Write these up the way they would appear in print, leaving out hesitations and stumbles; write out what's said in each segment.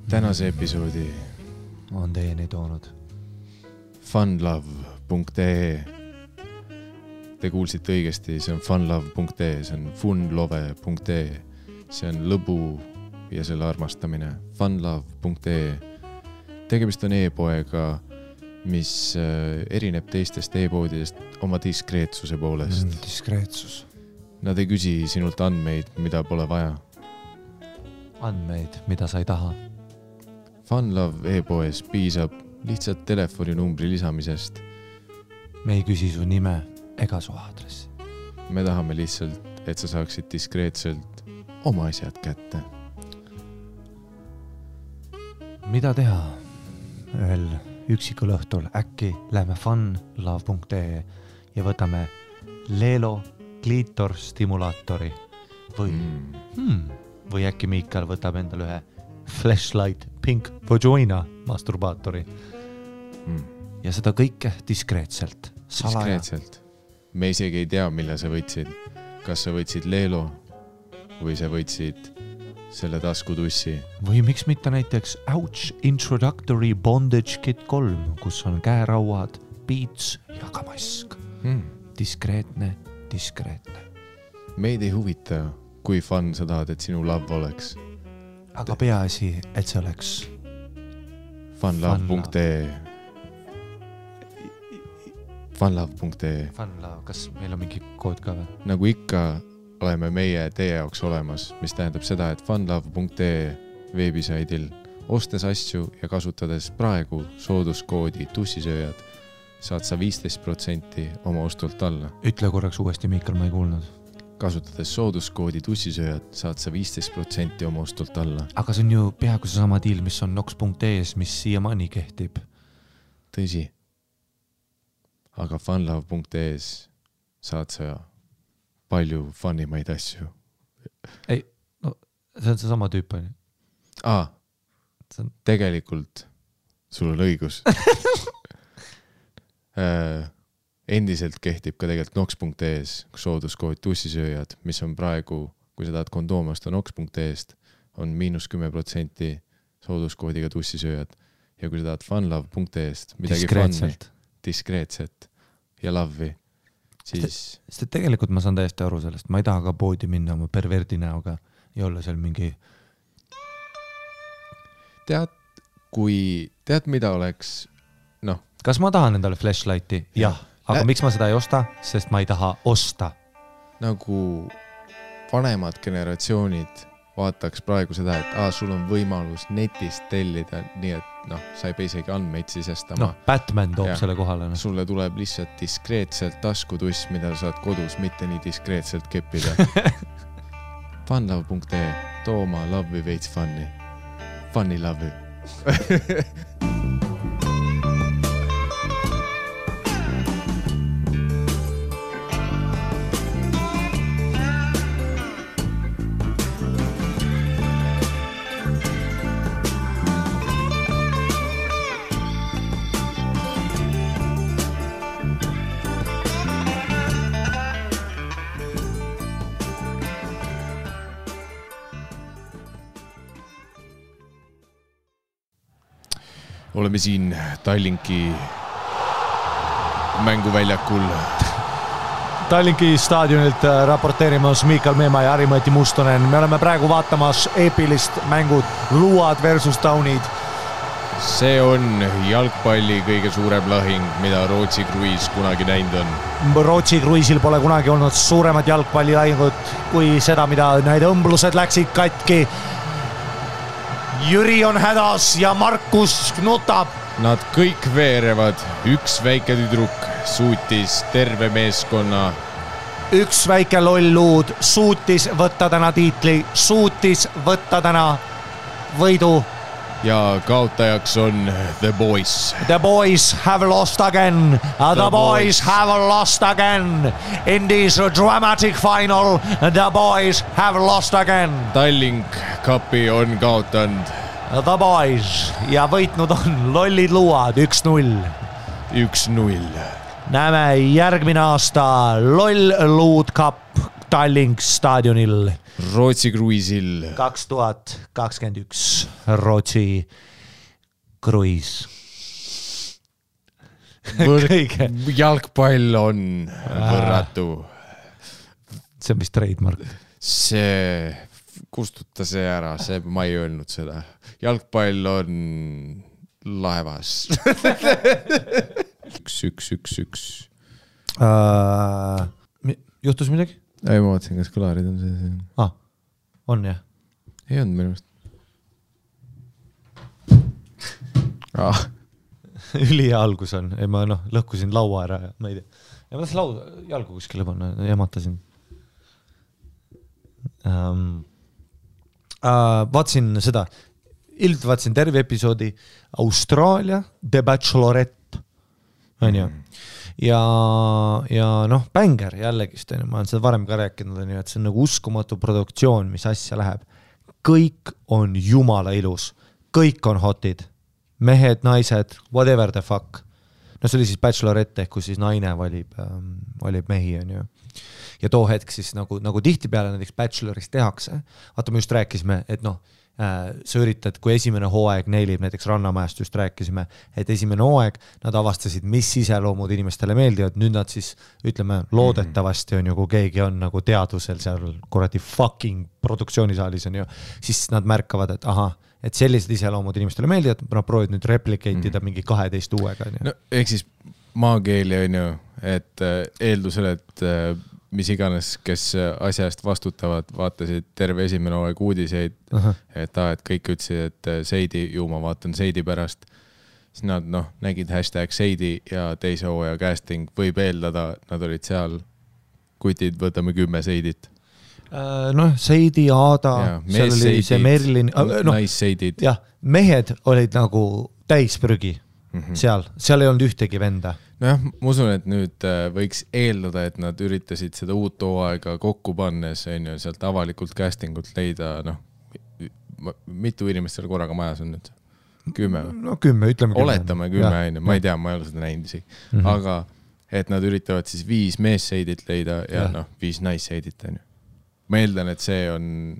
Tänase episoodi on teieni toonud funlove.ee. Te kuulsite õigesti, see on funlove.ee, see on funlove.ee. See on lõbu ja selle armastamine. funlove.ee. Tegemist on e-poega, mis erineb teistest e-poodidest oma diskreetsuse poolest. Diskreetsus. Nad ei küsi sinult andmeid, mida pole vaja. Andmeid, mida sa ei taha. Funlove e-poes piisab lihtsalt telefoninumbri lisamisest. Me ei küsi su nime ega su aadressi. Me tahame lihtsalt, et sa saaksid diskreetselt oma asjad kätte. Mida teha? Ühel üksikul õhtul äkki lähme funlove.ee ja võtame Lelo kliitor stimulaatori või äkki Miikal võtab endale ühe Flashlight Pink Vagina masturbaatori. Ja seda kõike diskreetselt. Diskreetselt. Me isegi ei tea, mille sa võtsid. Kas sa võtsid Lelo või sa võtsid selle taskutussi. Või miks mitte näiteks Ouch Introductory Bondage Kit 3, kus on käerauad, piits ja ka mask. Diskreetne. Meid ei huvita, kui fun sa tahad, et sinu love oleks. Aga peaasi, et see oleks funlove.ee. Funlove.ee. Funlove, kas meil on mingi kood ka või? Nagu ikka oleme meie teie jaoks olemas, mis tähendab seda, et funlove.ee veebisaidil ostes asju ja kasutades praegu sooduskoodi tussisööjad saad sa 15% oma ostult alla. Ütle korraks uuesti, Miikal, ma ei kuulnud. Kasutades sooduskoodi tussisööjad saad sa 15% oma ostult alla. Aga see on ju peaaegu see sama deal, mis on nox.ees, mis siiamaani kehtib. Tõsi. Aga funlove.ees saad sa palju funnimaid asju. Ei, no see on see sama tüüp. Tegelikult sul on õigus. Endiselt kehtib ka tegelikult nox.ees sooduskood tussisööjad, mis on praegu, kui sa tahad kondoom osta nox.eest, on -10% sooduskoodiga tussisööjad. Ja kui sa tahad funlove.eest midagi diskreetselt ja love'i, siis... Sest tegelikult ma saan täiesti aru sellest. Ma ei taha ka poodi minna oma perverdi näoga ja olla seal mingi... Tead, mida oleks... Noh. Kas ma tahan endale flashlighti? Jah. Aga miks ma seda ei osta? Sest ma ei taha osta. Nagu vanemad generatsioonid vaataks praegu seda, et sul on võimalus netist tellida, nii et sa ei pea isegi andmeid sisestama. Batman toob selle kohale. Sulle tuleb lihtsalt diskreetselt taskutuss, mida saad kodus mitte nii diskreetselt keppida. Funlove.ee, too oma love'i veits funny. Funny love'i. Oleme siin Tallinki mänguväljakul. Tallinki staadionilt raporteerimas Miikal Meemaa ja Harimati Mustonen. Me oleme praegu vaatamas eepilist mängud Luad versus Taunid. See on jalgpalli kõige suurem lahing, mida Rootsi kruiis kunagi näinud on. Rootsi kruiisil pole kunagi olnud suuremad jalgpallilahingut kui seda, mida need õmblused läksid katki. Jüri on hädas ja Markus nutab. Nad kõik veerevad. Üks väike tüdruk suutis terve meeskonna. Üks väike loll luud suutis võtta täna tiitli, suutis võtta täna võidu. Ja kaotajaks on The Boys. The Boys have lost again. The boys have lost again. In this dramatic final, The Boys have lost again. Tallink Cupi on kaotanud. The Boys ja võitnud on lollid luad 1-0. 1-0. Näeme järgmine aasta loll luud cup Tallink staadionil. Rootsi kruiisil. 2021 Rootsi kruiis. Jalgpall on võrratu. See on vist trademark. See, kustuta see ära, ma ei öelnud seda. Jalgpall on laevas. 1-1-1-1. Juhtus midagi? Ei, ma vaatasin, kas kõlarid on see. On jah? Ei olnud minu arust. Ülihea algus on. Ei, ma lõhkusin laua ära ja ma ei tea. Ja ma tahtsin jalgu kuskile panna, jamatasin. Vaatsin seda. Ilmselt vaatsin terve episoodi Austraalia The Bachelorette. On ju? Ja bänger jällegist, ma olen seda varem ka rääkinud, et see on nagu uskumatu produktsioon, mis asja läheb. Kõik on jumala ilus. Kõik on hotid. Mehed, naised, whatever the fuck. See oli siis Bachelorette, ehk kus siis naine valib mehi, on ju. Ja too hetk siis nagu tihtipeale näiteks Bachelorist tehakse. Vaata, me just rääkisime, et sa üritad, kui esimene hooaeg neilib, näiteks Rannamajast just rääkisime, et esimene hooaeg nad avastasid, mis iseloomud inimestele meeldivad, nüüd nad siis, ütleme, loodetavasti on ju, kui keegi on nagu teadusel seal kuradi fucking produktsioonisaalis on ju, siis nad märkavad, et et sellised iseloomud inimestele meeldivad, nad proovid nüüd replikeitida mingi 12 uuega. No, ehk siis maakeeli on ju, et eeldusel, et mis iganes, kes asja eest vastutavad, vaatasid terve esimene hooaeg uudiseid, et kõik ütlesid, et Seidi, ma vaatan Seidi pärast, siis nad nägid #Seidi ja teise hooaja casting võib eeldada, nad olid seal, kutid, võtame 10 Seidit. Seidi, Aada, seal oli see Merlin, naisseidid. Jah, mehed olid nagu täisprügi seal ei olnud ühtegi venda. Nojah, ma usun, et nüüd võiks eeldada, et nad üritasid seda uut hooaega kokku pannes, on ju, sealt avalikult castingut leida, mitu inimest seal korraga majas on nüüd? 10? 10, ütleme 10. Oletame 10, ma ei tea, ma ei ole seda näinud isegi. Aga et nad üritavad siis 5 meesseidit leida ja 5 naisseidit, on ju. Ma eeldan, et see on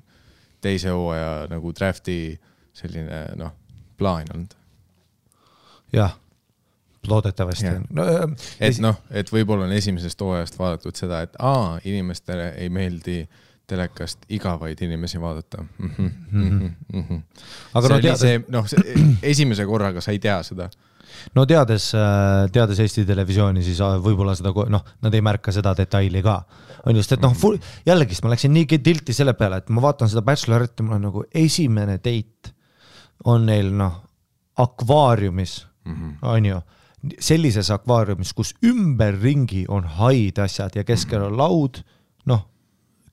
teise hooaja nagu drafti selline, plaan olnud. Jah, loodetavasti. Et võib-olla on esimesest hooajast vaadatud seda, et inimestele ei meeldi telekast igavaid inimesi vaadata. Aga esimese korraga sa ei tea seda. Teades Eesti televisiooni, siis võib-olla seda, nad ei märka seda detaili ka. On just, et jällegi, ma läksin nii tilti selle peale, et ma vaatan seda Bachelorette, mul on nagu esimene date on neil, akvaariumis, on ju, sellises akvaariumis, kus ümberringi on haid asjad ja keskel on laud,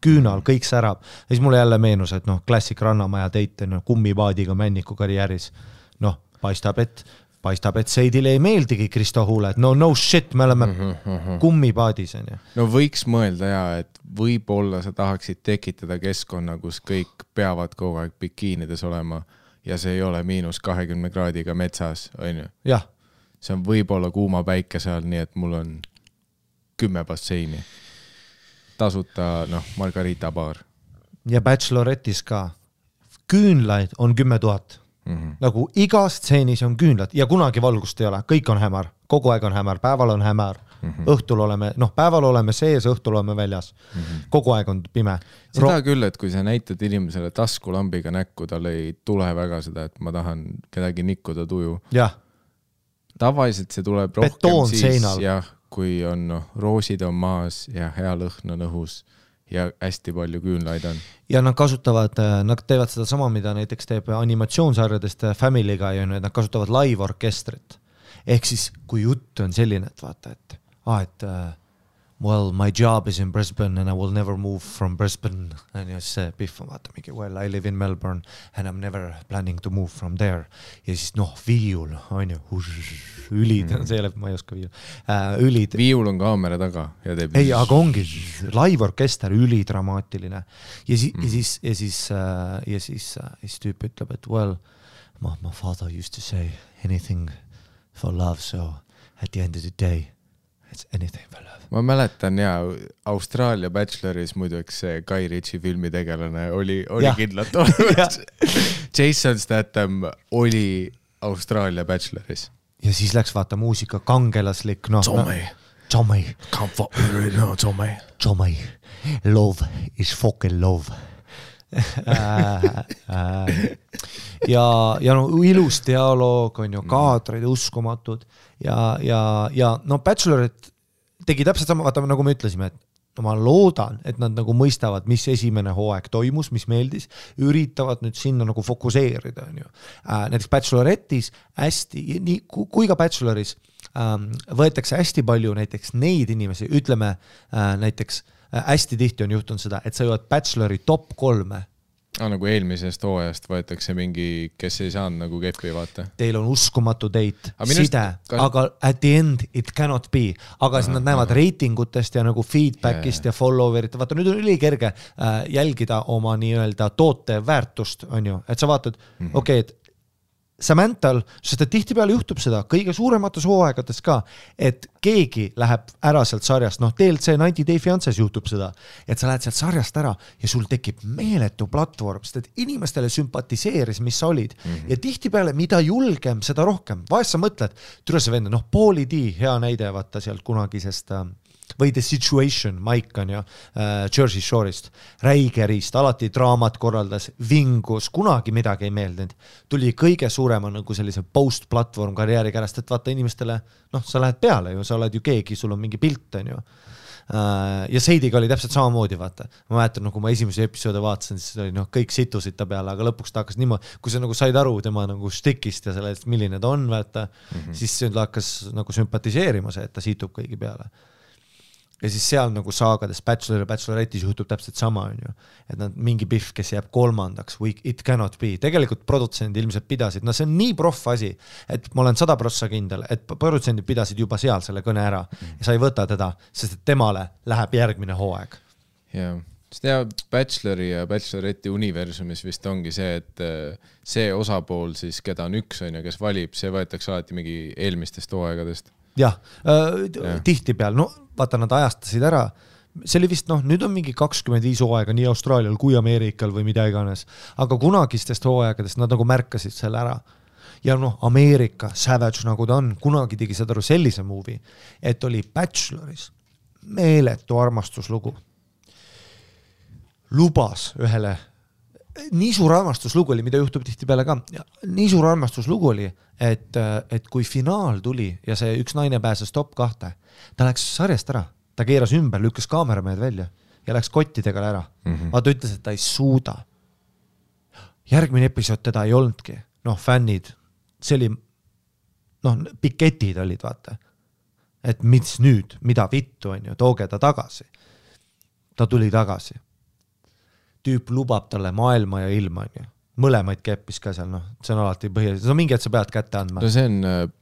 küünal, kõik särab. Ja siis mulle jälle meenus, et klassik Rannamaja date on kummipaadiga Männiku karjääris. Paistab, et Seidile ei meeldigi Kristo Huule, et no shit, me oleme kummipaadis. No võiks mõelda et võib-olla sa tahaksid tekitada keskkonna, kus kõik peavad kogu aeg bikiinides olema ja see ei ole -20 kraadiga metsas, on ju? Jah. See on võib-olla kuuma päike seal, nii et mul on 10 basseini. Tasuta, Margarita baar. Ja Bachelorettis ka. Küünlaid on 10 000. Nagu igas stseenis on küünlad ja kunagi valgust ei ole, kõik on hämar, kogu aeg on hämar, päeval on hämar, õhtul oleme, päeval oleme sees, õhtul oleme väljas, kogu aeg on pime. Seda küll, et kui sa näitad inimesele taskulambiga näkku, tal ei tule väga seda, et ma tahan kedagi nikkuda tuju. Jah. Tavaliselt see tuleb rohkem siis, kui on roosid on maas ja hea lõhn on õhus ja hästi palju küünlaid on. Ja nad teevad seda sama, mida näiteks teeb animatsioonsarjadest Family'ga ja nad kasutavad live-orkestrit. Ehk siis, kui jutt on selline, et vaata, et well, my job is in Brisbane and I will never move from Brisbane. And just see Biff on vaata mingi, well, I live in Melbourne and I'm never planning to move from there. Ja siis viiul, on ju, ülid, see jälle, ma ei oska viiul. Ülid. Viiul on kaamera taga. Ja teeb... Ei, aga ongi live-orkester, ülidramaatiline. Ja siis tüüp ütleb, et well, my father used to say anything for love, so at the end of the day It's anything for love. Ma mäletan Austraalia Bacheloris muiduks see Guy Ritchie filmi tegelane oli kindlalt olemas. Jason Statham oli Austraalia Bacheloris. Ja siis läks vaata muusika kangelaslik, Tommy. Come fuck me right now, Tommy. Tommy. Love is fucking love. ja ilus dialoog on ju, kaadrid uskumatud ja Bachelorit tegi täpselt sama, vaata nagu me ütlesime, et ma loodan, et nad nagu mõistavad, mis esimene hooaeg toimus, mis meeldis, üritavad nüüd sinna nagu fokuseerida, on ju. Näiteks Bachelorettis hästi, kui ka Bacheloris võetakse hästi palju näiteks neid inimesi, ütleme näiteks hästi tihti on juhtunud seda, et sa jõuad Bachelori top 3. Nagu eelmisest hooajast võetakse mingi, kes ei saanud nagu keppi, vaata. Teil on uskumatu date, side, aga at the end it cannot be. Aga siis nad näevad reitingutest ja nagu feedbackist ja follower'it. Vaata, nüüd on ülikerge jälgida oma nii-öelda toote väärtust, on ju. Et sa vaatad, okei, et Samanthal, sest et tihtipeale juhtub seda kõige suuremates hooaegades ka, et keegi läheb ära sealt sarjast, TLC 90 Day Fiances juhtub seda, et sa lähed sealt sarjast ära ja sul tekib meeletu platvorm, sest et inimestele sümpatiseeris, mis sa olid. Ja tihtipeale, mida julgem, seda rohkem. Vahest sa mõtled, türa see vend, Pauly D, hea näide, vaata sealt kunagisest või The Situation, Mike on ju, Jersey Shore'ist, räigerist, alati draamat korraldas, vingus, kunagi midagi ei meeldinud. Tuli kõige suurema nagu sellise post-platvorm karjääri kärast, et vaata inimestele, sa lähed peale ju, sa oled ju keegi, sul on mingi pilt, on ju. Ja Seidiga oli täpselt samamoodi, vaata. Ma mäletan, kui ma esimese episoode vaatasin, siis oli kõik situsid ta peale, aga lõpuks ta hakkas niimoodi, kui sa nagu said aru tema nagu stikist ja sellest, milline ta on, vaata, siis ta hakkas nagu sümpatiseerima see, et ta situb kõigi peale. Ja siis seal nagu saagades Bachelor ja Bachelorettis juhtub täpselt sama, on ju. Et nad mingi pihv, kes jääb 3. It cannot be. Tegelikult produtsendid ilmselt pidasid. See on nii proff asi, et ma olen 100% kindel, et produtsendid pidasid juba seal selle kõne ära ja sa ei võta teda, sest et temale läheb järgmine hooaeg. Jaa. Sest Bachelori ja Bacheloretti universumis vist ongi see, et see osapool siis, keda on üks, on ja kes valib, see võetakse alati mingi eelmistest hooaegadest. Jah, tihti peal, vaata nad ajastasid ära, see oli vist, nüüd on mingi 25 hooaega nii Austraalial kui Ameerikal või mida iganes, aga kunagistest hooaegadest nad nagu märkasid selle ära. Ja Ameerika, Savage nagu ta on, kunagi tegi seda sellise movie, et oli Bacheloris meeletu armastuslugu. Lubas ühele nii suur armastuslugu oli, mida juhtub tihti peale ka. Nii suur armastuslugu oli, et kui finaal tuli ja see üks naine pääses top 2, ta läks sarjast ära, ta keeras ümber, lükkas kaameramehed välja ja läks kottidega ära. Vaata ütles, et ta ei suuda. Järgmine episood teda ei olnudki. Fännid, see oli, piketid olid, vaata. Et mis nüüd, mida vittu on ju, tooge ta tagasi. Ta tuli tagasi. Tüüp lubab talle maailma ja ilma, on ju. Mõlemaid keppis ka seal, see on alati põhjus. See on mingi, et sa pead kätte andma. See on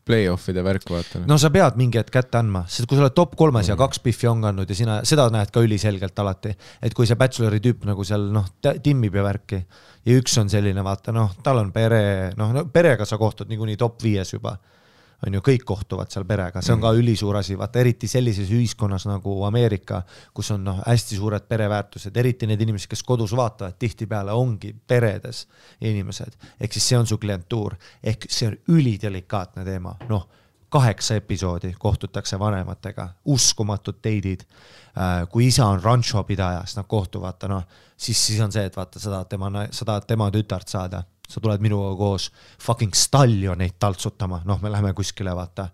play-offide värk, vaata. Sa pead mingi, et kätte andma, sest kui sa oled top 3 ja 2 piffi on kandnud ja sina, seda näed ka üliselgelt alati, et kui see Bachelori tüüp nagu seal timmib ja värki ja üks on selline, vaata, tal on pere, perega sa kohtud niikuinii top 5 juba. On ju, kõik kohtuvad seal perega, see on ka ülisuur asi, vaata eriti sellises ühiskonnas nagu Ameerika, kus on hästi suured pereväärtused, eriti need inimesed, kes kodus vaatavad, tihti peale ongi peredes inimesed, ehk siis see on su klientuur, ehk see on ülidelikaatne teema, 8 episoodi kohtutakse vanematega, uskumatud teidid, kui isa on rancho pidaja, siis nad kohtuvad, siis on see, et vaata, sa tahad tema tütart saada, sa tuled minuga koos fucking stallioneid taltsutama, me läheme kuskile, vaata,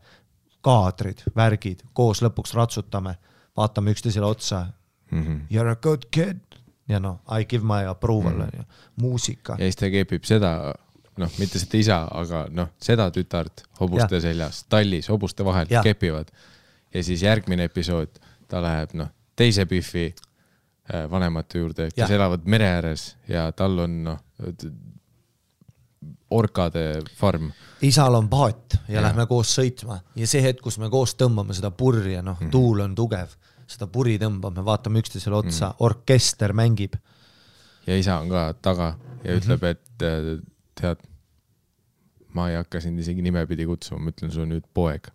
kaadrid, värgid, koos lõpuks ratsutame, vaatame üksteisele otsa, you're a good kid, ja I give my approval, muusika. Ja siis ta kepib seda, mitte seda isa, aga seda tütart hobuste seljas, tallis, hobuste vahel kepivad. Ja siis järgmine episood, ta läheb teise piffi vanemate juurde, kes elavad mere ääres ja tal on orkade farm. Isal on paat ja lähme koos sõitma ja see hetk, kus me koos tõmbame seda purri ja tuul on tugev, seda puri tõmbame, vaatame üksteisele otsa, orkester mängib. Ja isa on ka taga ja ütleb, et tead, ma ei hakka sind isegi nimepidi kutsuma, ma ütlen sul nüüd poeg.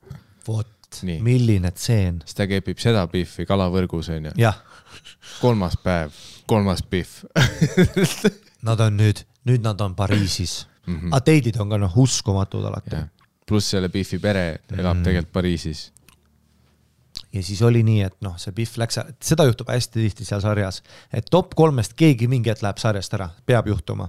Vot, Nii. milline tseen. siis ta kepib seda biffi kalavõrgus on ju. jah. 3. päev, 3. biff. Nad on nüüd nad on Pariisis. Aga teidid on ka uskumatud alati. Pluss selle biffi pere elab tegelikult Pariisis. Ja siis oli nii, et see biff läks, seda juhtub hästi tihti seal sarjas, et top 3-st keegi mingi hetk läheb sarjast ära, peab juhtuma.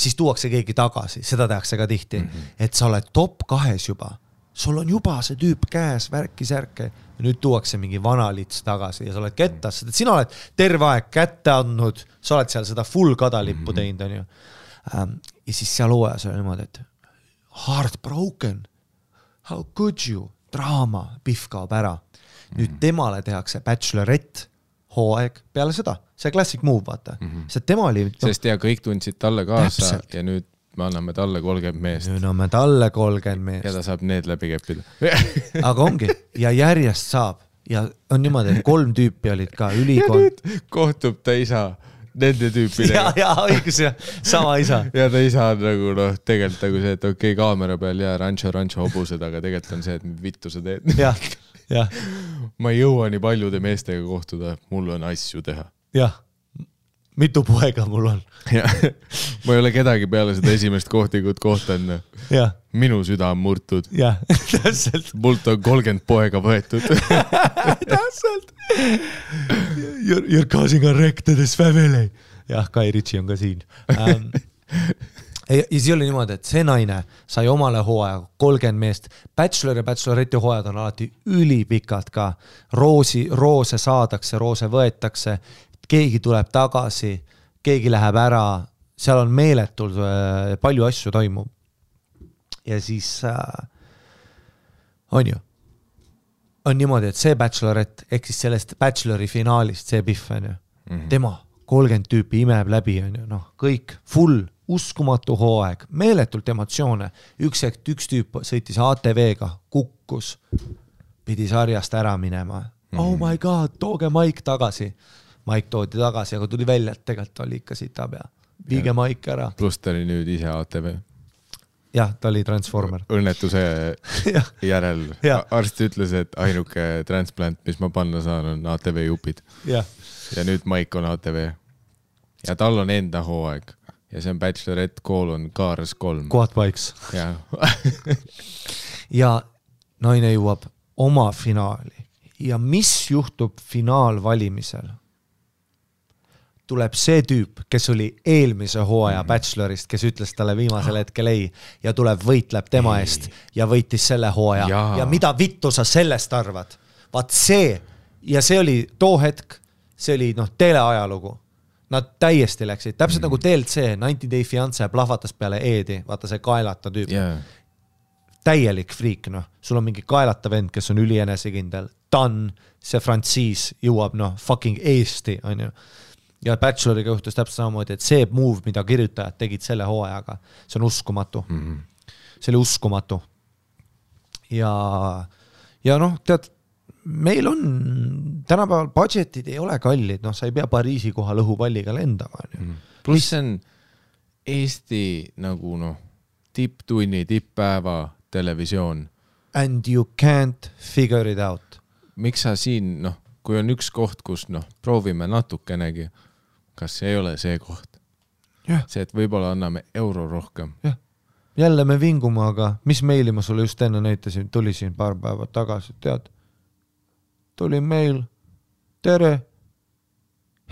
Siis tuuakse keegi tagasi, seda tehakse ka tihti, et sa oled top 2 juba, sul on juba see tüüp käes, värki-särke, ja nüüd tuuakse mingi vana lits tagasi ja sa oled kettas, et sina oled terve aeg kätte andnud, sa oled seal seda full kadalippu teinud, on ju. Ja siis seal hooajas oli niimoodi, et heartbroken, how could you, draama, biff kaob ära. Nüüd temale tehakse Bachelorette hooaeg peale seda, see classic move, vaata. See tema oli... Sest kõik tundsid talle kaasa ja nüüd me anname talle 30 meest. Nüüd anname talle 30 meest. Ja ta saab need läbi keppida. Aga ongi, ja järjest saab. Ja on niimoodi, et 3 tüüpi olid ka ülikond. Kohtub ta isa nende tüüpidega. Ja, õigus ja sama isa. Ja ta isa on nagu tegelikult nagu see, et okei, kaamera peal ja rancho hobused, aga tegelikult on see, et vittu sa teed. Jah. Ma ei jõua nii paljude meestega kohtuda, mul on asju teha. Jah, mitu poega mul on. Ma ei ole kedagi peale seda esimest kohtingut kohtan. Minu süda on murtud. Jah, täpselt. Mult on 30 poega võetud. Täpselt. You're causing a wreck to this family. Jah, Kai Ritchie on ka siin. Ja siis oli niimoodi, et see naine sai omale hooaja 30 meest. Bachelor ja Bachelorette hooajad on alati ülipikad ka. Roose saadakse, roose võetakse, keegi tuleb tagasi, keegi läheb ära, seal on meeletult palju asju toimub. Ja siis on ju, on niimoodi, et see Bachelorette, ehk siis sellest Bachelori finaalist, see biff on ju, tema 30 tüüpi imeb läbi on ju, kõik full, uskumatu hooaeg, meeletult emotsioone. Üks tüüp sõitis ATV-ga, kukkus, pidi sarjast ära minema. Oh my god, tooge Mike tagasi. Mike toodi tagasi, aga tuli välja, et tegelikult oli ikka sita pea. Viige Mike ära. Plus ta oli nüüd ise ATV. Jah, ta oli transformer. Õnnetuse järel. Arst ütles, et ainuke transplant, mis ma panna saan, on ATV jupid. Ja nüüd Mike on ATV. Ja tal on enda hooaeg. Ja see on Bachelorette Cars 3. Quad bikes. Ja naine jõuab oma finaali. Ja mis juhtub finaalvalimisel? Tuleb see tüüp, kes oli eelmise hooaja Bachelorist, kes ütles talle viimasel hetkel ei ja tuleb võitleb tema eest ja võitis selle hooaja. Ja mida vittu sa sellest arvad? Vaat see, ja see oli too hetk, see oli teleajalugu. Nad täiesti läksid, täpselt nagu TLC, 90 Day Fiancé plahvatas peale Eedi, vaata see kaelata tüüp. Täielik friik, sul on mingi kaelata vend, kes on ülienesekindel, Dan, see Francis jõuab fucking Eesti, on ju. Ja Bacheloriga juhtus täpselt samamoodi, et see move, mida kirjutajad tegid selle hooajaga, see on uskumatu. See oli uskumatu. Ja tead, meil on tänapäeval budgetid ei ole kallid, sa ei pea Pariisi kohal õhupalliga lendama. Plus see on Eesti nagu tipptunni, tipppäeva televisioon. And you can't figure it out. Miks sa siin, kui on üks koht, kus proovime natukenegi, kas ei ole see koht? See, et võib-olla anname euro rohkem. Jälle me vingume, aga mis meili ma sulle just enne näitasin, tuli siin paar päeva tagasi, tead? Tuli meil, tere,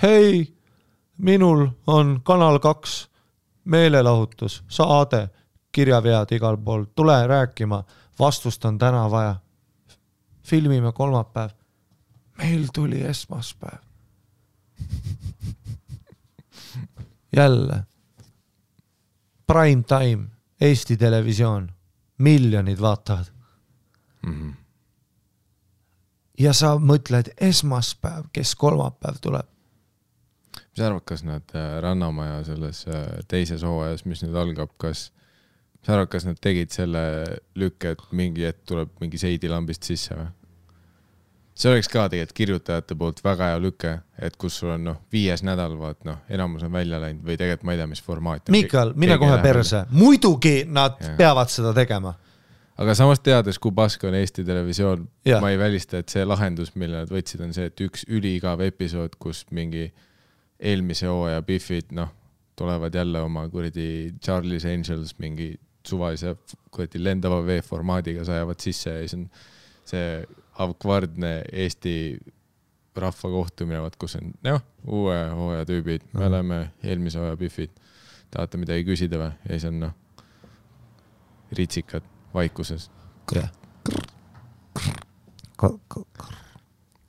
hei, minul on Kanal 2 meelelahutus, saade, kirjavead igal pool, tule rääkima, vastust on täna vaja, filmime kolmapäev, meil tuli esmaspäev. Jälle, prime time, Eesti televisioon, miljonid vaatavad. Ja sa mõtled esmaspäev, kes kolmapäev tuleb. Mis arvad, kas nad Rannamaja selles teises hooajas, mis nüüd algab, mis arvad, kas nad tegid selle lükke, et mingi hetk tuleb mingi seidilambist sisse või? See oleks ka tegelikult kirjutajate poolt väga hea lüke, et kus sul on 5. nädal, enamus on välja läinud või tegelikult ma ei tea, mis formaat. Mikael, mine kohe perse. Muidugi nad peavad seda tegema. aga samas teades, kui pask on Eesti televisioon, Ja. ma ei välista, et see lahendus, mille nad võtsid, on see, et üks üliigav episood, kus mingi eelmise hooaja Biffid, tulevad jälle oma kuradi Charlie's Angels mingi suvalise kuradi lendava V-formaadiga sajavad sisse ja siis on see avkvardne Eesti rahva kohtumine, kus on uue hooaja tüübid, me oleme eelmise hooaja Biffid, tahate midagi küsida või? Ja siis on ritsikad vaikuses. Ja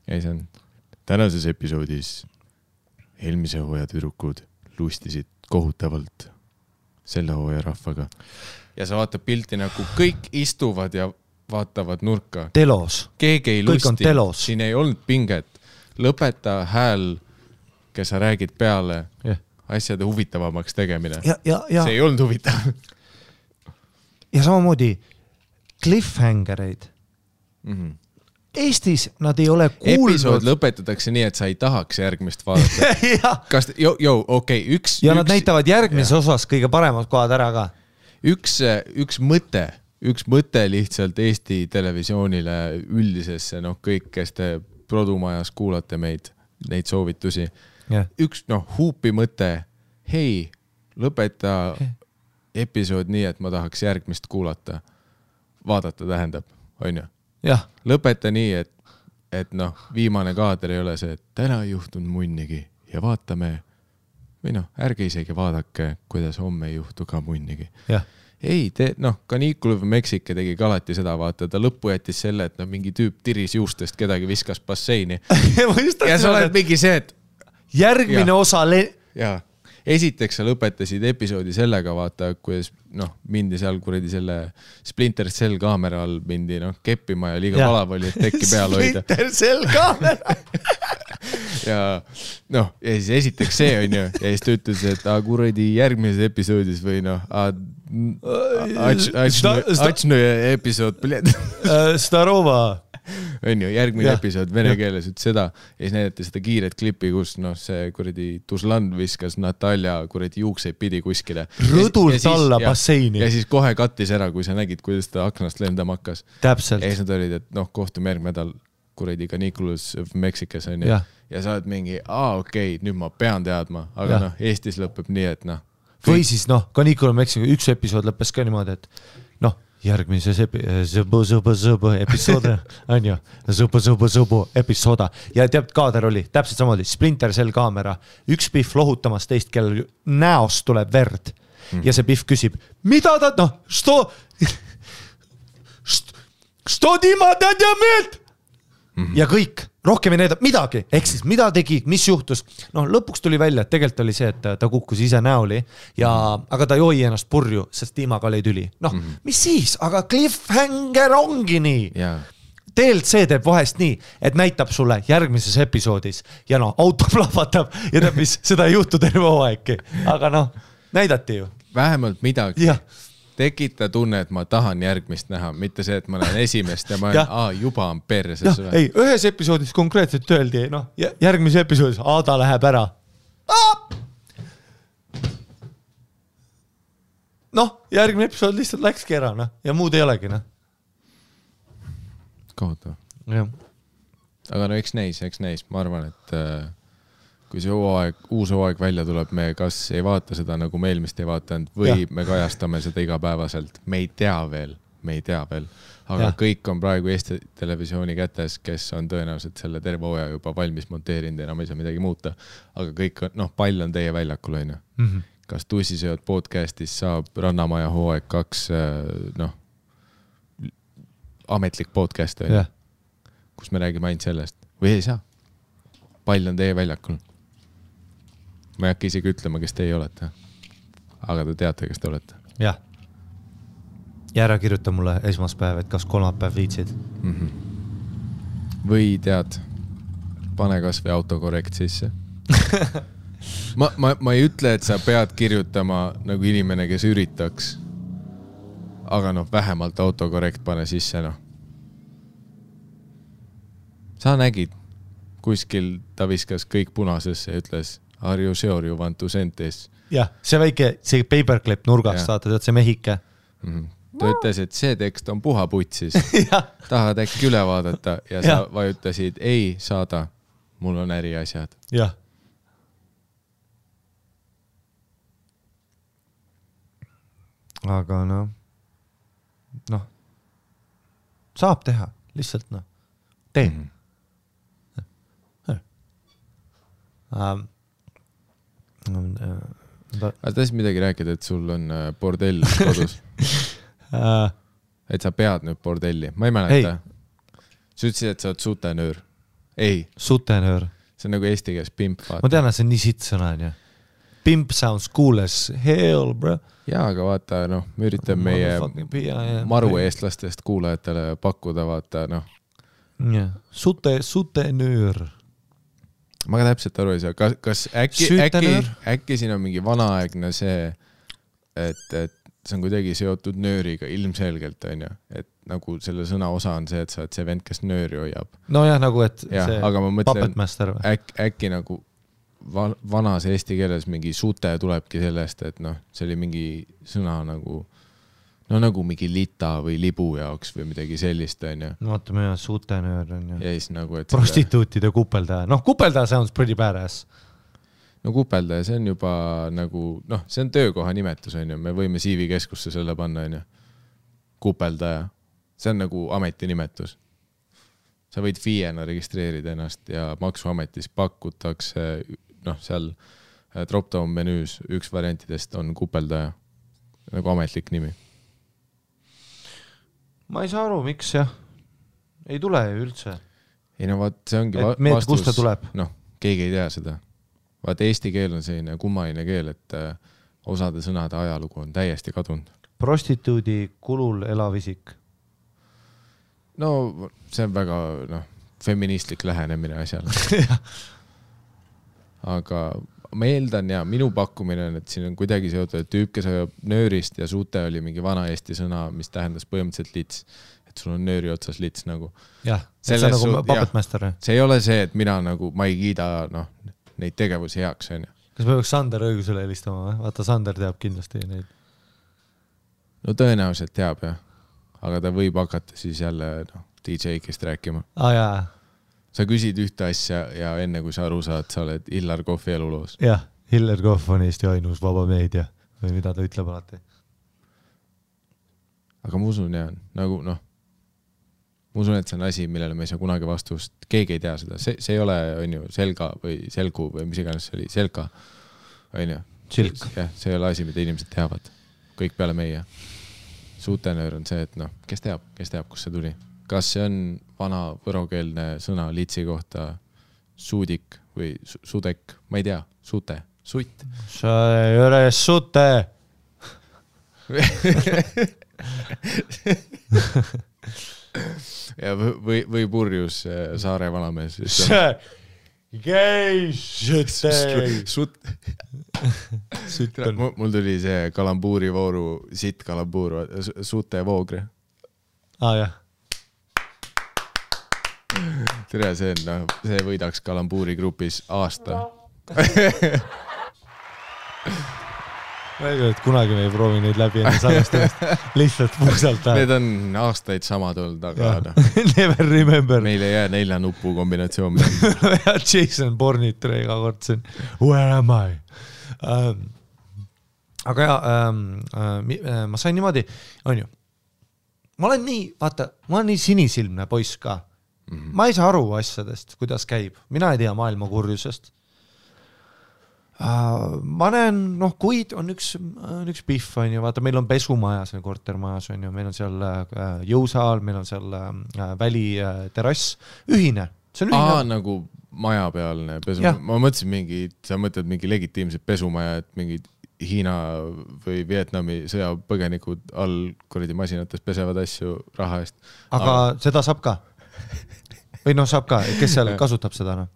siis on tänases episoodis eelmise hooaja tüdrukud lustisid kohutavalt selle hooaja rahvaga. Ja sa vaatad pilti nagu kõik istuvad ja vaatavad nurka. Telos. Keegi ei Kõik on lusti. telos. Siin ei olnud pinget. Lõpeta hääl, kes sa räägid peale asjade huvitavamaks tegemine. See ei olnud huvitav. Ja samamoodi cliffhangereid. Eestis nad ei ole kuulnud. Episood lõpetatakse nii, et sa ei tahaks järgmist vaadata. Kas, okei, üks... Ja nad näitavad järgmises osas kõige paremad kohad ära ka. Üks mõte lihtsalt Eesti televisioonile üldisesse, kõik, kes te produmajas kuulate meid, neid soovitusi. Üks huupi mõte, hei, lõpeta episood nii, et ma tahaks järgmist kuulata. Vaadata tähendab, on ju? Lõpeta nii, et viimane kaader ei ole see, et täna ei juhtunud munnigi ja vaatame, või ärge isegi vaadake, kuidas homme ei juhtu ka munnigi. Ei, Canicule of Mexico tegi ka alati seda, vaata, ta lõppu jättis selle, et mingi tüüp tiris juustest kedagi viskas basseini. Ja sa oled mingi see, et järgmine osa... Esiteks sa lõpetasid episoodi sellega, vaata, kuidas mindi seal kuradi selle Splinter Cell kaamera all mindi keppima ja liiga valav oli, et tekki peal hoida. Splinter Cell kaamera! ja siis esiteks see on ju, ja siis ta ütles, et kuradi järgmises episoodis või Ačnu episood, Starova on ju, järgmine episood vene keeles ütles seda ja siis näidati seda kiiret klippi, kus see kuradi Tuzlan viskas Natalja kuradi juukseid pidi kuskile. Rõdult alla basseini. Ja siis kohe kattis ära, kui sa nägid, kuidas ta aknast lendama hakkas. Täpselt. Ja siis nad olid, et kohtume järgmine nädal kuradi Canicule of Mexicas on ju. Ja sa oled mingi, okei, nüüd ma pean teadma, aga Eestis lõpeb nii, et või siis Canicule of Mexico üks episood lõppes ka niimoodi, et järgmises episood on ju, episooda ja teab, kaader oli täpselt samamoodi, Splinter Cell kaamera, üks Biff lohutamas teist, kellel näost tuleb verd ja see Biff küsib, mida ta, što Dima tädjameelt ja kõik, rohkem ei näidab midagi, ehk siis mida tegi, mis juhtus, lõpuks tuli välja, et tegelikult oli see, et ta kukkus ise näoli ja, aga ta joi ennast purju, sest Tiimaga oli tüli. Mis siis, aga cliffhanger ongi nii. DLC teeb vahest nii, et näitab sulle järgmises episoodis ja auto plahvatab ja teab, mis seda ei juhtu terve hooaegki, aga näidati ju. Vähemalt midagi. Tekita tunne, et ma tahan järgmist näha, mitte see, et ma näen esimest ja ma olen, juba on perses. Ei, ühes episoodis konkreetselt öeldi, järgmise episoodis Aada läheb ära. Järgmine episood lihtsalt läkski ära ja muud ei olegi. Kohutav. Aga eks näis. Ma arvan, et kui see uus hooaeg välja tuleb, me kas ei vaata seda, nagu me eelmist ei vaatanud, või me kajastame seda igapäevaselt. Me ei tea veel. Aga kõik on praegu Eesti televisiooni kätes, kes on tõenäoliselt selle terve hooaja juba valmis monteerinud ja enam ei saa midagi muuta. Aga kõik on, pall on teie väljakul, on ju. Kas Tussisööd podcastis saab Rannamaja hooaeg 2 ametlik podcast, kus me räägime ainult sellest. Või ei saa. Pall on teie väljakul. Ma ei hakka isegi ütlema, kes teie olete. Aga te teate, kes te olete. Jah. Ja ära kirjuta mulle esmaspäev, et kas kolmapäev viitsid. Või tead, pane kas või autokorrekt sisse. ma ei ütle, et sa pead kirjutama nagu inimene, kes üritaks. Aga vähemalt autokorrekt pane sisse, Sa nägid, kuskil ta viskas kõik punasesse ja ütles Are you sure you want to send this? Jah, see väike, see paperclip nurgast, vaata, tead see mehike. ta ütles, et see tekst on puha putsis. Tahad äkki üle vaadata ja sa vajutasid ei saada, mul on äriasjad. Jah. Aga noh, saab teha, lihtsalt tee. Aga tahtsid midagi rääkida, et sul on bordell kodus? Et sa pead nüüd bordelli? Ma ei mäleta. Sa ütlesid, et sa oled sutenöör. Ei. Sutenöör. See on nagu eesti keeles pimp. Ma tean, et see on nii sitt sõna, on ju. Pimp sounds cool as hell, bro. Jaa, aga vaata, me üritame meie maru eestlastest kuulajatele pakkuda, vaata, Sutenöör. Ma ka täpselt aru ei saa. Kas äkki siin on mingi vanaaegne see, et see on kuidagi seotud nööriga ilmselgelt, on ju? Et nagu selle sõna osa on see, et sa oled see vend, kes nööri hoiab. No jah, nagu et ja, see aga ma mõtlen, puppetmaster või? Äkki nagu vanas eesti keeles mingi sute tulebki sellest, et see oli mingi sõna nagu nagu mingi lita või libu jaoks või midagi sellist, on ju. No vaatame jah, sutenöör on ju. Ja siis nagu, et prostituutide kupeldaja. Kupeldaja sounds pretty badass. No kupeldaja, see on juba nagu, see on töökoha nimetus, on ju. Me võime CV keskusse selle panna, on ju. Kupeldaja. See on nagu ametinimetus. Sa võid FIE-na registreerida ennast ja maksuametis pakutakse, seal drop-down menüüs üks variantidest on kupeldaja. Nagu ametlik nimi. Ma ei saa aru, miks jah. Ei tule ju üldse. Ei vaat, see ongi vastus. Kust ta tuleb? Keegi ei tea seda. Vaat eesti keel on selline kummaline keel, et osade sõnade ajalugu on täiesti kadunud. Prostituudi kulul elav isik. No see on väga feministlik lähenemine asjale. Aga ma eeldan ja minu pakkumine on, et siin on kuidagi seotud tüüp, kes ajab nöörist ja suute oli mingi vana eesti sõna, mis tähendas põhimõtteliselt lits. Et sul on nööri otsas lits nagu. Jah, see on nagu puppetmaster. See ei ole see, et mina nagu, ma ei kiida neid tegevusi heaks. On. Kas me võiks Sander õigusele helistama või? Vaata, Sander teab kindlasti neid. No tõenäoliselt teab jah. Aga ta võib hakata siis jälle DJ-kist rääkima. Jaa. Sa küsid ühte asja ja enne kui sa aru saad, sa oled Hillar Kohvi eluloos. Jah, Hillar Kohv on Eesti ainus vaba meedia või mida ta ütleb alati. Aga ma usun jah, nagu ma usun, et see on asi, millele me ei saa kunagi vastust. Keegi ei tea seda. See ei ole, on ju, selga või selgu või mis iganes see oli. Selga, on ju. Silk. Jah, see ei ole asi, mida inimesed teavad. Kõik peale meie. Sutenöör on see, et kes teab, kus see tuli. Kas see on vana võrokeelne sõna litsi kohta suudik või sudek? Ma ei tea. Sute. Sutt. Sa ei ole sute. Ja või purjus Saare vanamees. Mul tuli see kalambuuri vooru, sitt kalambuur, sute voogre. Jah. Tere, see võidaks kalambuuri grupis aasta. Ma ei tea, et kunagi me ei proovi neid läbi enne salvestamist. Lihtsalt puusalt. Need on aastaid samad olnud, aga never remember. Meil ei jää 4 nupu kombinatsioon. Jason Bourne iga kord siin. Where am I? Aga ma sain niimoodi, on ju. Ma olen nii sinisilmne poiss ka. Ma ei saa aru asjadest, kuidas käib. Mina ei tea maailma kurjusest. Ma näen, kuid on üks pihv, on ju, vaata, meil on pesumajas, kortermajas, on ju, meil on seal jõusaal, meil on seal väliterass, ühine. See on ühine. Nagu majapealne pesumaja. Ma mõtlesin sa mõtled mingi legitiimset pesumaja, et mingid Hiina või Vietnami sõjapõgenikud all kuradi masinates pesevad asju raha eest. Aga seda saab ka? Või saab ka, kes seal kasutab seda?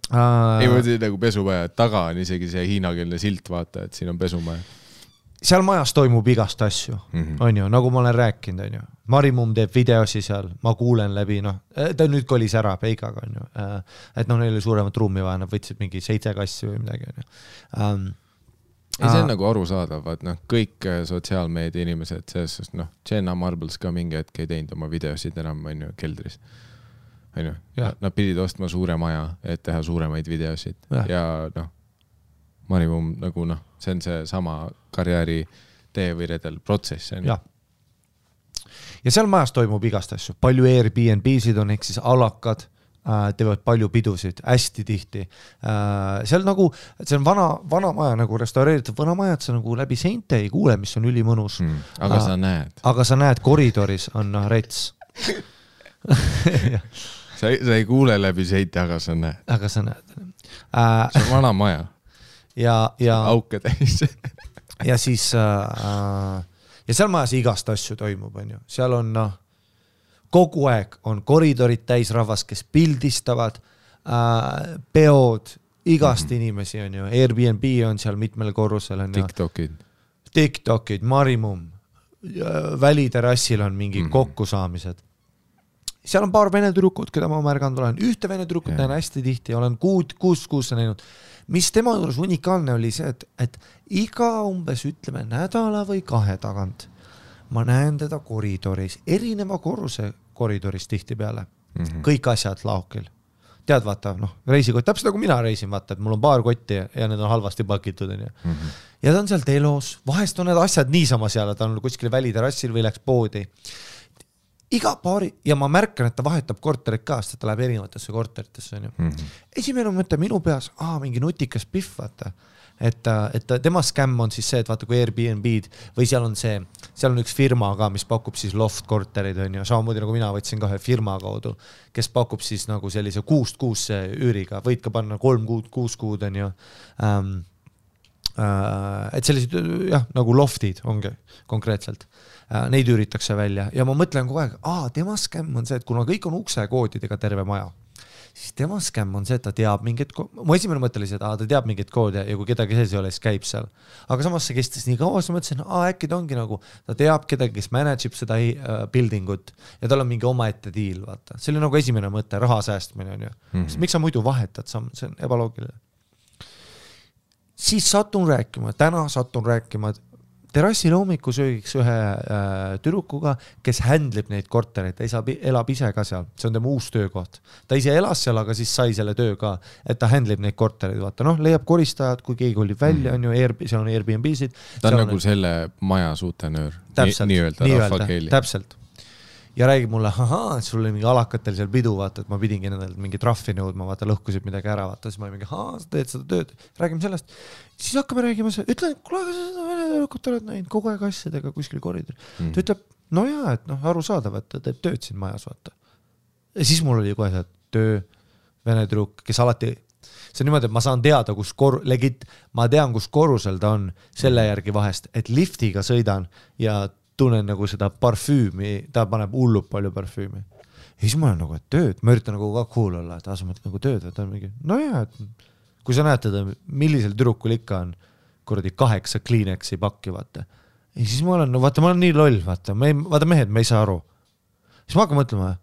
Ei mõtle nagu pesumaja, taga on isegi see hiinakeelne silt, vaata, et siin on pesumaja. Seal majas toimub igast asju, on ju, nagu ma olen rääkinud, on ju. Marimum teeb videosi seal, ma kuulen läbi, ta nüüd kolis ära Peigaga, on ju. Et neil oli suuremat ruumi vaja, nad võtsid mingi 7 kassi või midagi, on ju. ei, see on nagu arusaadav, et noh, kõik sotsiaalmeedia inimesed, selles noh, Jenna Marbles ka mingi hetk ei teinud oma videosid enam, on ju, keldris. On ju, nad pidid ostma suure maja, et teha suuremaid videosid ja noh, Marimum nagu noh, see on see sama karjääri tee või redel protsess. Ja seal majas toimub igast asju, palju Airbnb-sid on, ehk siis alakad, teevad palju pidusid, hästi tihti. Seal nagu, see on vana maja, nagu restaureeritud vana maja, et sa nagu läbi seinte ei kuule, mis on ülimõnus. Aga sa näed. Aga sa näed, koridoris on rets. sa ei kuule läbi seinte, aga sa näed. Aga sa näed. See on vana maja. Ja auke täis. ja siis ja seal majas igast asju toimub, on ju. Seal on kogu aeg on koridorid täis rahvas, kes pildistavad, peod, igast inimesi on ju. Airbnb on seal mitmel korrusel. On TikTokid, Marimum, väliterassil on mingi kokkusaamised. Seal on paar vene tüdrukut, keda ma märganud olen. Ühte vene tüdrukut näen hästi tihti, olen kuus näinud. Mis tema juures unikaalne oli see, et iga umbes ütleme nädala või 2 tagant ma näen teda koridoris, erineva korruse koridoris tihti peale. Kõik asjad laokil. Tead, vaata, reisikott, täpselt nagu mina reisin, vaata, et mul on paar kotti ja need on halvasti pakitud. Ja ta on seal telos, vahest on need asjad niisama seal, ta on kuskil väliterassil või läks poodi. Iga paari, ja ma märkan, et ta vahetab korterit ka, sest ta läheb erinevatesse korteritesse. Esimene mõte minu peas, mingi nutikas pihv, vaata. Et tema skämm on siis see, et vaata kui Airbnb-d või seal on üks firma ka, mis pakub siis loft korterid, on ju, samamoodi nagu mina võtsin ka ühe firma kaudu, kes pakub siis nagu sellise 6 kuusse üüriga, võid ka panna 3 kuud, 6 kuud, on ju. Et sellised, nagu loftid ongi konkreetselt. Neid üüritakse välja ja ma mõtlen kogu aeg, tema skämm on see, et kuna kõik on uksekoodidega terve maja, siis tema skämm on see, et ta teab mingit mu esimene mõte oli see, et ta teab mingit koodi ja kui kedagi sees ei ole, siis käib seal. Aga samas see kestis nii kaua, siis mõtlesin, äkki ta ongi nagu, ta teab kedagi, kes manageb seda buildingut ja tal on mingi omaette diil, vaata. See oli nagu esimene mõte, raha säästmine on ju. Miks sa muidu vahetad, see on ebaloogiline. Siis satun rääkima terrassil hommikusöögiks ühe tüdrukuga, kes händlib neid kortereid, ta elab ise ka seal, see on tema uus töökoht. Ta ise elas seal, aga siis sai selle töö ka, et ta händlib neid kortereid, vaata, leiab koristajad, kui keegi olib välja, on ju, seal on Airbnb-sid. Ta on nagu selle maja suutenöör, nii-öelda rahvakeeli. Täpselt. Ja räägib mulle, sul oli mingi alakatel seal pidu, vaata, et ma pidingi nendelt mingi trahvi nõudma, vaata, lõhkusid midagi ära, vaata, siis ma mingi, sa teed seda tööd, räägime sellest. Siis hakkame räägima, ütlen, kuule, seda venelõkut oled näinud kogu aeg asjadega kuskil koridor. Ta ütleb, et aru saadav, et ta teeb tööd siin majas, vaata. Ja siis mul oli kohe see töö, vene trukk, kes alati, see on niimoodi, et ma saan teada, ma tean, kus korrusel ta on selle järgi vahest, et liftiga sõidan ja tunnen nagu seda parfüümi, ta paneb hullub palju parfüümi. Ja siis ma olen nagu, et tööd, ma üritan nagu ka cool olla, et sa mõtled nagu tööd, et on mingi, et kui sa näed teda, millisel tüdrukul ikka on kuradi 8 Kleenexi pakki, vaata. Ja siis ma olen, vaata, ma olen nii loll, vaata mehed, me ei saa aru. Siis ma hakkan mõtlema,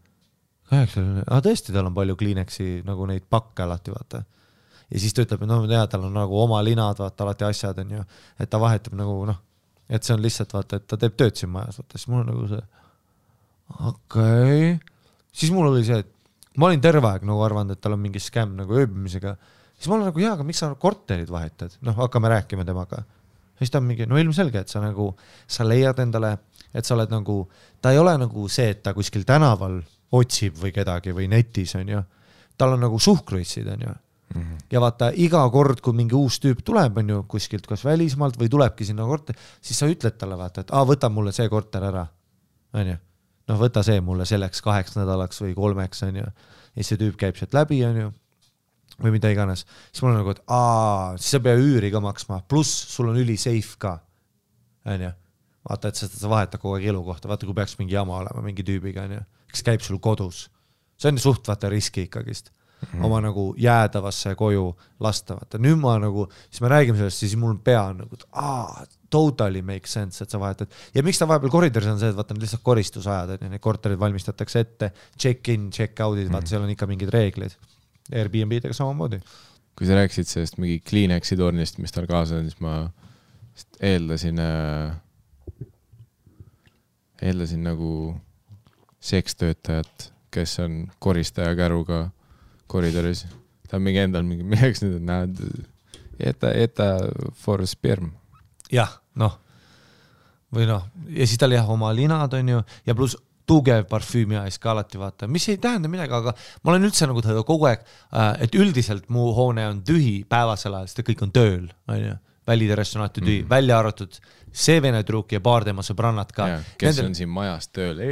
8, tõesti, tal on palju Kleenexi nagu neid pakke alati, vaata. Ja siis ta ütleb, et tal on nagu oma linad, vaata, alati asjad on ju, et ta vahetab nagu, et see on lihtsalt, vaata, et ta teeb tööd siin majas, vaata, siis mul on nagu see, okei. Siis mul oli see, et ma olin terve aeg nagu arvanud, et tal on mingi skämm nagu ööbimisega. Siis ma olen nagu, aga miks sa korterid vahetad? Hakkame rääkima temaga. Siis ta on mingi, ilmselge, et sa leiad endale, et sa oled nagu, ta ei ole nagu see, et ta kuskil tänaval otsib või kedagi või netis, on ju. Tal on nagu suhkruissid, on ju. Ja vaata, iga kord, kui mingi uus tüüp tuleb, on ju, kuskilt kas välismaalt või tulebki sinna korter, siis sa ütled talle, vaata, et võta mulle see korter ära, on ju. Võta see mulle selleks 8 nädalaks või 3, on ju. Ja see tüüp käib sealt läbi, on ju, või mida iganes. Siis mul on nagu, et siis sa pea üüri ka maksma, pluss sul on üli safe ka, on ju. Vaata, et sa vahetad kogu aeg elukohta, vaata, kui peaks mingi jama olema mingi tüübiga, on ju, kes käib sul kodus. See on suht, vaata, riski ikkagist. Oma nagu jäädavasse koju lastavata. Nüüd ma nagu, siis me räägime sellest, siis mul pea on nagu, totally make sense, et sa vahetad. Ja miks ta vahepeal koridoris on see, et vaata, need lihtsalt koristusajad, et need korterid valmistatakse ette, check-in, check-out'id, vaata, seal on ikka mingid reeglid. Airbnb-dega samamoodi. Kui sa rääkisid sellest mingi Kleenexi tornist, mis tal kaasa on, siis ma eeldasin nagu sekstöötajat, kes on koristaja käruga koridoris. Ta on mingi endal mingi, milleks nüüd näed, eta for sperm. Jah, noh. Või noh, ja siis tal jah oma linad on ju, ja pluss tugev parfüümi ajas ka alati vaata, mis ei tähenda midagi, aga ma olen üldse nagu kogu aeg, et üldiselt mu hoone on tühi päevasel ajal, sest kõik on tööl, on ju, väliterrest on alati tühi, välja arvatud see vene truuk ja paar tema sõbrannad ka. Ja, kes on siin majas tööl,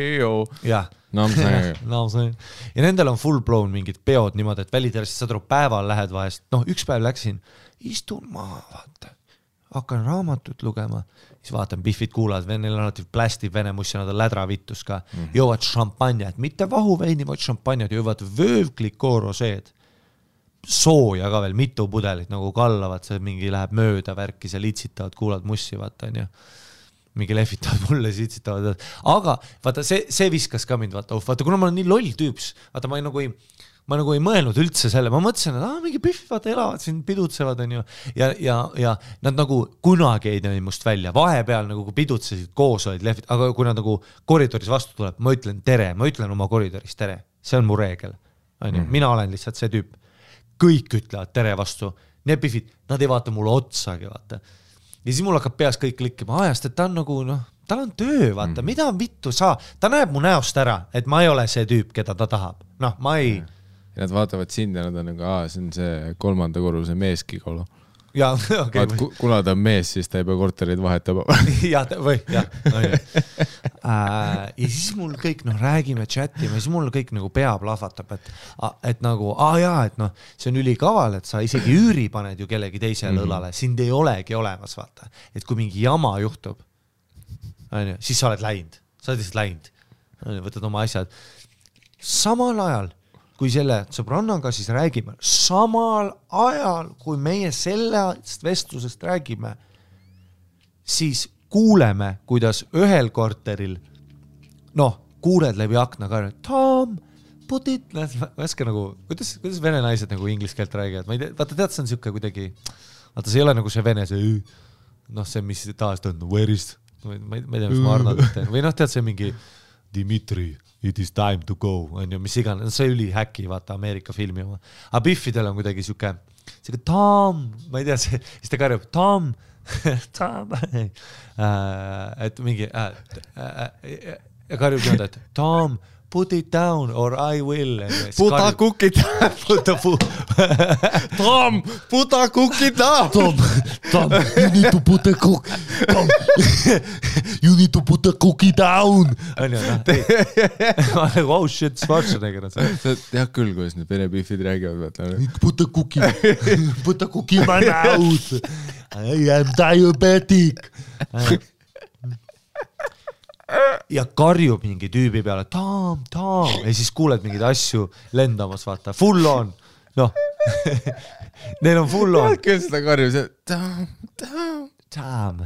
jah. No, ja nendel on full blown mingid peod niimoodi, et väliterest saad aru, päeval lähed vahest, noh, üks päev läksin, istun maha, vaata, hakkan raamatut lugema, siis vaatan, Biffid kuulavad, neil on alati plästib vene mussi, nad on lädravittus ka, jõuvad šampanjad, mitte vahuveini, vaid šampanjad, jõuvad vöövklikooroseed, sooja ka veel, mitu pudelit nagu kallavad, see mingi läheb mööda värki, see litsitavad, kuulavad mussi, vaata, on ju. Mingi lehvitavad mulle, sitsitavad, aga vaata, see viskas ka mind, vaata, kuna ma olen nii loll tüüps, vaata, ma nagu ei mõelnud üldse selle, ma mõtlesin, et mingi Biff, vaata, elavad siin, pidutsevad, on ju, ja nad nagu kunagi ei näi must välja, vahepeal nagu kui pidutsesid koos olid lehvid, aga kui nad nagu koridoris vastu tuleb, ma ütlen tere, ma ütlen oma koridoris tere, see on mu reegel, on ju, mina olen lihtsalt see tüüp, kõik ütlevad tere vastu, need Biffid, nad ei vaata mulle otsagi, vaata, ja siis mul hakkab peas kõik klikkima ajast, et ta on nagu, noh, tal on töö, vaata, mida on vittu saa, ta näeb mu näost ära, et ma ei ole see tüüp, keda ta tahab, noh, ma ei ja nad vaatavad sind ja nad on nagu, see on see 3. korruse meeskigolo. Ja, okay, kuna ta on mees, siis ta ei pea korterid vahetama. ja siis mul kõik, noh, räägime, chatime, siis mul kõik nagu pea plahvatab, et nagu, et noh, see on ülikaval, et sa isegi üüri paned ju kellegi teisele õlale, sind ei olegi olemas, vaata. Et kui mingi jama juhtub, siis sa oled läinud, võtad oma asjad. Samal ajal, kui selle sõbrannaga siis räägime, samal ajal, kui meie sellest vestlusest räägime, siis kuuleme, kuidas ühel korteril, noh, kuuled läbi akna ka, Tom, put it, väske nagu, kuidas vene naised nagu inglise keelt räägivad, ma ei tea, vaata tead, see on siuke kuidagi, vaata see ei ole nagu see vene, see, noh, see, mis taas ta on, where is, ma ei tea, mis ma Arnold teen, või noh, tead see mingi Dimitri, it is time to go, on ju, mis iganes, see üli häkki, vaata, Ameerika filmi oma. Aga Biffidel on kuidagi siuke Tom, ma ei tea, siis ta karjub, Tom, et mingi, ja karjub nõnda, et Tom, put it down or I will. Puta kukid. Tom, puta kukid down. Tom, you need to put the cook. Tom, you need to put the cookie down. Oh shit, Schwarzenegger. Sa tead küll, kuidas need vene Biffid räägivad. Put the cookie in my mouth. I am diabetic. Ja karjub mingi tüübi peale, Tom, ja siis kuuled mingeid asju lendamas, vaata, full on, noh, neil on full on. Küll seda karjub, see Tom.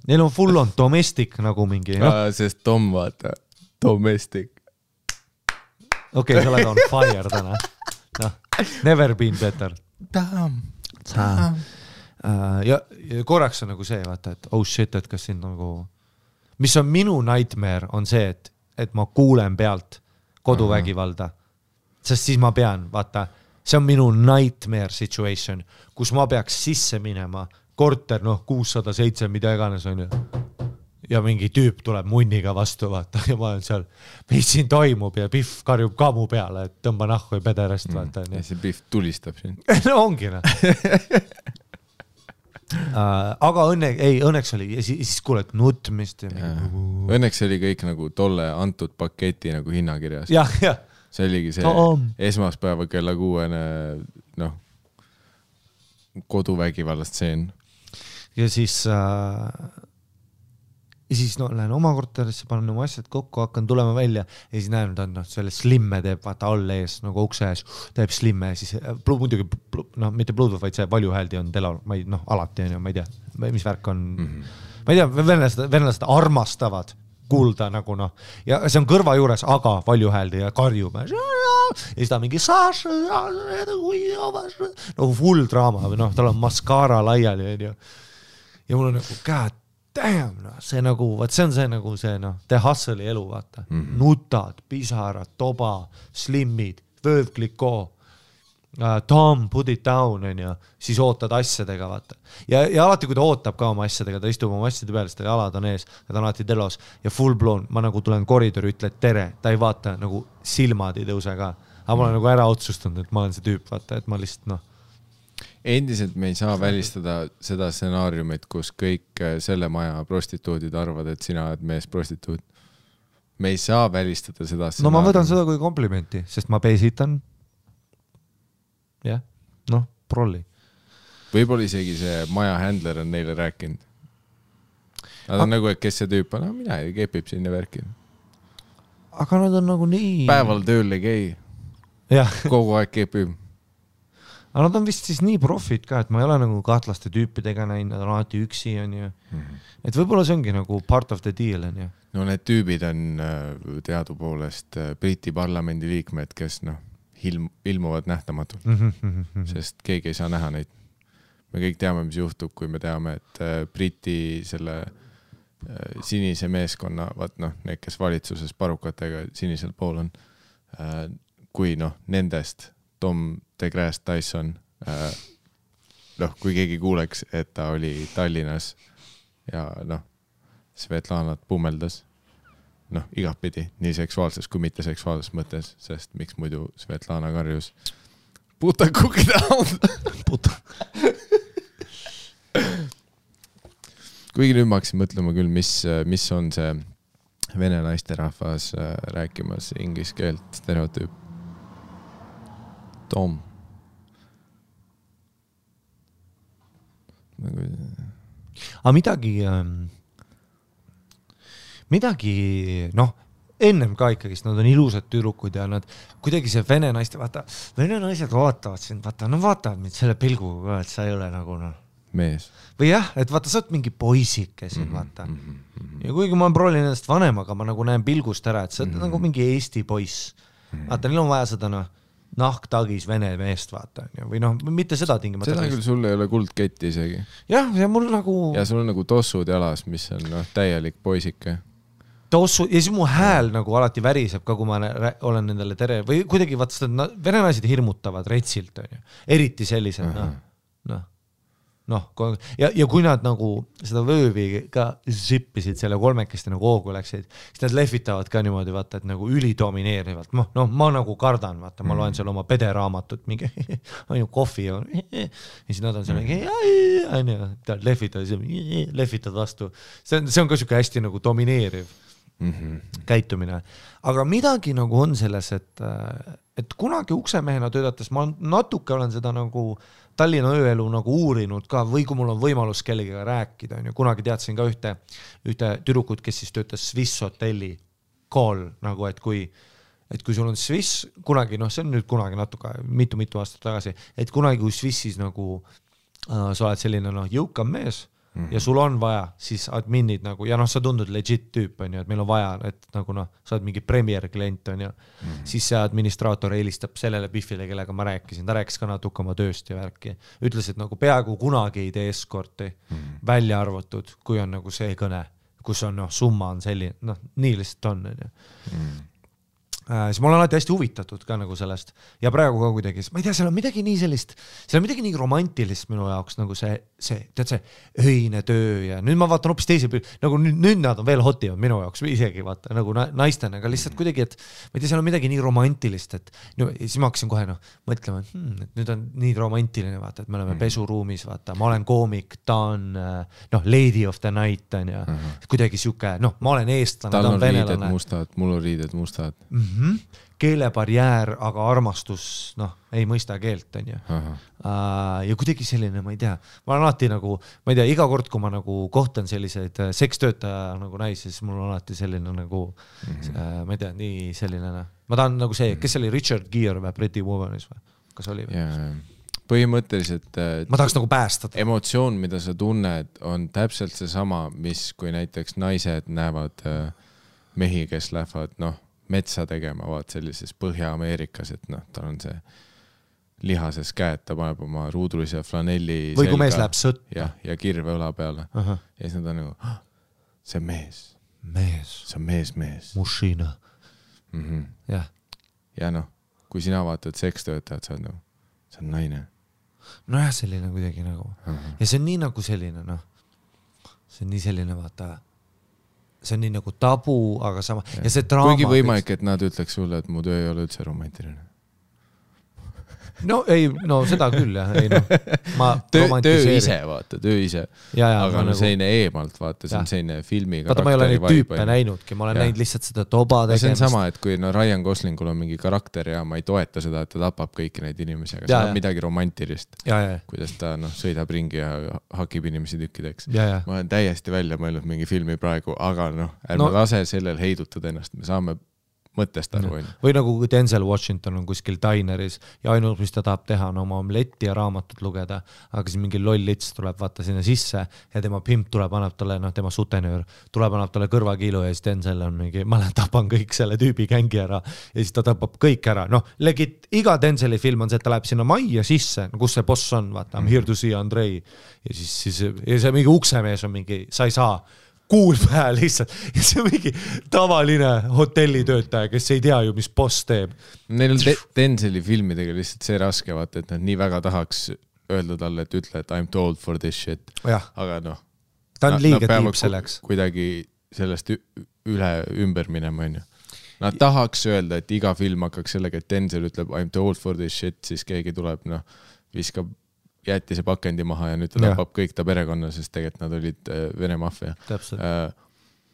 Neil on full on domestic nagu mingi. Sest Tom, vaata, domestic. Okei, sa oled on fire täna. No, never been better. Tom. Ja korraks on nagu see, vaata, et oh shit, et kas siin nagu mis on minu nightmare, on see, et ma kuulen pealt koduvägivalda. Sest siis ma pean, vaata, see on minu nightmare situation, kus ma peaks sisse minema, korter, noh, 607, mida iganes on ju. Ja mingi tüüp tuleb munniga vastu, vaata, ja ma olen seal, mis siin toimub ja Biff karjub ka mu peale, et tõmba nahku ja pederest, vaata. Ja see Biff tulistab siin. No ongi, noh. Aga õnneks oli ja siis kuuled nutmist õnneks oli kõik nagu tolle antud paketi nagu hinnakirjas see oligi see esmaspäeva kella 6 noh koduvägivallast seen ja siis no, lähen oma korterisse, panen oma asjad kokku, hakkan tulema välja ja siis näen, et selle slimme teeb vaata all ees, nagu ukse ees, teeb slimme ja siis muidugi, no mitte Bluetooth, vaid see valjuhääldi on telal, alati on ju, ma ei tea, mis värk on, ma ei tea, venelased armastavad kuulda nagu noh, ja see on kõrva juures, aga valjuhääldi ja karjub ja siis ta mingi no full draama või noh, tal on maskaara laiali on ju. ja mul on nagu god damn, no, see nagu, vaat see on see nagu see noh, the hustle'i elu, vaata. Nutad, pisarad, toba, slimmid, vöövklikoo, Tom, put it down, on ju, siis ootad asjadega, vaata. Ja alati, kui ta ootab ka oma asjadega, ta istub oma asjade peale, sest jalad on ees, ta on alati telos ja full blown, ma nagu tulen koridori, ütled tere, ta ei vaata, nagu silmad ei tõuse ka. Aga ma olen nagu ära otsustanud, et ma olen see tüüp, vaata, et ma lihtsalt noh. Endiselt me ei saa välistada seda stsenaariumit, kus kõik selle maja prostituudid arvad, et sina oled mees prostituud. Me ei saa välistada seda stsenaariumit. No ma võtan seda kui komplimenti, sest ma peesitan. Jah, noh, prolli. Võib-olla isegi see maja handler on neile rääkinud. Nad on nagu, et kes see tüüp on, mina ei kepib sinna värki. Aga nad on nagu nii... Päeval tööl ei käi. Kogu aeg kepib. Aga nad on vist siis nii profid ka, et ma ei ole nagu kahtlaste tüüpidega näinud, nad on alati üksi, on ju. Et võib-olla see ongi nagu part of the deal, on ju. No need tüübid on teadupoolest Briti parlamendi liikmed, kes noh, ilmuvad nähtamatult, sest keegi ei saa näha neid. Me kõik teame, mis juhtub, kui me teame, et Briti selle sinise meeskonna, vaat noh, need, kes valitsuses parukatega sinisel pool on, kui noh, nendest Tom DeGrasse Tyson, noh, kui keegi kuuleks, et ta oli Tallinnas ja noh, Svetlanat pummeldas, noh, igatpidi, nii seksuaalses kui mitte seksuaalses mõttes, sest miks muidu Svetlana karjus puta cookie down. Puta. Kuigi nüüd ma hakkasin mõtlema küll, mis on see vene naisterahvas rääkimas inglise keelt stereotüüp. Tom. Aga midagi, noh, ennem ka ikkagi, nad on ilusad tüdrukud ja nad kuidagi see vene naiste, vaata, vene naised vaatavad sind, vaata, no vaatavad mind selle pilguga, et sa ei ole nagu noh. Mees. Või jah, et vaata, sa oled mingi poisike siin, vaata. Ja kuigi ma proolin ennast vanem, aga ma nagu näen pilgust ära, et sa oled nagu mingi Eesti poiss. Vaata, neil on vaja seda noh, nahktagis vene meest, vaata. Või noh, mitte seda tingimata. Seda küll sul ei ole kuldketti isegi. Jah, ja mul nagu... Ja sul on nagu tossud jalas, mis on noh, täielik poisike. Tossu, ja siis mu hääl nagu alati väriseb ka, kui ma olen nendele tere... Või kuidagi, vaata, vene naised hirmutavad retsilt, on ju. Eriti sellised, noh, ja kui nad nagu seda vöövi ka zippisid selle kolmekesti nagu hoogu läksid, siis nad lehvitavad ka niimoodi, vaata, et nagu ülidomineerivalt. No ma nagu kardan, vaata, ma loen seal oma pederaamatut, mingi on ju kohvi ja siis nad on seal mingi lehvitavad vastu. See on ka siuke hästi nagu domineeriv käitumine. Aga midagi nagu on selles, et kunagi uksemehena töötates ma natuke olen seda nagu Tallinna ööelu nagu uurinud ka, või kui mul on võimalus kellegagi rääkida, on ju, kunagi teadsin ka ühte tüdrukut, kes siis töötas Swiss hotelli call, nagu, et kui sul on Swiss, kunagi, noh, see on nüüd kunagi natuke, mitu aastat tagasi, et kunagi kui Swissis nagu sa oled selline, noh, jõukam mees, ja sul on vaja, siis adminid nagu, ja noh, sa tundud legit tüüp, on ju, et meil on vaja, et nagu noh, sa oled mingi premier klient, on ju, siis see administraator eelistab sellele Biffile, kellega ma rääkisin, ta rääkis ka natuke oma tööst ja värki, ütles, et nagu peaaegu kunagi ei tee eskorti välja arvatud, kui on nagu see kõne, kus on noh, summa on selline, noh, nii lihtsalt on, on ju. Siis ma olen alati hästi huvitatud ka nagu sellest ja praegu ka kuidagi, ma ei tea, seal on midagi nii sellist, seal on midagi nii romantilist minu jaoks nagu see, tead see öine töö ja nüüd ma vaatan hoopis teise, nagu nüüd nad on veel hotivad minu jaoks isegi vaata nagu naistena, aga lihtsalt kuidagi, et ma ei tea, seal on midagi nii romantilist, et no, siis ma hakkasin kohe mõtlema, et nüüd on nii romantiline, vaata, et me oleme pesuruumis, vaata, ma olen koomik, ta on lady of the night on ja kuidagi siuke, ma olen eestlane, ta on venelane. Tal on riided mustad, mul on riided mustad. Keelebarjäär, aga armastus, ei mõista keelt, on ju. Ja kuidagi selline, ma ei tea, ma olen alati nagu, ma ei tea, iga kord, kui ma nagu kohtan selliseid sekstöötaja nagu naisi, siis mul on alati selline nagu, ma ei tea, nii selline, ma tahan nagu see, kes oli Richard Gere või Pretty Womanis või? Kas oli? Põhimõtteliselt ma tahaks nagu päästada. Emotsioon, mida sa tunned, on täpselt see sama, mis kui näiteks naised näevad mehi, kes lähevad, metsa tegema, vaat sellises Põhja-Ameerikas, et tal on see lihases käed, ta paneb oma ruudulise flanelli või kui mees läheb sõtta. Ja kirve õla peale. Ja siis nad on nagu, see on mees. See on mees. Mushina. Jah. Ja noh, kui sina vaatad sekstöötajad, sa oled nagu, see on naine. Nojah, selline kuidagi nagu. Ja see on nii nagu selline, noh. See on nii selline, vaata, see on nii nagu tabu, aga sama. Ja see draama. Kuigi võimalik, et nad ütleks sulle, et mu töö ei ole üldse romantiline. No ei, no seda küll jah, ei noh, ma töö ise, vaata, töö ise. Aga no nagu... selline eemalt, vaata, see on selline filmi vaata, ma ei ole neid tüüpe näinudki, ma olen näinud lihtsalt seda toba tegemist. See on sama, et kui no Ryan Goslingul on mingi karakter ja ma ei toeta seda, et ta tapab kõiki neid inimesi, aga see on midagi romantilist. Kuidas ta sõidab ringi ja hakib inimesi tükkideks. Ma olen täiesti välja mõelnud mingi filmi praegu, aga noh, ärme lase sellel heidutada ennast, me saame mõttest aru. Või nagu kui Denzel Washington on kuskil dineris ja ainult, mis ta tahab teha, on oma omletti ja raamatut lugeda, aga siis mingi loll lits tuleb vaata sinna sisse ja tema pimp tuleb, annab talle, noh, tema sutenöör tuleb, annab talle kõrvakiilu ja siis Denzel on mingi, ma tapan kõik selle tüübi gängi ära ja siis ta tapab kõik ära. Noh, iga Denzeli film on see, et ta läheb sinna majja sisse, kus see boss on, vaata, I'm here to see Andrei ja siis ja see mingi uksemees on mingi, sa ei saa kuul pähe lihtsalt ja see on mingi tavaline hotellitöötaja, kes ei tea ju, mis boss teeb. Neil on Denzeli filmidega lihtsalt see raske, vaata, et nad nii väga tahaks öelda talle, et ütle, et I'm too old for this shit. Aga noh, ta on liiga tiip selleks. Kuidagi sellest ümber minema, on ju. Nad tahaks öelda, et iga film hakkaks sellega, et Denzel ütleb I'm too old for this shit, siis keegi tuleb, noh, viskab jäeti see pakendi maha ja nüüd ta tapab kõik ta perekonna, sest tegelikult nad olid Vene maffia.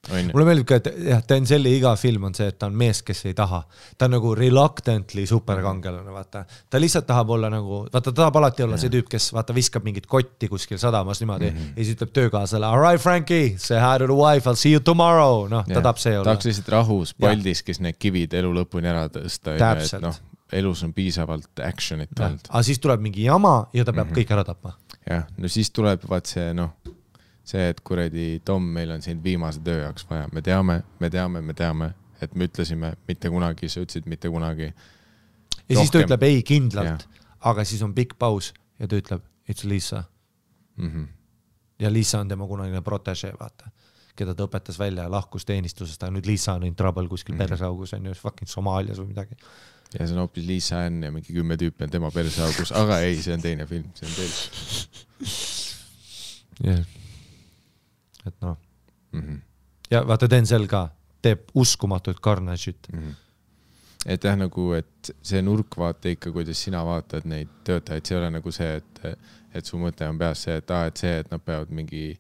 Mulle meeldib ka, et Denzeli iga film on see, et ta on mees, kes ei taha. Ta on nagu reluctantly superkangelane, vaata. Ta lihtsalt tahab olla nagu, vaata, ta tahab alati olla see tüüp, kes vaata viskab mingit kotti kuskil sadamas niimoodi ja siis ütleb töökaasale, all right, Frankie, say hi to the wife, I'll see you tomorrow. Noh, ta tahab see olla. Tahaks lihtsalt rahus paldis, kes need kivid elu lõpuni ära tõsta. Täpselt. Elus on piisavalt actionit olnud. Aga siis tuleb mingi jama ja ta peab kõik ära tapma. Jah, no siis tuleb vaat see, noh, see, et kuredi Tom, meil on siin viimase töö jaoks vaja. Me teame, et me ütlesime mitte kunagi, sa ütlesid mitte kunagi. Ja siis ta ütleb ei kindlalt, aga siis on pikk paus ja ta ütleb, it's Lisa. Ja Lisa on tema kunagine protégé, vaata, keda ta õpetas välja ja lahkus teenistusest, aga nüüd Lisa on in trouble kuskil peresaugus, on ju fucking Somaalias või midagi. Ja see on hoopis Lisa Ann ja mingi 10 tüüpi on tema persaugus, aga ei, see on teine film, see on teine. Et noh. Ja vaata Denzel ka teeb uskumatut carnage'it. Et jah, nagu, et see nurk vaata ikka, kuidas sina vaatad neid töötajaid, see ei ole nagu see, et su mõte on peas see, et nad peavad mingi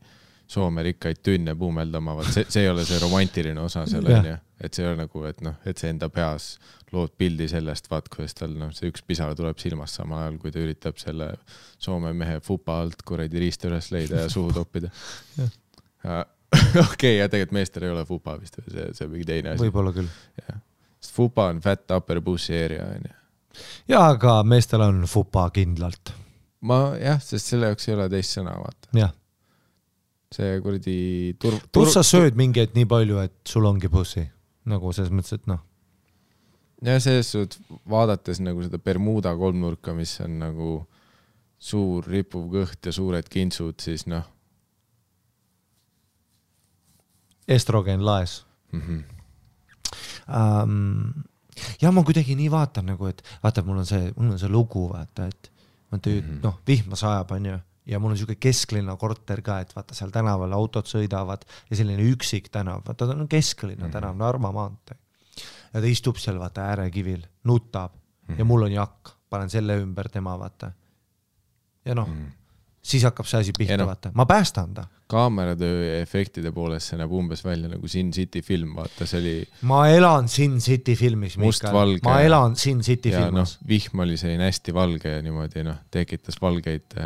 Soome rikkaid tünne puumeldama, see ei ole see romantiline osa selle, et see ei ole nagu, et noh, et see enda peas lood pildi sellest, vaat, kuidas tal see üks pisara tuleb silmast samal ajal, kui ta üritab selle Soome mehe fupa alt kuradi riista üles leida ja suhu toppida. Okei, ja tegelikult meestel ei ole fupa vist, see mingi teine asi. Võib-olla küll. Sest fupa on fat upper pussy area. Ja, aga meestel on fupa kindlalt. Sest selle jaoks ei ole teist sõna, vaata. Jah. See kuradi Plus sa sööd mingi et nii palju, et sul ongi pussy. Nagu selles mõttes, et noh. Ja selles suht vaadates nagu seda Bermuda kolmnurka, mis on nagu suur ripuv kõht ja suured kintsud, siis noh. Estrogen laes. Ja ma kuidagi nii vaatan nagu, et vaata, mul on see lugu, vaata, et noh, vihma sajab, on ju. Ja mul on selline kesklinna korter ka, et vaata seal tänaval autod sõidavad ja selline üksik tänav, vaata ta on kesklinna tänav, Narva maantee. Ja ta istub seal vaata äärekivil, nutab ja mul on jakk, panen selle ümber tema vaata. Ja noh, siis hakkab see asi pihta vaata. Ma päästan ta. Kaameratöö ja efektide poolest see näeb umbes välja nagu Sin City film, vaata see oli... Ma elan Sin City filmis, Mikael. Ma elan Sin City filmis. Ja vihm oli selline hästi valge ja niimoodi tekitas valgeid...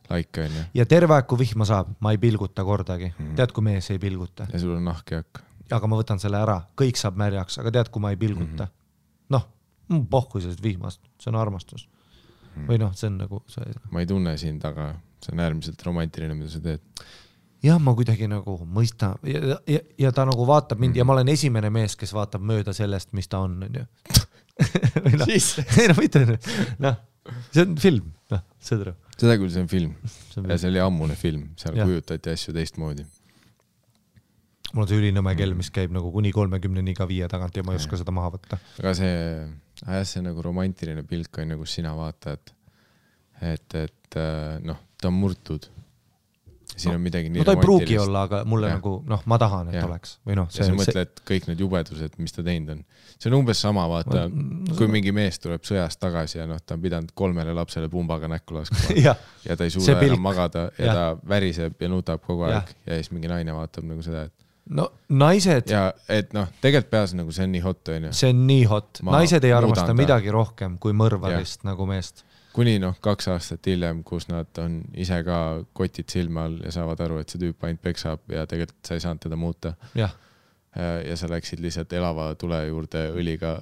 Laika on ju. Ja terve aeg, kui vihma saab, ma ei pilguta kordagi. Tead, kui mees ei pilguta. Ja sul on nahkjak. Aga ma võtan selle ära. Kõik saab märjaks, aga tead, kui ma ei pilguta. Noh, pohku sellest vihmast. See on armastus. Või noh, see on nagu... Ma ei tunne siin taga. See on äärmiselt romantiline, mida sa teed. Jah, ma kuidagi nagu mõista. Ja ta nagu vaatab mind ja ma olen esimene mees, kes vaatab mööda sellest, mis ta on ju. Või noh, ei no mitte. Noh. see on film, seda küll, see on film. Ja see oli ammune film, seal kujutati asju teistmoodi. Mul on see ülinõme kell, mis käib nagu kuni 30 iga 5 tagant ja ma ei oska seda maha võtta. Aga see nagu romantiline pilk on, kus sina vaatad, et noh, ta on murtud. Siin on midagi nii no ta ei pruugi olla, aga mulle nagu, ma tahan, et oleks. Või noh, ja sa mõtled kõik need jubedused, mis ta teinud on. See on umbes sama, vaata, kui mingi mees tuleb sõjast tagasi ja ta on pidanud 3 lapsele pumbaga näkku laskma ja ta ei suuda enam magada ja ta väriseb ja nutab kogu aeg ja siis mingi naine vaatab nagu seda, et no naised ja et tegelikult peas nagu see on nii hot, on ju. See on nii hot. Naised ei armasta midagi rohkem kui mõrvarist nagu meest. Kuni 2 aastat hiljem, kus nad on ise ka kotid silma all ja saavad aru, et see tüüp ainult peksab ja tegelikult sa ei saanud teda muuta. Ja sa läksid lihtsalt elava tule juurde õliga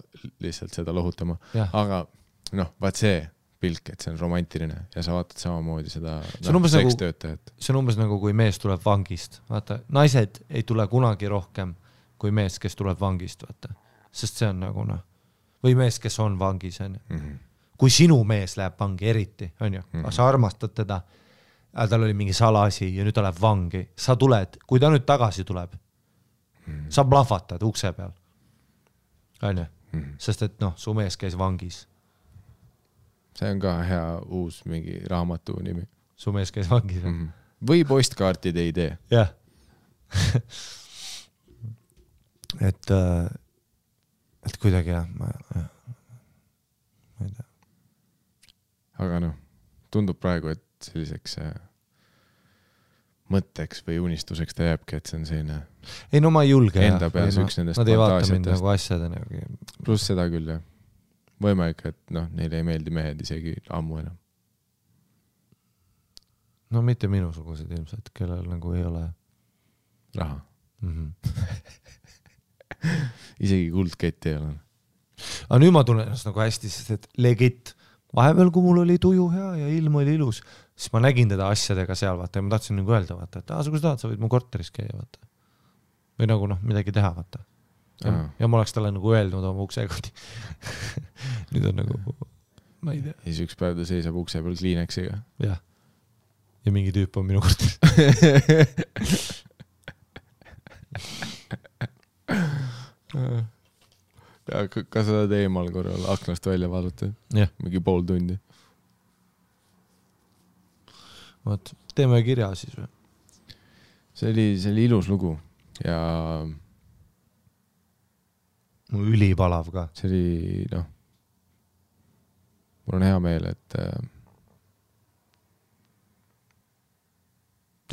lihtsalt seda lohutama. Aga vaat see pilk, et see on romantiline ja sa vaatad samamoodi seda sekstöötajat. See on umbes nagu kui mees tuleb vangist. Vaata, naised ei tule kunagi rohkem kui mees, kes tuleb vangist. Vaata. Sest see on nagu või mees, kes on vangis. Kui sinu mees läheb vangi eriti, on ju, sa armastad teda, tal oli mingi salasi ja nüüd ta läheb vangi, sa tuled, kui ta nüüd tagasi tuleb, sa plahvatad ukse peal, on ju, sest et su mees käis vangis. See on ka hea uus mingi raamatu nimi. Su mees käis vangis. Või postkaartide idee. Jah. et kuidagi ma ei tea. Aga tundub praegu, et selliseks mõtteks või unistuseks ta jääbki, et see on selline ei ma ei julge enda peas üks nendest nad ei vaata mind nagu asjadena. Pluss seda küll, jah. Võimalik, et neile ei meeldi mehed isegi ammu enam. No mitte minusugused ilmselt, kellel nagu ei ole raha. Isegi kuldkett ei ole. Aga nüüd ma tunnen ennast nagu hästi, sest et legit vahepeal, kui mul oli tuju hea ja ilm oli ilus, siis ma nägin teda asjadega seal, vaata, ja ma tahtsin nagu öelda, vaata, et kui sa tahad, sa võid mu korteris käia, vaata. Või nagu midagi teha, vaata. Ja ma oleks talle nagu öelnud oma uksekoti. Nüüd on nagu, ma ei tea. Ja siis üks päev ta seisab ukse peal Kleenexiga. Jah. Ja mingi tüüp on minu korteris. Ja ka seda teemal korral aknast välja vaadata. Mingi pool tundi. Vaat, teeme kirja siis või? See oli ilus lugu ja mul ülipalav ka. See oli, mul on hea meel, et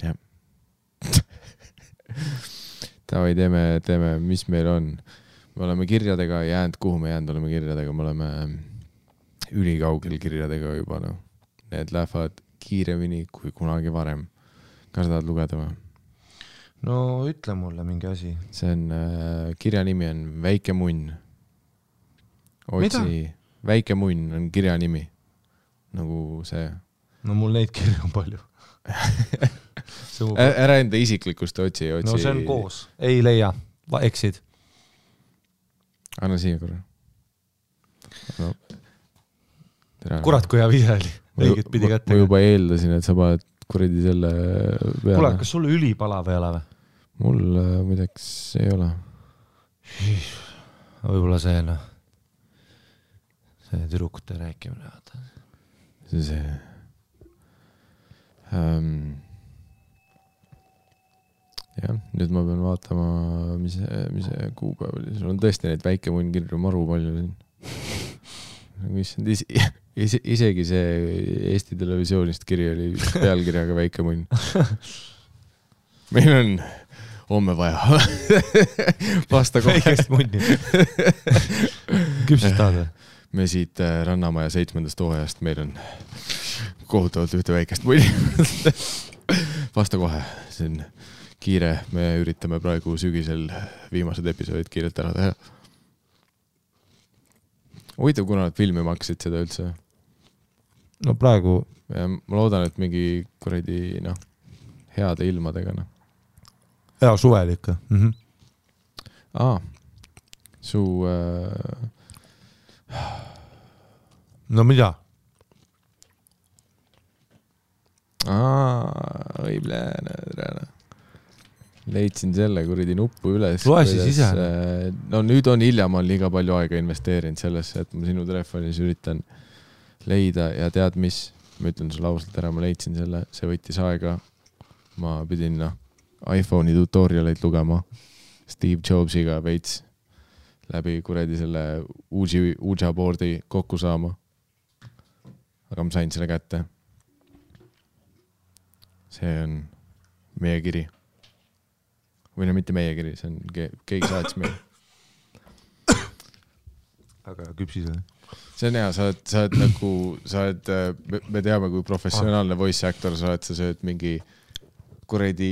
jah. Tavai, teeme, mis meil on. Me oleme kirjadega jäänud, kuhu me jäänud oleme kirjadega, me oleme ülikaugel kirjadega juba, Need lähevad kiiremini kui kunagi varem. Kas sa tahad lugeda või? No ütle mulle mingi asi. See on, kirja nimi on Väike munn. Mida? Väike munn on kirja nimi. Nagu see. No mul neid kirja on palju. Ära enda isiklikust otsi. No see on koos. Ei leia. Eksid. Anna siia korra. Kurat, kui hea vise oli. Õiget pidi kätte. Ma juba eeldasin, et sa paned kuradi selle peale. Kuule, kas sul ülipalav ei ole või? Mul midagi ei ole. Võib-olla see tüdrukute rääkimine. See jah, nüüd ma pean vaatama, mis kuupäev oli. Sul on tõesti neid väike munn kirju maru palju. Isegi see Eesti televisioonist kiri oli pealkirjaga Väike munn. Meil on homme vaja vasta kohe. Väikest munni. Küpsest tahad või? Me siit Rannamaja 7. hooajast, meil on kohutavalt ühte väikest munni. Vasta kohe, see on kiire, me üritame praegu sügisel viimased episoodid kiirelt ära teha. Huvitav, kuna nad filmi maksid seda üldse? No praegu... Ja ma loodan, et mingi kuradi, heade ilmadega, Hea suvel ikka. Su... No mida? Leidsin selle kuradi nuppu üles. Loe siis ise. No nüüd on hilja, ma olen liiga palju aega investeerinud sellesse, et ma sinu telefonis üritan leida ja tead mis, ma ütlen sulle ausalt ära, ma leidsin selle, see võttis aega. Ma pidin iPhone'i tutorialeid lugema Steve Jobsiga veits läbi kuradi selle Ouija boardi kokku saama. Aga ma sain selle kätte. See on meie kiri. Või no mitte meie kiri, see on keegi saats meil. Aga küpsis või? See on hea, sa oled nagu, me teame, kui professionaalne voice actor sa oled, sa sööd mingi kuradi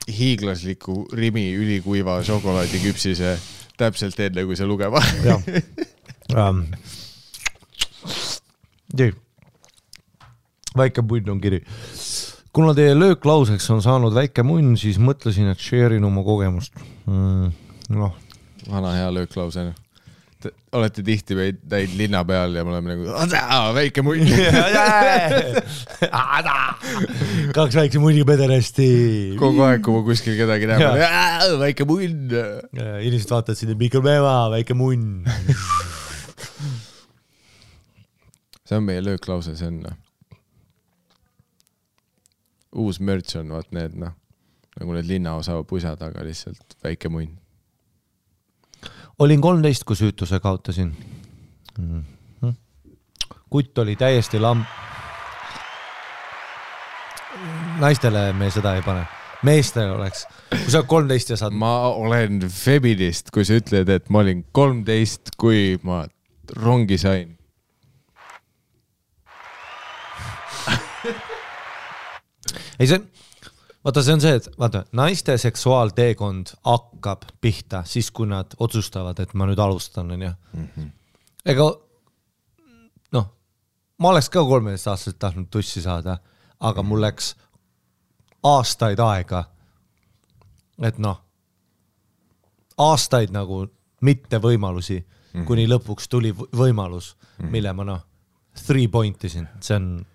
hiiglasliku Rimi ülikuiva šokolaadiküpsise täpselt enne, kui sa lugema. Väike punn on kiri. Kuna teie lööklauseks on saanud väike munn, siis mõtlesin, et share'in oma kogemust. Vana hea lööklause. Olete tihti näid linna peal ja me oleme nagu väike munn. Kaks väikse munniga pederasti. Kogu aeg, kui ma kuskil kedagi näeb, väike munn. Inimesed vaatavad sinna mikropäeva, väike munn. See on meie lööklause, see on uus merch on, vaat need, nagu need linnaosa pusad, aga lihtsalt väike munn. Olin 13, kui süütuse kaotasin. Kutt oli täiesti Naistele me seda ei pane. Meestele oleks. Kui sa 13 ja saad... Ma olen feminist, kui sa ütled, et ma olin 13, kui ma rongi sain. Ei, see on see, et naiste seksuaalteekond hakkab pihta siis, kui nad otsustavad, et ma nüüd alustan. Ega, ma oleks ka 13 aastaselt tahtnud tussi saada, aga mul läks aastaid aega, et aastaid nagu mitte võimalusi, kuni lõpuks tuli võimalus, mille ma 3 pointisin. See on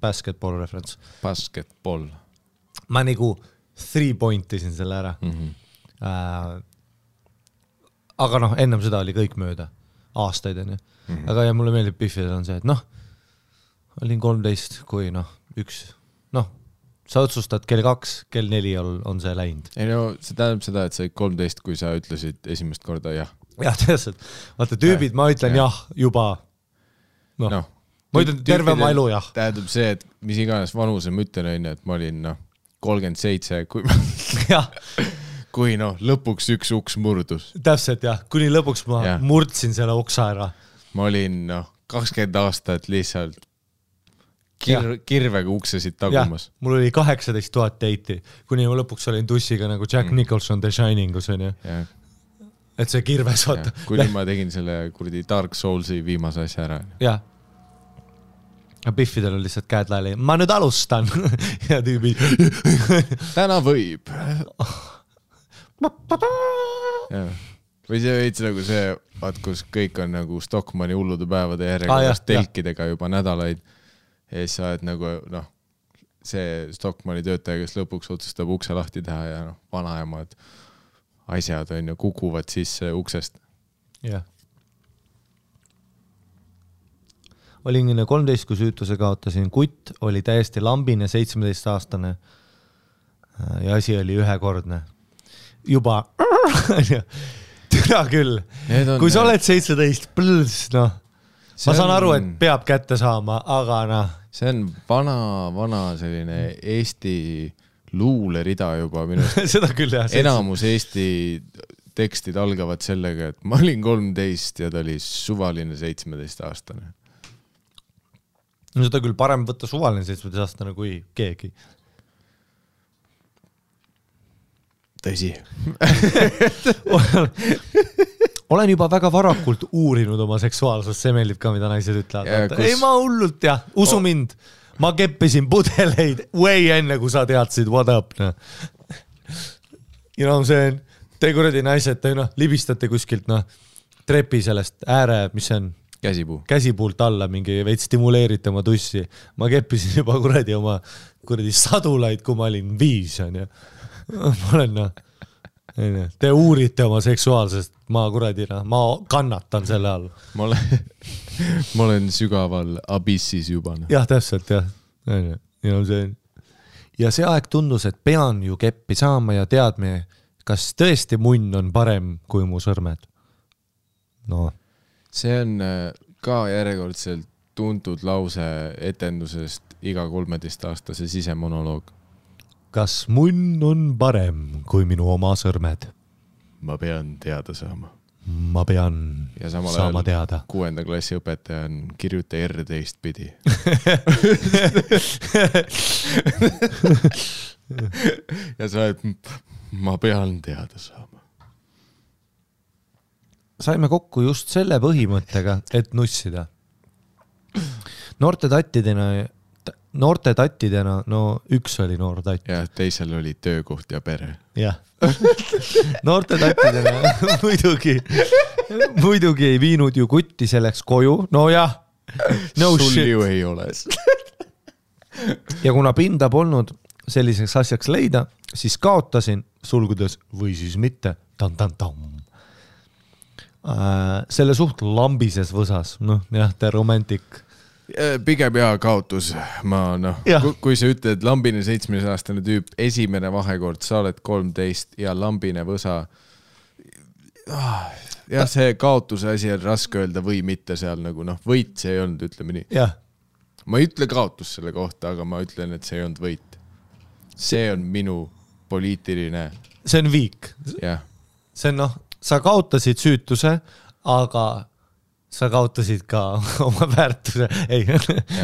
basketball reference. Basketball. Ma nagu 3 pointisin selle ära. Aga ennem seda oli kõik mööda. Aastaid on ju. Aga ja mulle meeldib Biffidel on see, et olin 13, kui üks, sa otsustad kell 2, kell 4 on see läinud. Ei see tähendab seda, et sa 13, kui sa ütlesid esimest korda jah. Jah, tõeselt. Vaata tüübid, ma ütlen jah juba. Ma ütlen terve oma elu, jah. Tähendab see, et mis iganes vanuse ma ütlen on, et ma olin 37, kui lõpuks üks uks murdus. Täpselt, jah. Kuni lõpuks ma murdsin selle uksa ära. Ma olin 20 aastat lihtsalt kirvega uksesid tagumas. Mul oli 18 000 teiti, kuni ma lõpuks olin tussiga nagu Jack Nicholson The Shiningus, on ju. Et see kirves, vaata. Kuni ma tegin selle kuradi Dark Soulsi viimase asja ära. Jah. Biffidel on lihtsalt käed laeli. Ma nüüd alustan. Ja tüübi. Täna võib. Või see veits nagu see, vaat kus kõik on nagu Stockmanni hullude päevade järjekordast telkidega juba nädalaid. Ja siis sa oled nagu, see Stockmanni töötaja, kes lõpuks otsustab ukse lahti teha ja vanaemad asjad on ju kukuvad sisse uksest. Jah. Olin 13, kui süütuse kaotasin. Kutt oli täiesti lambine 17-aastane ja asi oli ühekordne. Juba türa küll. Kui sa oled 17, ma saan aru, et peab kätte saama, aga See on vana selline Eesti luulerida juba minu seda küll, jah. Enamus Eesti tekstid algavad sellega, et ma olin 13 ja ta oli suvaline 17-aastane. No seda küll parem võtta suvaline 17-aastane kui keegi. Tõsi. Olen juba väga varakult uurinud oma seksuaalsust, see meeldib ka, mida naised ütlevad. Ei, ma hullult, jah, usu mind. Ma keppisin pudeleid way enne, kui sa teadsid what up. Ja see on, te kuradi naised, te libistate kuskilt trepi sellest ääre, mis see on? käsipuult alla mingi veits stimuleerite oma tussi. Ma keppisin juba kuradi oma sadulaid, kui ma olin 5, on ju. Ma olen te uurite oma seksuaalsest, ma kannatan selle all. Ma olen sügaval abissis juba. Jah, täpselt, jah. Ja see aeg tundus, et pean ju keppi saama ja teadme, kas tõesti munn on parem kui mu sõrmed. No. See on ka järjekordselt tuntud lause etendusest iga 13-aastase sisemonoloog. Kas munn on parem kui minu oma sõrmed? Ma pean teada saama. Ma pean saama teada. 6. klassi õpetaja on kirjuta R teistpidi. Ja sa oled, ma pean teada saama. Saime kokku just selle põhimõttega, et nussida. Noorte tattidena, no üks oli noor tatt. Ja teisel oli töökoht ja pere. Jah. Noorte tattidena muidugi ei viinud ju kutti selleks koju. No jah, no sul shit. Ju ei ole. Ja kuna pinda polnud selliseks asjaks leida, siis kaotasin sulgudes või siis mitte. Selle suht lambises võsas. Noh, jah, te romantik. Pigem ja kaotus. Kui sa ütled lambine 7-aastane tüüp, esimene vahekord, sa oled 13 ja lambine võsa. Ja see kaotuse asi on raske öelda või mitte seal nagu, võit see ei olnud, ütleme nii. Jah. Ma ei ütle kaotus selle kohta, aga ma ütlen, et see ei olnud võit. See on minu poliitiline. See on viik. Jah. See on sa kaotasid süütuse, aga sa kaotasid ka oma väärtuse. Ei,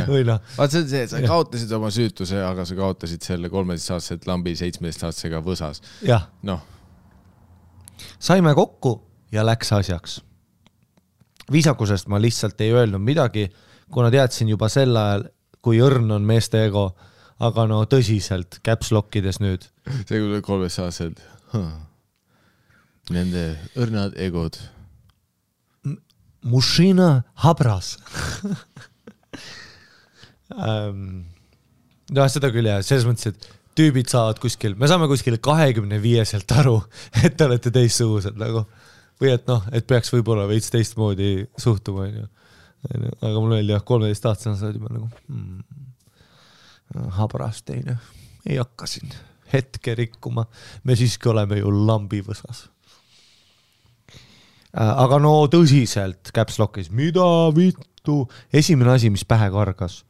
või Vaat see on see, sa kaotasid oma süütuse, aga sa kaotasid selle 13-aastaselt lambi 17-aastasega võsas. Jah. Saime kokku ja läks asjaks. Viisakusest ma lihtsalt ei öelnud midagi, kuna teadsin juba sel ajal, kui õrn on meeste ego, aga tõsiselt käpslokkides nüüd. See kui 13-aastaselt. Nende õrnad egod. Mušina habras. Seda küll jah, selles mõttes, et tüübid saavad kuskil, me saame kuskil 25-selt aru, et te olete teistsugused nagu. Või et peaks võib-olla veits teistmoodi suhtuma. Aga mul oli 13-aastane saad juba nagu habras teine. Ei hakka siin hetke rikkuma. Me siiski oleme ju lambivõsas. Aga tõsiselt käpslokkis. Mida vittu? Esimene asi, mis pähe kargas.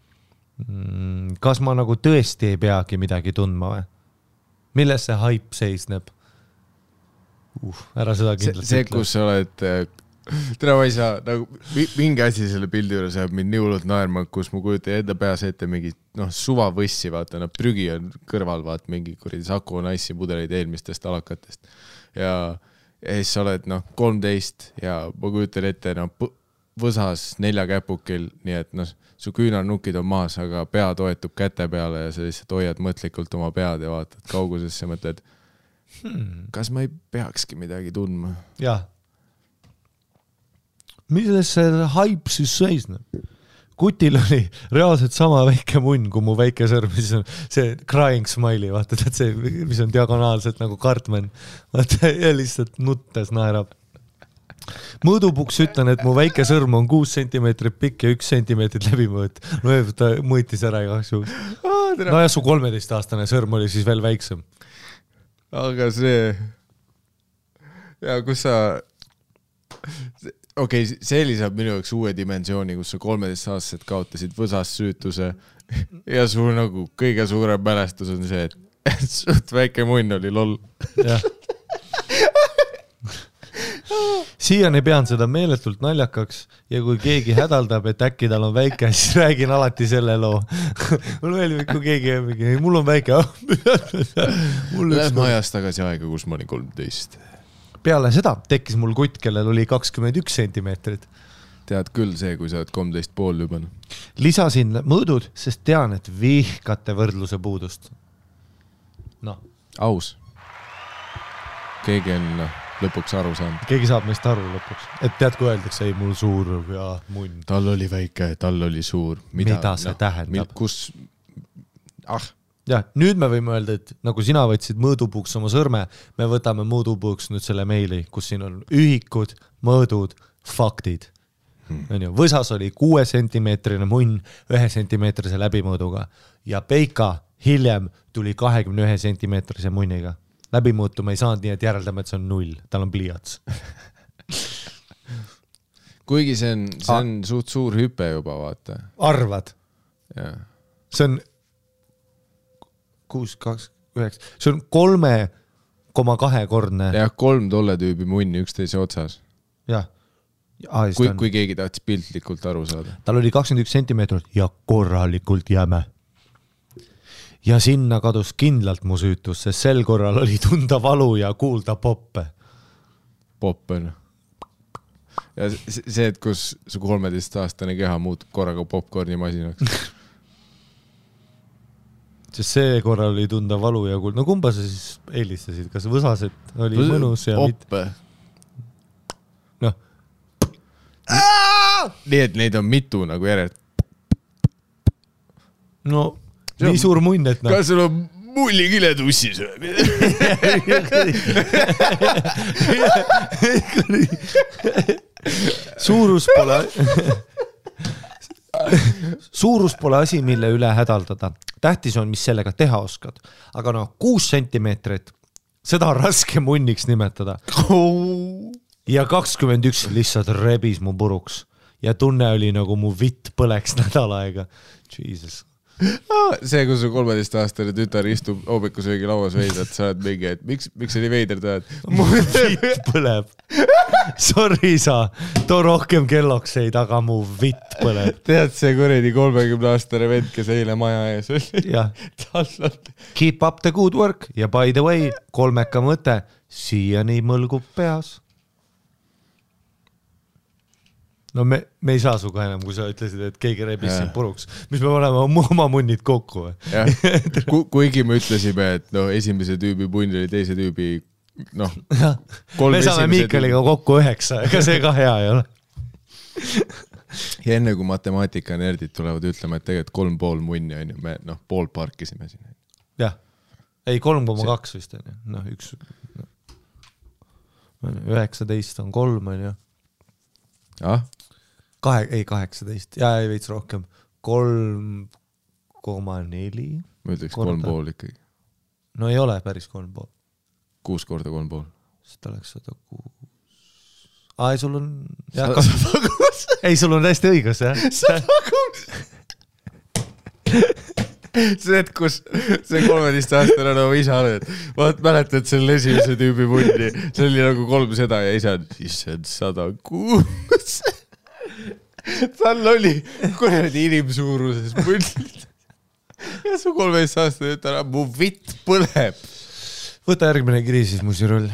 Kas ma nagu tõesti ei peagi midagi tundma või? Milles see hype seisneb? Ära seda kindlasti see, kus sa oled tere ma ei saa, mingi asi selle pildi juures jääb mind nii hullult naerma, kus ma kujutan enda peas ette mingi suva võssi, vaata, prügi on kõrval, vaat mingi kuradi Saku Naissi pudeleid eelmistest alakatest ja siis sa oled 13 ja ma kujutan ette võsas 4 käpukil, nii et su küünarnukid on maas, aga pea toetub käte peale ja sa lihtsalt hoiad mõtlikult oma pead ja vaatad kaugusesse ja mõtled, kas ma ei peakski midagi tundma? Jah. Milles see hype siis seisneb? Kutil oli reaalselt sama väike munn kui mu väike sõrm, siis on see crying smiley, vaata, see, mis on diagonaalselt nagu Cartman, vaata, ja lihtsalt nuttes naerab. Mõõdupuks ütlen, et mu väike sõrm on 6 sentimeetrit pikk ja 1 sentimeetrit läbimõõt. Ta mõõtis ära igaks juhul. Ja su 13-aastane sõrm oli siis veel väiksem. Aga see ja kus sa see lisab minu jaoks uue dimensiooni, kus sa 13-aastaselt kaotasid võsas süütuse ja su nagu kõige suurem mälestus on see, et suht väike munn oli loll. Jah. Siiani pean seda meeletult naljakaks ja kui keegi hädaldab, et äkki tal on väike, siis räägin alati selle loo. Mul meeldib, kui keegi mul on väike. Lähme ajast tagasi aega, kus ma olin 13. Peale seda tekkis mul kutt, kellel oli 21 sentimeetrit. Tead küll see, kui sa oled 13,5 juba. Lisasin mõõdud, sest tean, et vihkate võrdluse puudust. Aus. Keegi on lõpuks aru saanud. Keegi saab meist aru lõpuks. Et tead, kui öeldakse, ei mul suur ja munn. Tal oli väike, tal oli suur. Mida see tähendab? Kus... Ja, nüüd me võime öelda, et nagu sina võtsid mõõdupuuks oma sõrme, me võtame mõõdupuuks nüüd selle meili, kus siin on ühikud, mõõdud, faktid. Võsas oli 6 sentimeetrine munn 1 sentimeetrise läbimõõduga ja Peika hiljem tuli 21 sentimeetrise munniga. Läbimõõtu me ei saanud nii, et järeldame, et see on 0. Tal on pliiats. Kuigi see on suht suur hüpe juba, vaata. Arvad? Ja. See on 6,29. See on 3,2-kordne. Ja 3 tolle tüübi munni üksteise otsas. Jah. Kui keegi tahtis piltlikult aru saada. Tal oli 21 sentimeetrit ja korralikult jäme. Ja sinna kadus kindlalt mu süütus, sest sel korral oli tunda valu ja kuulda poppe. Poppe, no. Ja see, et kus su 13-aastane keha muutub korraga popcorni masinaks. Sest see korral oli tunda valu ja kuulda. No kumba sa siis eelistasid? Kas võsaset oli mõnus ja poppe. Noh. Nii, et neid on mitu nagu järelt. No, nii suur munn, et noh. Kas sul on mullikile tussis? Suurus pole asi, mille üle hädaldada. Tähtis on, mis sellega teha oskad. Aga 6 sentimeetrit, seda on raske munniks nimetada. Ja 21 lihtsalt rebis mu puruks. Ja tunne oli nagu mu vitt põleks nädal aega. Jesus. See, kui su 13-aastane tütar istub hoomikusöögi lauas veidad, sa oled mingi, et miks oli veider tahad? Mu vitt põleb. Sorry sa, too rohkem kellokseid, aga mu vitt põleb. Tead see kuredi 30-aastane vend, kes eile maja ees oli? Jah. Keep up the good work ja by the way, 3 mõte, siiani mõlgub peas. No me ei saa suga enam, kui sa ütlesid, et keegi rebis siin puruks. Mis me oleme oma munnid kokku? Kuigi me ütlesime, et esimese tüübi punn oli teise tüübi, me saame Miikaliga kokku 9, ega see ka hea ei ole. Ja enne kui matemaatika-nerdid tulevad ütlema, et tegelikult 3,5 munni on ju, me pool parkisime siin. Jah, ei 3,2 vist on ju, 19 on 3 on ju. Ah? 18, ja ei veits rohkem 3,4. Ma ütleks 3,5 ikkagi. No ei ole päris 3,5. 6 korda 3,5. Seda oleks 106. Ei, sul on... Ei, sul on täiesti õigus, jah? 106! See, et kus see 13-aastane on oma isa oled. Vaat mäletad selle esimese tüübi munni. See oli nagu 3 seda ja isa on 106. Tal oli kuradi inimsuuruses munnid. Ja su 13-aastane ütleb, mu vitt põleb. Võta järgmine kiri siis, Musirull.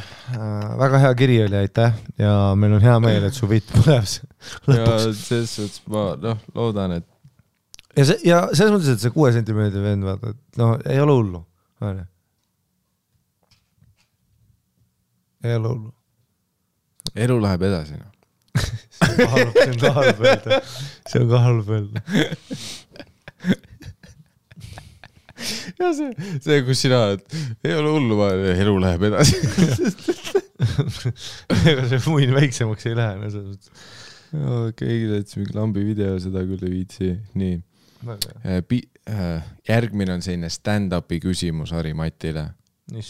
Väga hea kiri oli, aitäh. Ja meil on hea meel, et su vitt põleb. Ja selles suhtes ma loodan, et ja selles mõttes, et see 6 sentimeetri vend, vaata, et ei ole hullu. Ei ole hullu. Elu läheb edasi. See on ka halb öelda. See on ka halb öelda. Ja see, kus sina oled, ei ole hullu, elu läheb edasi. Ega see muin väiksemaks ei lähe. Keegi täitsa mingi lambi video, seda küll ei viitsi. Nii. Järgmine on selline stand-upi küsimus Harri Matile.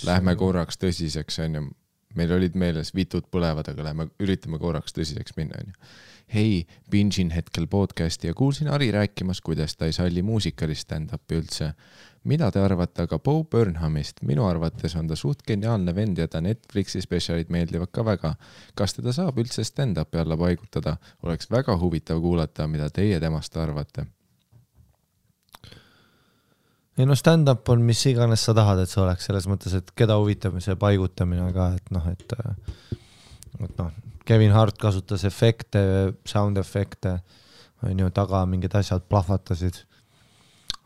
Lähme korraks tõsiseks, on ju. Meil olid meeles vitud põlevad, aga üritame korraks tõsiseks minna. On ju. Hei, bingin hetkel podcasti ja kuulsin Harri rääkimas, kuidas ta ei salli muusikalist stand-upi üldse. Mida te arvate aga Bo Burnhamist? Minu arvates on ta suht geniaalne vend ja ta Netflixi spetsialid meeldivad ka väga. Kas teda saab üldse stand-upi alla paigutada? Oleks väga huvitav kuulata, mida teie temast arvate. Ei stand-up on mis iganes sa tahad, et see oleks selles mõttes, et keda huvitab see paigutamine ka, et Kevin Hart kasutas efekte, sound efekte, on ju, taga mingid asjad plahvatasid.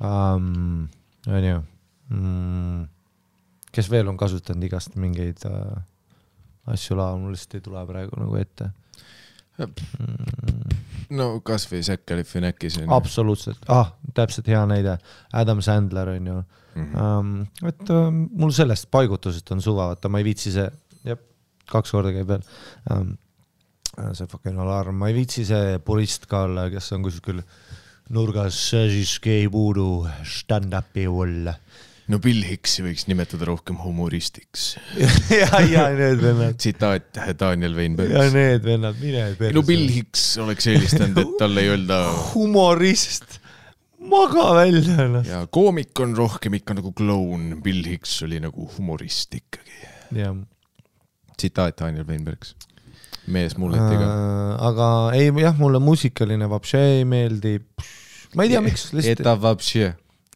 On ju. Kes veel on kasutanud igast mingeid asju laval, mul lihtsalt ei tule praegu nagu ette. No kas või Zac Galifianakis on. Absoluutselt, täpselt hea näide, Adam Sandler on ju. Et mul sellest paigutusest on suva, vaata ma ei viitsi see, 2 korda käib veel, see fucking alarm, ma ei viitsi see purist ka olla, kes on kuskil nurgas, siis ei puudu stand-upi olla. No Bill Hicksi võiks nimetada rohkem humoristiks. ja need vennad. Tsitaat Daniel Weinberg. Ja need vennad, mine perse. No Bill Hicks oleks eelistanud, et talle ei öelda humorist, maga välja. Ja koomik on rohkem ikka nagu kloun, Bill Hicks oli nagu humorist ikkagi. Ja. Tsitaat Daniel Weinbergs. Mees mulletiga. Aga ei, jah, mulle muusikaline vapše ei meeldi. Ma ei tea, miks. Это вообще.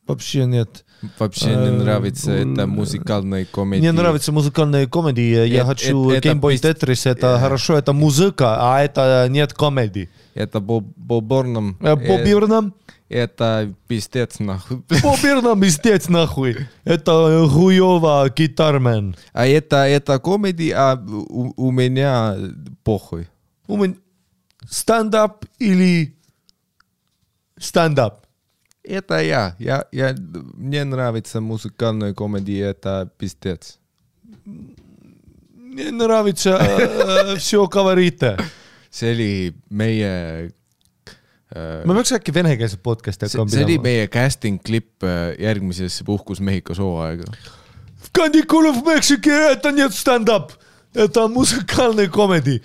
Вообще нет. Вообще не нравится это музыкальная комедия. Мне нравится музыкальная комедия. Я хочу Game Boy Tetris. Это хорошо, это музыка, а это нет комедии. Это Боб Бёрнам. Боб Бёрнам? Это пиздец нахуй. Боб Бёрнам пиздец нахуй. Это хуёво гитармен. А это комедия, а у меня похуй. У меня стендап или стендап? Это я. Мне нравится музыкальная комедия, это пиздец. Мне нравится все говорите. See oli meie... Ma peaks äkki venekeelset podcasti hakkama pidama. See oli meie casting klipp järgmisesse Puhkus Mehhiko sooaega. В каникулах в Мексике это нет стендап. Это музыкальная комедия.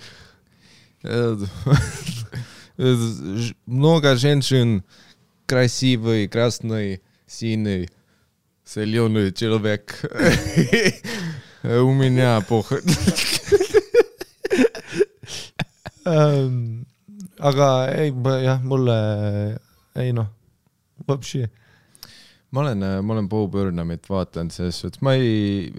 Много женщин красивый, красный, синий, зеленый человек. У меня похуй. Aga ei, jah, mulle ei noh, вообще. Ma olen Bo Burnhamit vaatanud selles suhtes. Ma ei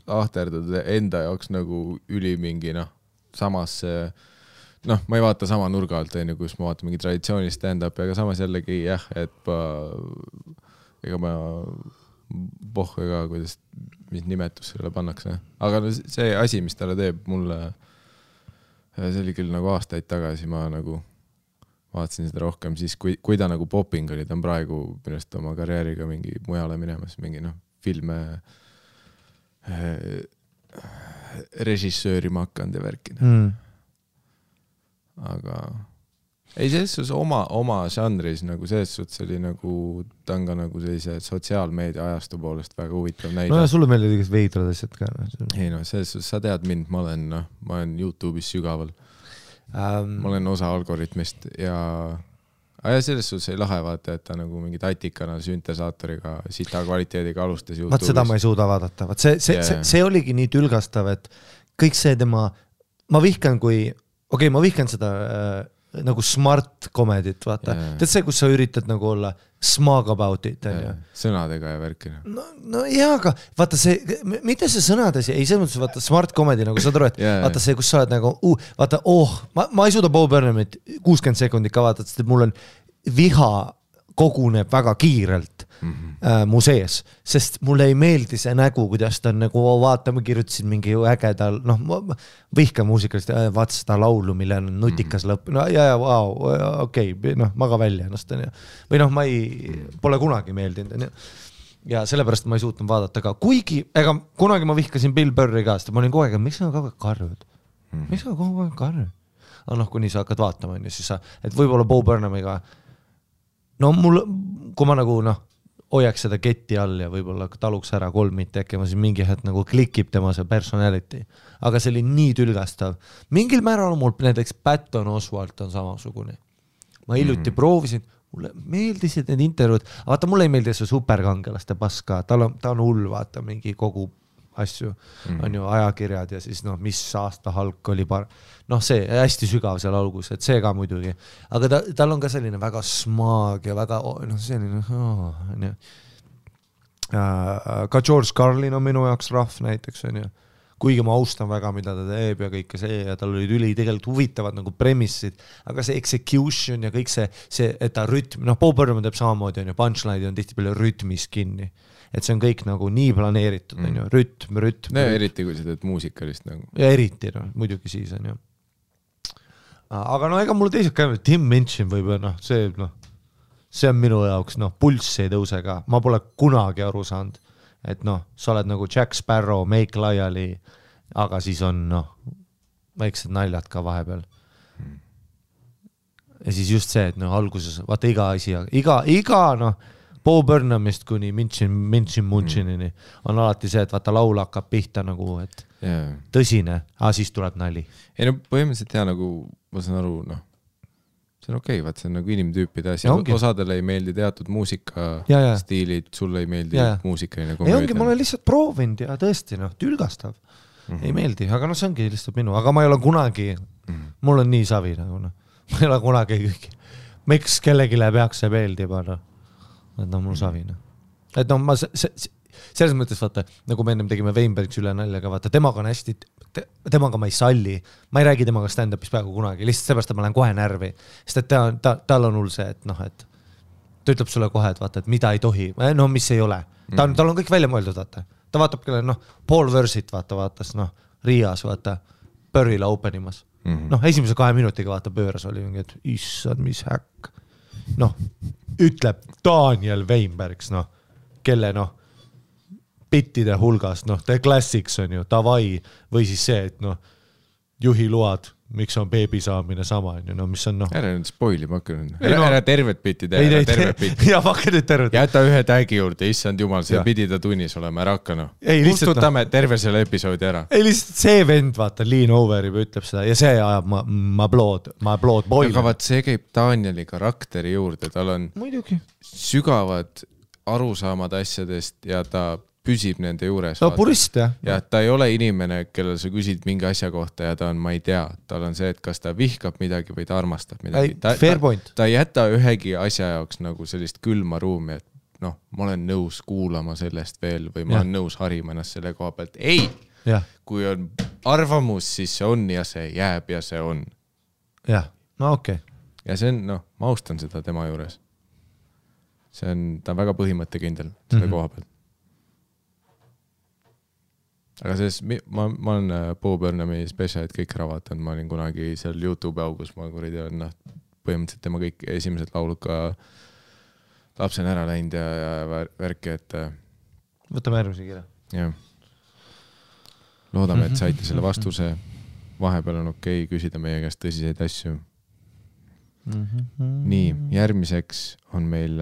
ahterdada enda jaoks nagu ülimingi, samas ma ei vaata sama nurga alt, kus ma vaatan mingi traditsiooni stand-up, aga samas jällegi et ega ma pohhu ka, mis nimetus sellele pannakse. Aga see asi, mis talle teeb mulle, see oli küll nagu aastaid tagasi, ma nagu vaatasin seda rohkem, siis kui ta nagu popping oli, ta on praegu minust oma karjääriga mingi mujale minemas, mingi filme režissööri ma hakanud ja värkida. Aga ei, selles suhtes oma žanris nagu selles suhtes oli nagu ta on ka nagu sellise sotsiaalmeedia ajastu poolest väga huvitav näide. No ja sulle meeldid igast veidrad asjad ka. Ei selles suhtes, sa tead mind, ma olen YouTube'is sügaval. Ma olen osa algoritmist ja selles suhtes ei lahe vaata, et ta nagu mingi tatikana süntesaatoriga sita kvaliteediga alustas YouTube'is. Vaat seda ma ei suuda vaadata. See oligi nii tülgastav, et kõik see tema, ma vihkan ma vihkan seda nagu smart komedit, vaata. Tead see, kus sa üritad nagu olla smug about it. Sõnadega ja värkina. No jaa, aga vaata see, mitte see sõnades, ei see mõttes, vaata smart komedi, nagu sa aru, et vaata see, kus sa oled nagu, vaata, ma ei suuda Bo Burnhamit 60 sekundit ka vaadata, sest mul on viha koguneb väga kiirelt mu sees, sest mulle ei meeldi see nägu, kuidas ta on nagu, vaata, ma kirjutasin mingi ägedal, vihka muusikalist, vaata seda laulu, mille on nutikas lõpp, okei, maga välja ennast, või ma pole kunagi meeldinud, ja sellepärast ma ei suutnud vaadata ka, kuigi, ega kunagi ma vihkasin Bill Burri ka, sest ma olin kogu aeg, miks sa kogu aeg karjud? Miks sa kogu aeg karjud? Kuni sa hakkad vaatama, siis sa, et võib-olla Bo Burnhamiga kui ma nagu hoiaks seda ketti all ja võib-olla taluks ära 3 mitte äkki, ma siis mingi hetk nagu klikib tema see personality. Aga see oli nii tülgastav. Mingil määral mul näiteks Patton Oswalt on samasugune. Ma hiljuti proovisin, mulle meeldisid need intervjuud, vaata mulle ei meeldi see superkangelaste paska, ta on hull, vaata mingi kogu asju, on ju ajakirjad ja siis mis aasta Hulk oli see hästi sügav seal algus, et see ka muidugi, aga tal on ka selline väga smag ja väga selline ka George Carlin on minu jaoks rahv näiteks, on ju, kuigi ma austan väga, mida ta teeb ja kõike see ja tal olid tegelikult huvitavad nagu premissid, aga see execution ja kõik see, et ta rütm, Bo Burnham teeb samamoodi, on ju, punchline on tihti palju rütmis kinni. et see on kõik nagu nii planeeritud, on ju, rütm. No eriti, kui sa teed muusikalist nagu. Ja eriti, no, muidugi siis on ju. Aga no ega mul teised ka, Tim Minchin võib-olla, see on minu jaoks, pulss ei tõuse ka. Ma pole kunagi aru saanud, et sa oled nagu Jack Sparrow, Make Lyali, aga siis on väiksed naljad ka vahepeal. Ja siis just see, et alguses, vaata iga asi, iga Bo Burnhamist kuni Minchinini on alati see, et vaata laul hakkab pihta nagu, et tõsine, siis tuleb nali. Ei no põhimõtteliselt nagu, ma saan aru, see on okei, vaat see on nagu inimtüüpide asi. Osadele ei meeldi teatud muusikastiilid, sulle ei meeldi muusikaline komöödia. Ei ongi, ma olen lihtsalt proovinud ja tõesti, tülgastav. Ei meeldi, aga see ongi lihtsalt minu, aga ma ei ole kunagi, mul on nii savi nagu, ma ei ole kunagi kõik, miks kellegile peaks see meeldima, et mul savina. Et ma selles mõttes vaata, nagu me ennem tegime Weinbergs üle naljaga, vaata, temaga on hästi, temaga ma ei salli, ma ei räägi temaga stand-upis peaaegu kunagi, lihtsalt seepärast, et ma lähen kohe närvi, sest et tal on hull see, et ta ütleb sulle kohe, et vaata, et mida ei tohi, mis ei ole, tal on kõik välja mõeldud, vaata, ta vaatab kelle, Paul Versit vaatas, Riias, vaata, Pöörila openimas, esimese 2 minutiga vaata pööras oli mingi, et issad, mis häkk, ütleb Daniel Weinbergs, kelle bittide hulgas, The Classics on ju, Davai, või siis see, et juhiload, miks on beebi saamine sama, on ju, mis on Ära nüüd spoili, ma hakkan ära tervet bitti teha, ära tervet bitti. Ja hakka nüüd tervet. Jäta ühe tagi juurde, issand jumal, see pidi ta tunnis olema, ära hakka Kustutame terve selle episoodi ära. Ei lihtsalt see vend, vaata, Lean Over ütleb seda ja see ajab ma blood boil. Aga vaat see käib Danieli karakteri juurde, tal on muidugi sügavad arusaamad asjadest ja ta püsib nende juures. Purist, jah. Ja ta ei ole inimene, kellel sa küsid mingi asja kohta ja ta on, ma ei tea, tal on see, et kas ta vihkab midagi või ta armastab midagi. Ta ei jäta ühegi asja jaoks nagu sellist külma ruumi, et ma olen nõus kuulama sellest veel või ma olen nõus harima ennast selle koha pealt. Ei! Kui on arvamus, siis see on ja see jääb ja see on. Jah, okei. Ja see on, ma austan seda tema juures. Ta on väga põhimõttekindel selle koha pealt. Aga ma olen Bo Burnhami spetsialid kõik ära vaatanud, ma olin kunagi seal YouTube augus, ma kuridi olen põhimõtteliselt tema kõik esimesed laulud ka lapsen ära läinud ja värki, et võtame järgmise kirja. Jah. Loodame, et saite selle vastuse. Vahepeal on okei küsida meie käest tõsiseid asju. Nii, järgmiseks on meil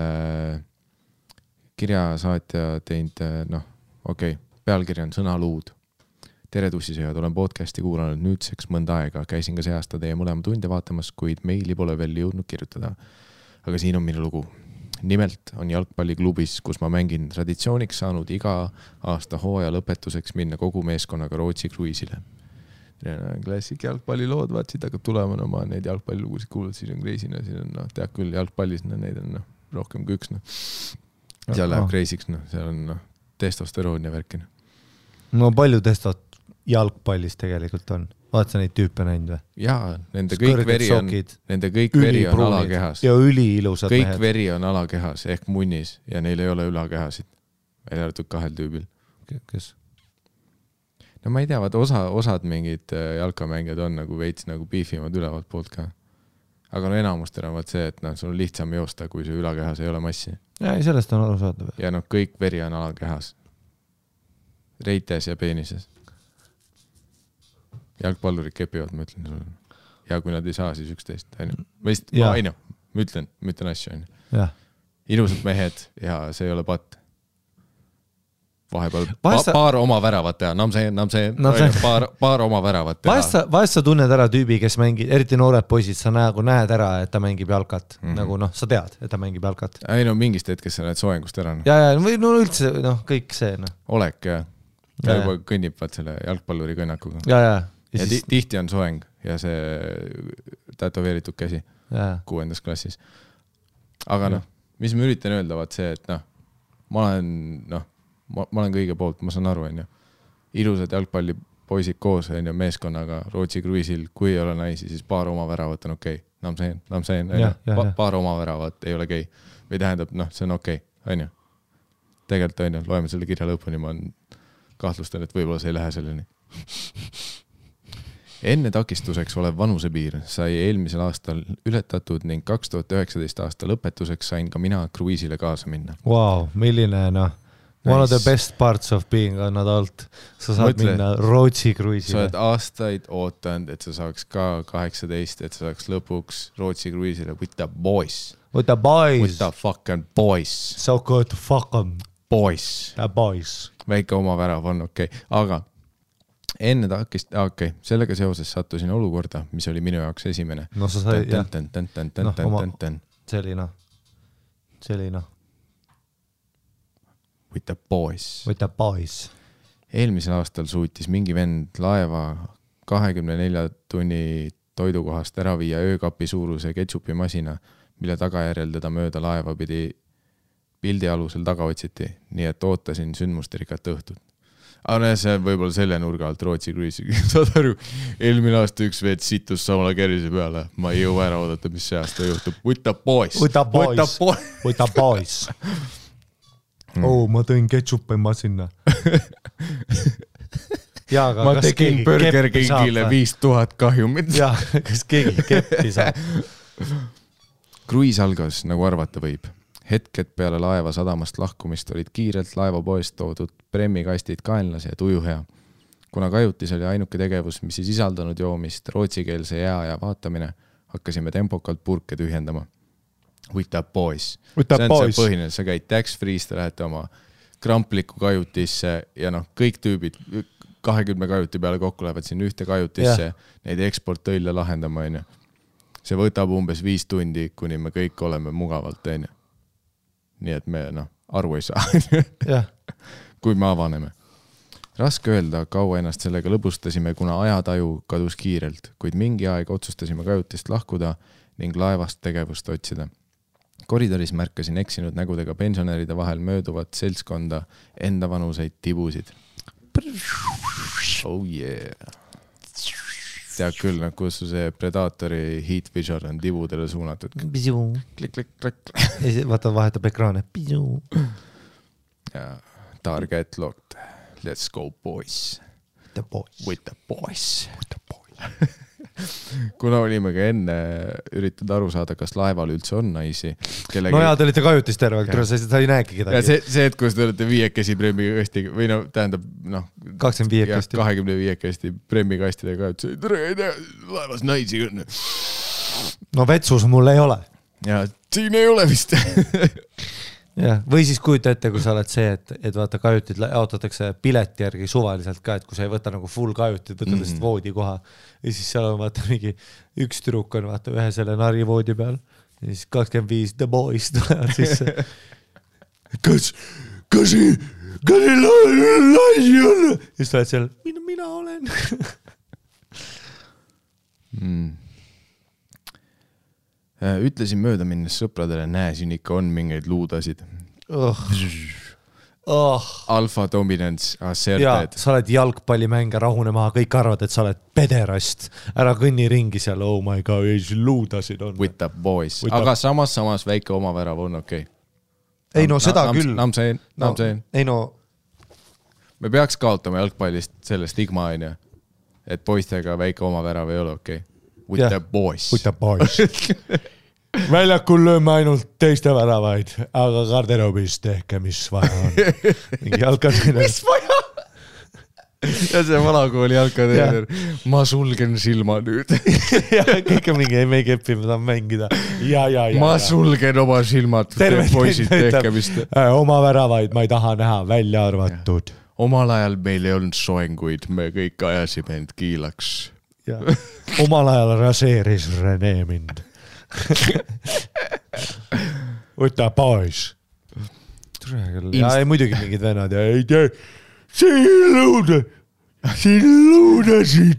kirjasaatja teinud, pealkiri on Sõnaluud. Tere tussisööjad, olen podcasti kuulanud nüüdseks mõnda aega. Käisin ka see aasta teie mõlema tunde vaatamas, kuid meili pole veel jõudnud kirjutada. Aga siin on minu lugu. Nimelt on jalgpalliklubis, kus ma mängin traditsiooniks saanud iga aasta hooaja lõpetuseks minna kogu meeskonnaga Rootsi kruiisile. Klassik jalgpallilood, vaatsid, hakkab tulema, ma neid jalgpallilugusid kuulud, siis on kreisina, siis on, tead küll, jalgpallis neid on rohkem kui üks. Seal läheb kreisiks, seal on testosteroon ja värkina. No palju testot jalgpallis tegelikult on? Vaat sa neid tüüpe näinud või? Jaa, nende kõik veri on alakehas. Ja üliilusad kõik mehed. Veri on alakehas ehk munnis ja neil ei ole ülakehasid. Välja arvatud 2 tüübil. Kes? No ma ei tea, osad mingid jalkamängijad on nagu veits nagu piifimad ülevalt poolt ka. Aga enamustel on see, et sul on lihtsam joosta, kui su ülakehas ei ole massi. Ja sellest on aru saada. Ja kõik veri on alakehas. Reites ja peenises. Jalgpallurid kepivad, ma ütlen sulle. Ja kui nad ei saa, siis 11. Ma ütlen asju. Ilusad mehed ja see ei ole patt. Vahepeal paar oma väravat teha. Paar oma väravat teha. Vahest sa tunned ära tüübi, kes mängib, eriti noored poisid, sa näed ära, et ta mängib jalkat. Nagu sa tead, et ta mängib jalkat. Ei mingist hetkest sa näed soengust ära. Ja või üldse kõik see. Olek ja juba kõnnib selle jalgpalluri kõnnakuga. Ja tihti on soeng ja see tätoveeritud käsi 6. klassis. Aga mis ma üritan öelda, vaat see, et ma olen kõige poolt, ma saan aru, ilusad jalgpallipoisid koos meeskonnaga Rootsi kruiisil, kui ei ole naisi, siis paar oma väravat on okei. Paar oma väravat ei ole okei. Või tähendab, see on okei, on ju. tegelikult on ju, loeme selle kirja lõpuni, ma kahtlustan, et võib-olla see ei lähe selleni. Enne takistuseks olev vanusepiir sai eelmisel aastal ületatud ning 2019 aasta lõpetuseks sain ka mina kruiisile kaasa minna. Wow, milline one of the best parts of being an adult. Sa saad minna Rootsi kruiisile. Sa oled aastaid ootanud, et sa saaks ka 18, et sa saaks lõpuks Rootsi kruiisile with the boys. With the boys. With the fucking boys. So good to fuck them. Boys. The boys. Väike oma värav on okei. Aga enne sellega seoses sattusin olukorda, mis oli minu jaoks esimene. No sa sai, jah. Selina. With the boys. With the boys. Eelmisel aastal suutis mingi vend laeva 24 tunni toidukohast ära viia öökapi suuruse ketšupimasina, mille tagajärjel teda mööda laeva pidi pildi alusel taga otsiti, nii et ootasin sündmusterikat õhtut. Aga see võib-olla selle nurga alt Rootsi kruiisi. Saad aru, eelmine aasta üks veed situs samale kerise peale. Ma ei jõua ära oodata, mis see aasta juhtub. With the boys. With the boys. With the boys. Ma tõin ketšupima sinna. Ma tegin Burger Kingile 5000 kahjumit. Jah, kas keegi keppi saab? Kruiis algas, nagu arvata võib. Hetked peale laeva sadamast lahkumist olid kiirelt laevapoest toodud premmikastid kaenlas ja tuju hea. Kuna kajutis oli ainuke tegevus, mis ei sisaldanud joomist, rootsikeelse jää ja vaatamine, hakkasime tempokalt purke tühjendama. With the boys. With the boys. See põhine, sa käid tax-free'st, lähete oma krampliku kajutisse ja kõik tüübid 20 kajuti peale kokku lähevad siin ühte kajutisse, neid eksporttõille lahendama. See võtab umbes 5 tundi, kuni me kõik oleme mugavalt. Nii et me aru ei saa, kui me avaneme. Raske öelda, kaua ennast sellega lõbustasime, kuna ajataju kadus kiirelt, kuid mingi aeg otsustasime kajutist lahkuda ning laevast tegevust otsida. Koridoris märkasin eksinud nägudega pensionäride vahel mööduvat seltskonda enda vanuseid tibusid. Oh yeah. Tead küll, kus see Predatori heat vision on tibudele suunatud. Klik. Vaata, vahetab ekraane. Ja, target locked. Let's go, boys. The boys. With the boys. Kuna olime ka enne üritanud aru saada, kas laeval üldse on naisi. No jaa, te olite kajutis terve, sa ei näegi kedagi. Ja see, et kus te olete 5 premmikasti või tähendab 25 kasti premmikastidega kajutis. Tere, ei tea, laevas naisi on. No vetsus mul ei ole. Ja siin ei ole vist. Ja, või siis kujuta ette, kui sa oled see, et vaata kajutid jaotatakse pileti järgi suvaliselt ka, et kui sa ei võta nagu full kajutid, võtad lihtsalt voodi koha ja siis seal on vaata mingi üks tüdruk on vaata ühe selle nari voodi peal ja siis 25 the boys tulevad sisse. Kas ei laisi on? Ja siis tuled seal, mina olen. Ütlesin mööda minnes sõpradele, siin ikka on mingeid luudasid. Alpha dominance, asserted. Sa oled jalgpallimänge rahune maha, kõik arvad, et sa oled pederast. Ära kõnni ringi seal, oh my god, luudasid on. With the boys. Aga samas väike omavärav on okei. Ei no seda küll. Namseen. Ei no. Me peaks kaotama jalgpallist selle stigma, et poistega väike omavärav ei ole okei. With the boys. With the boys. Väljakul lööme ainult teiste väravaid, aga garderoobis tehke, mis vaja on. Mingi jalkatreener. Mis vaja? Ja see valakooli jalkatreener. Ma sulgen silma nüüd. Ja kõik on mingi, me ei kepi, me tahan mängida. Ja. Ma sulgen oma silmad. Poisid tehke, mis te... Oma väravaid ma ei taha näha, välja arvatud. Omal ajal meil ei olnud soenguid, me kõik ajasime end kiilaks. Ja. Omal ajal raseeris Rene mind. With the boys. Ja ei muidugi mingid vennad ja ei tee. Siin luudasid.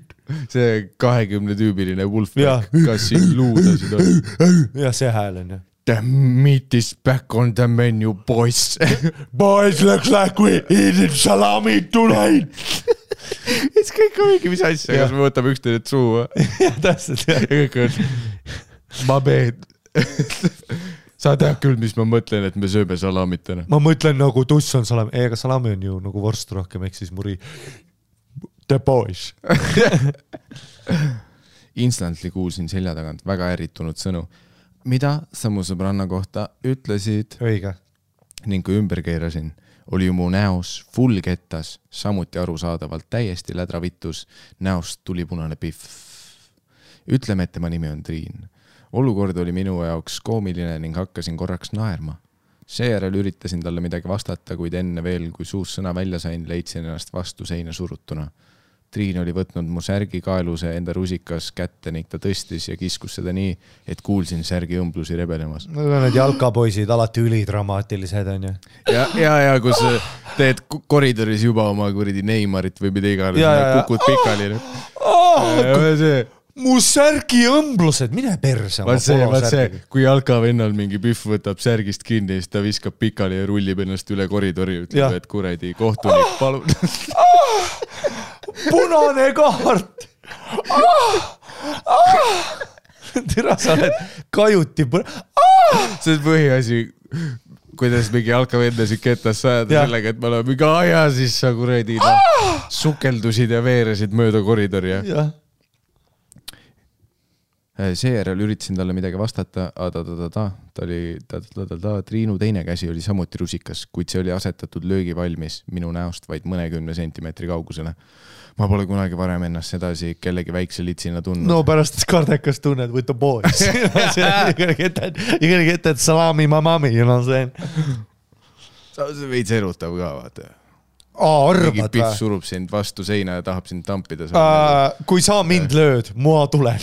See 20-tüübiline Wolfpack, kas siin luudasid on? Ja see hääl on. The meat is back on the menu, boys. Boys, looks like we eated salami tonight. Et kõik on mingi mis asja, kas me võtame üksteid suu? Ja täpselt, jah. Ja kõik on, ma mehed. sa tead küll, mis ma mõtlen, et me sööme salamitena. Ma mõtlen nagu tuss on salami, ega salami on ju nagu vorst rohkem, ehk siis muri the boys. Instantly kuulsin selja tagant väga ärritunud sõnu. Mida sa mu sõbranna kohta ütlesid? Õige. Ning kui ümber keerasin, oli ju mu näos full kettas, samuti arusaadavalt täiesti lädravittus, näost tuli punane pihv. Ütleme, et tema nimi on Triin. Olukord oli minu jaoks koomiline ning hakkasin korraks naerma. Seejärel üritasin talle midagi vastata, kuid enne veel, kui suus sõna välja sain, leidsin ennast vastu seina surutuna. Triin oli võtnud mu särgi kaeluse enda rusikas kätte ning ta tõstis ja kiskus seda nii, et kuulsin särgi õmblusi rebelemas. Need jalkapoisid alati ülidramaatilised on ju. Ja kus teed koridoris juba oma kuridi Neymarit või mida iganes, kukud pikali. Mu särgi õmblused, mine perse. Vaat see, kui jalkavennal mingi pühv võtab särgist kinni, siis ta viskab pikali ja rullib ennast üle koridori, ütleb, et kuredi kohtunik, palun. Punane kaart. Tira, sa oled kajuti. See on põhiasi, kuidas mingi jalkavendasid ketas sajada sellega, et me oleme mingi aja, siis sa kuredi sukeldusid ja veeresid mööda koridori. Seejärel üritasin talle midagi vastata, Triinu teine käsi oli samuti rusikas, kuid see oli asetatud löögi valmis minu näost vaid mõnekümne sentimeetri kaugusele. Ma pole kunagi varem ennast sedasi kellegi väikse litsina tundnud. No pärast kardekas tunned with the boys. You gonna get that salami mamami, you know what I'm saying? Sa veits erutav ka, vaata. Arvad või? Pihv surub sind vastu seina ja tahab sind tampida. Kui sa mind lööd, mua tulen.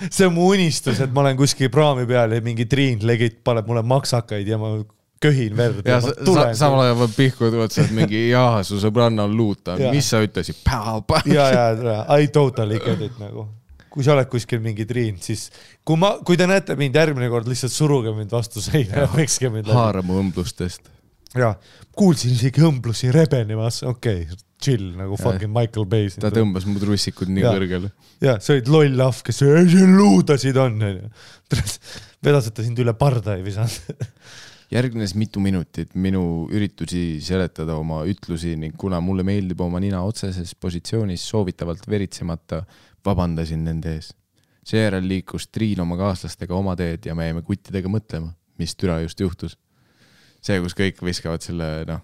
See on mu unistus, et ma olen kuskil praami peal ja mingi Triin legit paneb mulle maksakaid ja ma köhin verd. Ja samal ajal pihkud otsad mingi su sõbranna on luuta. Mis sa ütlesid? I totally get it nagu. Kui sa oled kuskil mingi Triin, siis kui te näete mind järgmine kord, lihtsalt suruge mind vastu seina ja pekske mind läbi. Haara mu õmblustest. Ja, kuulsin isegi õmblusi rebenemas, chill, nagu fucking Michael Bay. Ta tõmbas mu trussikud nii kõrgele. Ja, see olid loll lahv, kes luudasid on. Vedaseta sind üle parda ei visanud. Järgnes mitu minutit minu üritusi seletada oma ütlusi ning kuna mulle meeldib oma nina otseses positsioonis soovitavalt veritsemata, vabandasin nende ees. Seejärel liikus Triin oma kaaslastega oma teed ja me jäime kuttidega mõtlema, mis türa just juhtus. See, kus kõik viskavad selle,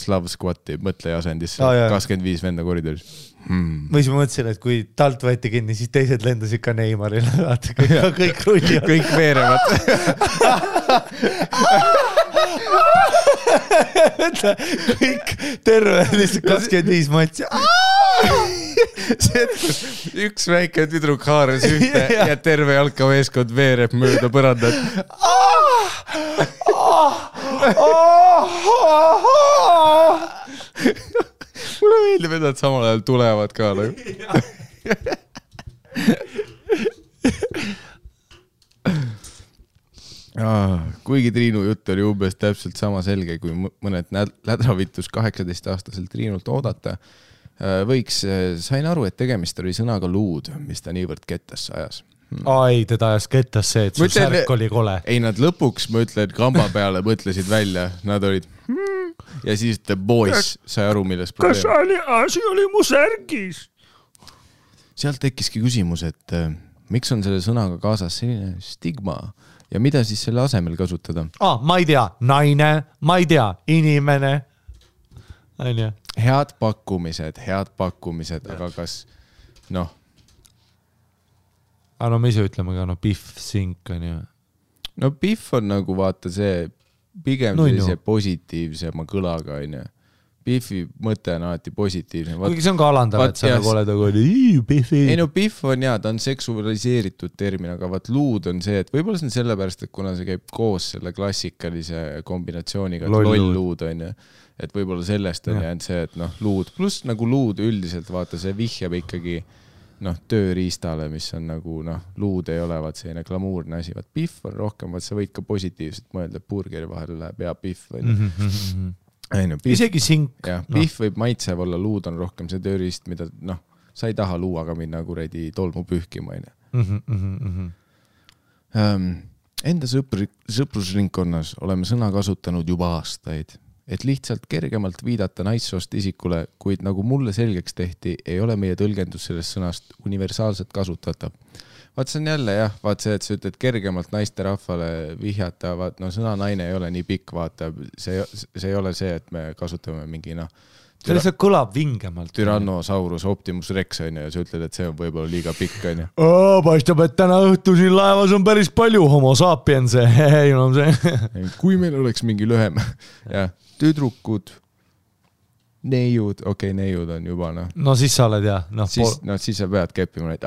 Slav Squati mõtleja asendisse 25 venda koridoris. Või siis ma mõtlesin, et kui talt võeti kinni, siis teised lendasid ka Neymarile. Kõik rullivad. Kõik veerevad. Kõik terve, lihtsalt 25 matsi. See, et kus üks väike tüdruk haaras ühte ja terve jalkaveeskond veereb mööda põrandat. Mulle meeldib, et nad samal ajal tulevad ka. Kuigi Triinu jutt oli umbes täpselt sama selge, kui mõned lädravitus 18-aastaselt Triinult oodata, sain aru, et tegemist oli sõnaga luud, mis ta niivõrd kettasse ajas. Ai, teda ajas kettas see, et sul särk oli kole. Ei, nad lõpuks, ma ütlen, kamba peale mõtlesid välja. Nad olid ja siis the boys sai aru, milles probleem. Kas asi oli mu särgis? Sealt tekkiski küsimus, et miks on selle sõnaga kaasas selline stigma ja mida siis selle asemel kasutada? Ma ei tea, naine, ma ei tea, inimene. Head pakkumised, aga kas, no me ise ütleme ka, pihv, sink on ju. No pihv on nagu vaata see pigem sellise positiivsema kõlaga on ju. Pihvi mõte on alati positiivne. Kuigi see on ka alandav, et sa nagu oled pihvi. Ei no pihv on ta on seksualiseeritud termin, aga vaat luud on see, et võib-olla see on sellepärast, et kuna see käib koos selle klassikalise kombinatsiooniga, et loll luud on ju. Et võib-olla sellest on jäänud see, et luud, pluss nagu luud üldiselt vaata, see vihjab ikkagi tööriistale, mis on nagu, luud ei ole vaat selline glamuurne asi, vaat pihv on rohkem, vaat sa võid ka positiivselt mõelda, burgeri vahel läheb ja pihv. Isegi sink. Pihv võib maitsev olla, luud on rohkem see tööriist, mida sa ei taha luuaga minna kuredi tolmu pühkima. Enda sõprusringkonnas oleme sõna kasutanud juba aastaid, et lihtsalt kergemalt viidata naissoost isikule, kuid nagu mulle selgeks tehti, ei ole meie tõlgendus sellest sõnast universaalselt kasutatav. Vaat see on jälle jah, vaat see, et sa ütled kergemalt naiste rahvale vihjata, vaat no sõna naine ei ole nii pikk, vaata, see ei ole see, et me kasutame mingi see lihtsalt kõlab vingemalt. Tyrannosaurus Optimus Rex on ja sa ütled, et see on võib-olla liiga pikk on ja. Paistab, et täna õhtu siin laevas on päris palju homo sapiense. Kui meil oleks mingi lühem ja tüdrukud, neiud, neiud on juba No siis sa oled jah. Siis sa pead keppima neid.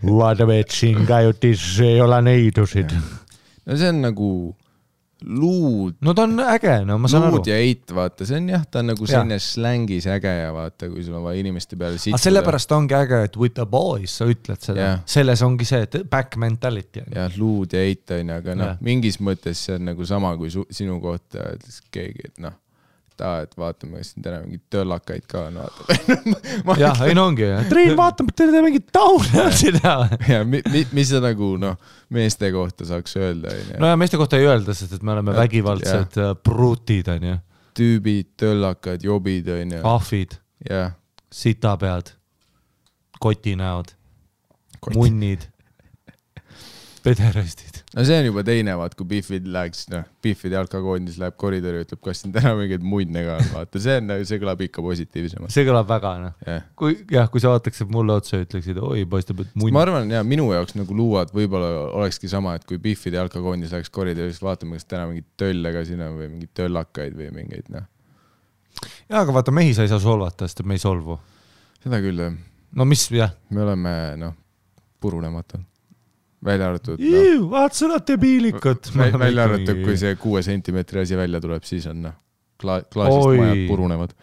Vaata vetsin kajutis ei ole neidusid. No see on nagu luud. No ta on äge, ma saan aru. Luud ja eit, vaata, see on jah, ta on nagu selline slängis äge ja vaata, kui sul on vaja inimeste peale sitsuda. Sellepärast ongi äge, et with the boys sa ütled seda. Selles ongi see, et back mentality. Jah, luud ja eit on, aga mingis mõttes see on nagu sama kui sinu kohta keegi, et et vaatame, kas siin täna mingid töllakaid ka on, vaatame. Jah, ei ongi. Triin, vaatame, et teile mingid taune. Ja mis sa nagu meeste kohta saaks öelda? No ja meeste kohta ei öelda, sest et me oleme vägivaldsed brutid, on ju. Tüübid, töllakad, jobid, on ju. Ahvid, sitapead, kotinäod, munnid, pederastid. No see on juba teine, vaat kui Biffid läheks, Biffid jalkakoondis läheb koridori ja ütleb, kas siin täna mingid muidne ka on, vaata, see kõlab ikka positiivsemalt. See kõlab väga, Kui sa vaataksid mulle otsa ja ütleksid, oi, paistab, et muidne. Ma arvan, minu jaoks nagu luuad võib-olla olekski sama, et kui Biffid jalkakoondis läheks koridoris, vaatame, kas täna mingid tölle ka siin on või mingid töllakaid või mingeid, Jaa, aga vaata, mehi sa ei saa solvata, sest me ei solvu. Seda küll, jah. No mis, jah? Me oleme, purunematud. Välja arvatud. Vaat sõna debiilikut. Välja arvatud, kui see 6 sentimeetri asi välja tuleb, siis on klaasist majad purunevad.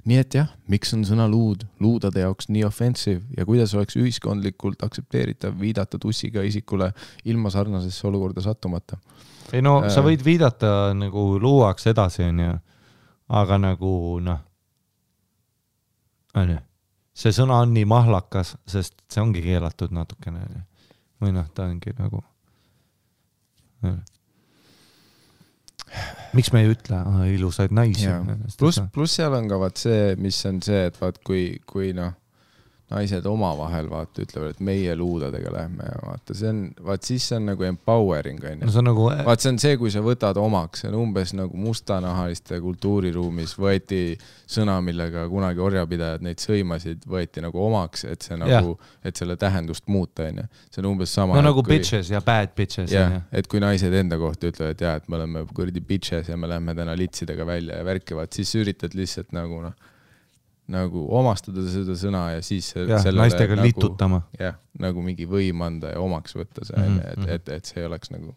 Nii et jah, miks on sõna luud luudade jaoks nii offensive ja kuidas oleks ühiskondlikult aksepteeritav viidata tussiga isikule ilma sarnasesse olukorda sattumata? Ei sa võid viidata nagu luuaks edasi, aga nagu see sõna on nii mahlakas, sest see ongi keelatud natukene. Või ta ongi nagu... Miks me ei ütle ilusaid naisi? Plus seal on ka vaat see, mis on see, et vaat kui naised omavahel vaata ütlevad, et meie luudadega lähme ja vaata, siis see on nagu empowering. Vaat see on see, kui sa võtad omaks, see on umbes nagu mustanahaliste kultuuriruumis võeti sõna, millega kunagi orjapidajad neid sõimasid, võeti nagu omaks, et see nagu, et selle tähendust muuta. See on umbes sama. Nagu bitches ja bad bitches. Et kui naised enda kohta ütlevad, et me oleme kurdi bitches ja me lähme täna litsidega välja ja värkivad, siis üritad lihtsalt nagu omastada seda sõna ja siis naistega litutama. Jah, nagu mingi võim anda ja omaks võtta see, et see oleks nagu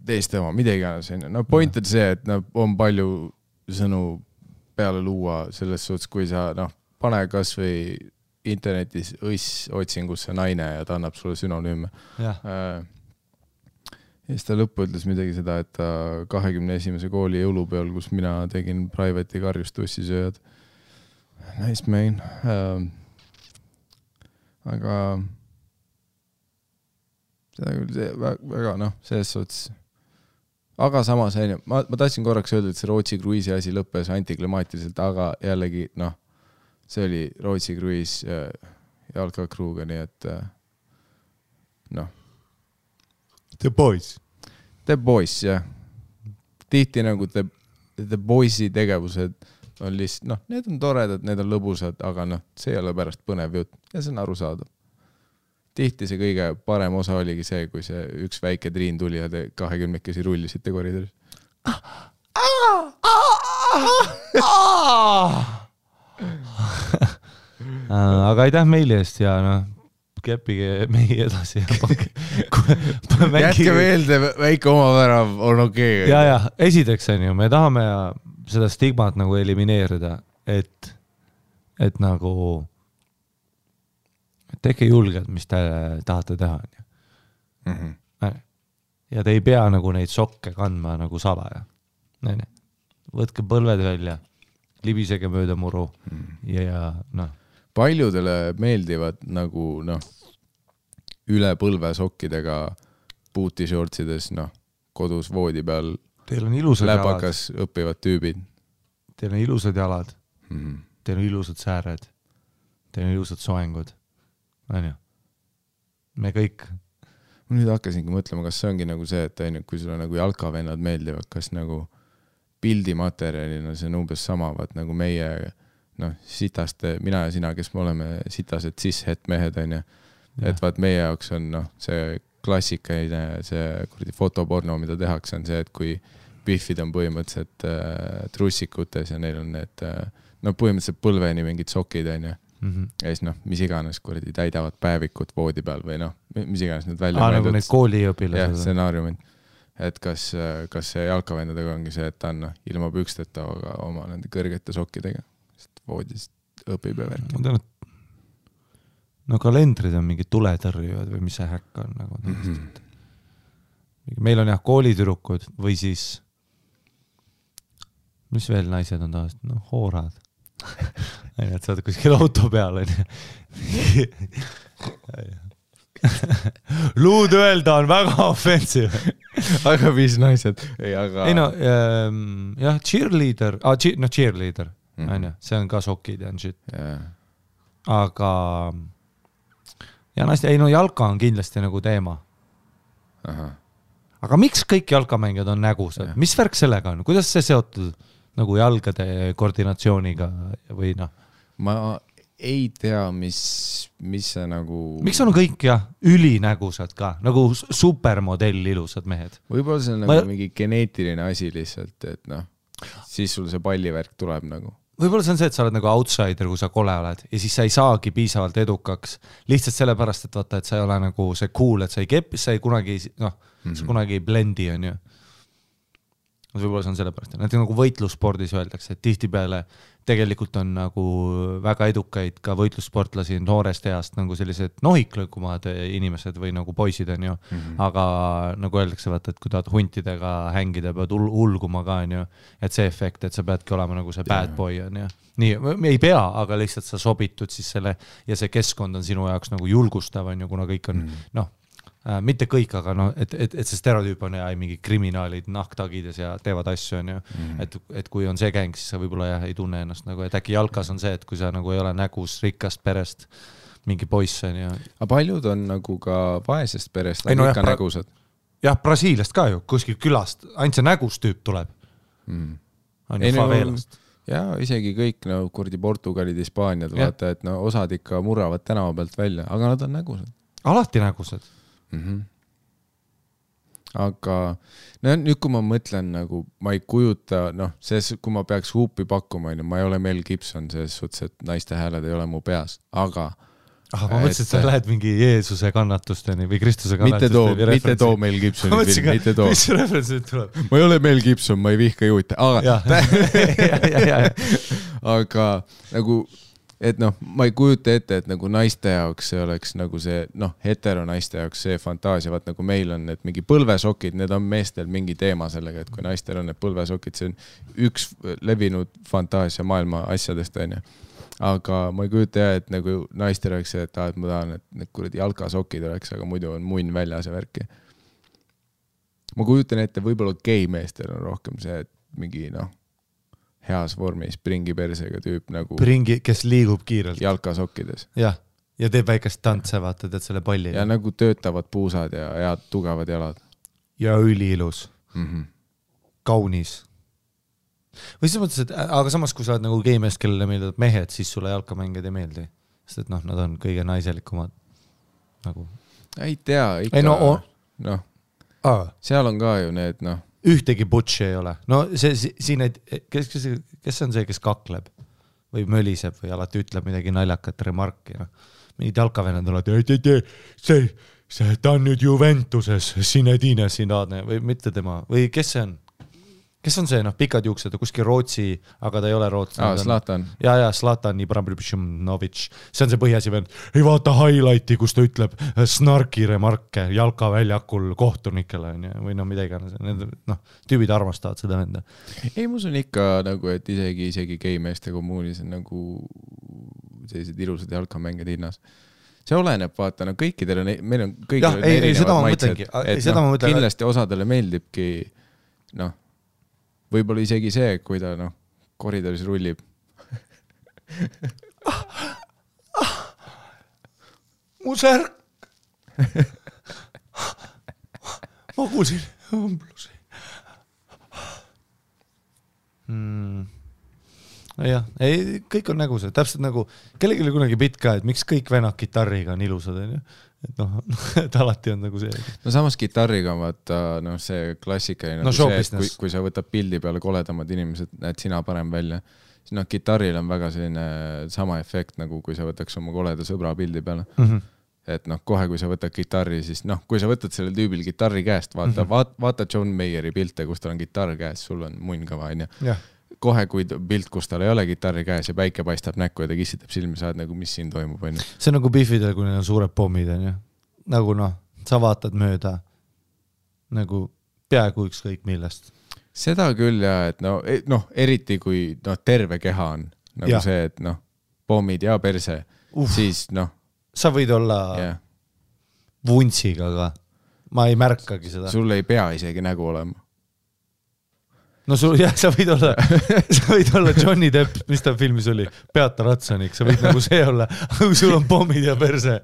teiste oma, midagi on. Point on see, et on palju sõnu peale luua selles suhtes, kui sa pane kas või internetis otsingusse naine ja ta annab sulle sünonüüme. Ja siis ta lõppu ütles midagi seda, et ta 21. kooli jõulupeol, kus mina tegin private'i karjust tussisööjad. Nice main. Aga seda küll see väga selles suhtes. Aga samas ma tahtsin korraks öelda, et see Rootsi kruiisi asi lõppes antiklimaatiliselt, aga jällegi see oli Rootsi kruiis jalkakruuga, nii et The Boys. The Boys, jah. Tihti nagu The Boysi tegevused on lihtsalt, need on toredad, need on lõbusad, aga see ei ole pärast põnev jutt ja see on arusaadav. Tihti see kõige parem osa oligi see, kui see üks väike Triin tuli ja te 20-kesi rullisite koridoris. Aga aitäh meili eest ja keppige mehi edasi. Jätke meelde, väike omavärav on okei. Ja, esiteks on ju, me tahame seda stigmat nagu elimineerida, et nagu tehke julgelt, mis te tahate teha. Ja te ei pea nagu neid sokke kandma nagu salaja. Võtke põlved välja, libisege mööda muru ja paljudele meeldivad nagu üle põlvesokkidega puutishortsides, kodus voodi peal Teil on ilusad läbakas õppivad tüübid. Teil on ilusad jalad. Teil on ilusad sääred. Teil on ilusad soengud. On ju? Me kõik. Ma nüüd hakkasingi mõtlema, kas see ongi nagu see, et kui sulle nagu jalkavennad meeldivad, kas nagu pildimaterjalina see on umbes sama, vaat nagu meie sitaste, mina ja sina, kes me oleme sitased cis-het mehed, on ju. Et vaat meie jaoks on see klassikaline, see fotoporno, mida tehakse, on see, et kui Biffid on põhimõtteliselt trussikutes ja neil on need põhimõtteliselt põlveni mingid sokid, on ju. Ja siis mis iganes täidavad päevikut voodi peal või mis iganes need välja nagu need kooliõpilased. Jah, stsenaariumid. Et kas see jalkavendadega ongi see, et ta on ilma püksteta oma nende kõrgete sokkidega, sest voodist õpib ja värk. Ma tean, et kalendrid on mingid tuletõrjujad või mis see häkk on nagu. Meil on jah koolitürukud või siis mis veel naised on taast? Hoorad. Et sa oled kuskil auto peal. Luud öelda on väga offensive. Aga mis naised? Jah, cheerleader. Cheerleader. See on ka sokid ja shit. Aga ja naiste, jalka on kindlasti nagu teema. Aga miks kõik jalkamängijad on nägusad? Mis värk sellega on? Kuidas see seotud nagu jalgade koordinatsiooniga või Ma ei tea, mis see nagu... Miks on kõik ülinägusad ka? Nagu supermodell ilusad mehed. Võib-olla see on nagu mingi geneetiline asi lihtsalt, et siis sul see pallivärk tuleb nagu. Võib-olla see on see, et sa oled nagu outsider, kui sa kole oled ja siis sa ei saagi piisavalt edukaks. Lihtsalt sellepärast, et vaata, et sa ei ole nagu see cool, et sa ei kepi, sa ei kunagi, sa kunagi ei blendi, on ju. Võib-olla see on sellepärast. Näiteks nagu võitlusspordis öeldakse, et tihtipeale tegelikult on nagu väga edukaid ka võitlussportlasi noorest east nagu sellised nohiklõkumad inimesed või nagu poisid on ju. Aga nagu öeldakse, vaata, et kui tahad huntidega hängida, pead ulguma ka, on ju. Et see efekt, et sa peadki olema nagu see bad boy, on ju. Nii, ei pea, aga lihtsalt sa sobitud siis selle ja see keskkond on sinu jaoks nagu julgustav, on ju, kuna kõik on, mitte kõik, aga et see stereotüüp on mingi kriminaalid nahktagides ja teevad asju, on ju. Et kui on see gäng, siis sa võib-olla ei tunne ennast nagu, et äkki jalkas on see, et kui sa nagu ei ole nägus rikkast perest mingi poiss, on ju. Aga paljud on nagu ka vaesest perest, aga ikka nägusad. Jah, Brasiiliast ka ju, kuskil külast, ainult see nägus tüüp tuleb. On ju favelast. Ja isegi kõik Portugalid, Hispaaniad, vaata, et osad ikka murravad tänava pealt välja, aga nad on nägusad. Alati nägusad. Aga nüüd kui ma mõtlen nagu, ma ei kujuta, kui ma peaks huupi pakkuma, ma ei ole Mel Gibson selles suhtes, et naiste hääled ei ole mu peas, aga ma mõtlesin, et sa lähed mingi Jeesuse kannatusteni või Kristuse kannatusteni. Mitte too Mel Gibsoni film, mitte too. Mis referentsid tuleb? Ma ei ole Mel Gibson, ma ei vihka juute, aga nagu et ma ei kujuta ette, et nagu naiste jaoks see oleks nagu see, hetero naiste jaoks see fantaasia, vaat nagu meil on need mingi põlvesokid, need on meestel mingi teema sellega, et kui naistel on need põlvesokid, see on üks levinud fantaasia maailma asjadest, on ju. Aga ma ei kujuta et nagu naistel oleks see, et ma tahan, et need kuradi jalkasokid oleks, aga muidu on munn väljas ja värki. Ma kujutan ette, võib-olla gei meestel on rohkem see, et mingi heas vormis pringi persega tüüp nagu pringi, kes liigub kiirelt jalkasokkides. Ja teeb väikest tantse, vaata, teed selle palli. Ja nagu töötavad puusad ja head tugevad jalad. Ja üliilus. Kaunis. Või siis mõtles, et aga samas, kui sa oled nagu geimees, kellele meeldivad mehed, siis sulle jalkamängijad ei meeldi. Sest et nad on kõige naiselikumad nagu. Ei tea, ikka. Seal on ka ju need, ühtegi butši ei ole. No siin, kes on see, kes kakleb või möliseb või alati ütleb midagi naljakat remarki. Mingid jalkavennad on alati, ta on nüüd Juventuses, Zinedine Zidane või mitte tema. Või kes see on? Kes on see, pikad juuksed, kuskil Rootsi, aga ta ei ole Rootsi. Zlatan. Ja, Zlatan Ibrahimović. See on see põhiasi vend. Ei vaata highlighti, kus ta ütleb snarki remarke jalkaväljakul kohtunikele või midagi. Tüübid armastavad seda venda. Ei, mus on ikka nagu, et isegi geimeeste kommuunis on nagu sellised ilusad jalkamänged hinnas. see oleneb, vaata, no kõikidele, meil on kõigil erinevad maitsed, et kindlasti osadele meeldibki, noh, võib-olla isegi see, kui ta, noh, koridoris rullib. Mu särk. Ma kuulsin õmblusi. Jah, ei, kõik on nägused, täpselt nagu kellelgi oli kunagi bitt ka, et miks kõik venad kitarriga on ilusad, et noh, et alati on nagu see. No samas kitarriga on vaata, noh, see klassikaline, no, see, kui sa võtad pildi peale koledamad inimesed, näed sina parem välja, siis noh, kitarril on väga selline sama efekt, nagu kui sa võtaks oma koleda sõbra pildi peale. Et noh, kohe kui sa võtad kitarri, siis noh, kui sa võtad sellel tüübil kitarri käest, vaata John Mayeri pilte, kus tal on kitarr käes, sul on munn kõva, on. Kohe kui pilt, kus tal ei ole kitarri käes ja päike paistab näkku ja ta kissitab silmi, saad nagu, mis siin toimub, on. See on nagu Biffidel, kui neil on suured pommid, on. Nagu noh, sa vaatad mööda nagu peaaegu ükskõik millest. Seda küll ja, et noh, eriti kui noh, terve keha on nagu see, et noh, pommid ja perse, siis noh, sa võid olla vuntsiga, aga ma ei märkagi seda. Sul ei pea isegi nägu olema. No sul, jah, sa võid olla Johnny Depp, mis ta filmis oli, Peata Ratsanik, sa võid nagu see olla, aga sul on pommid ja perse.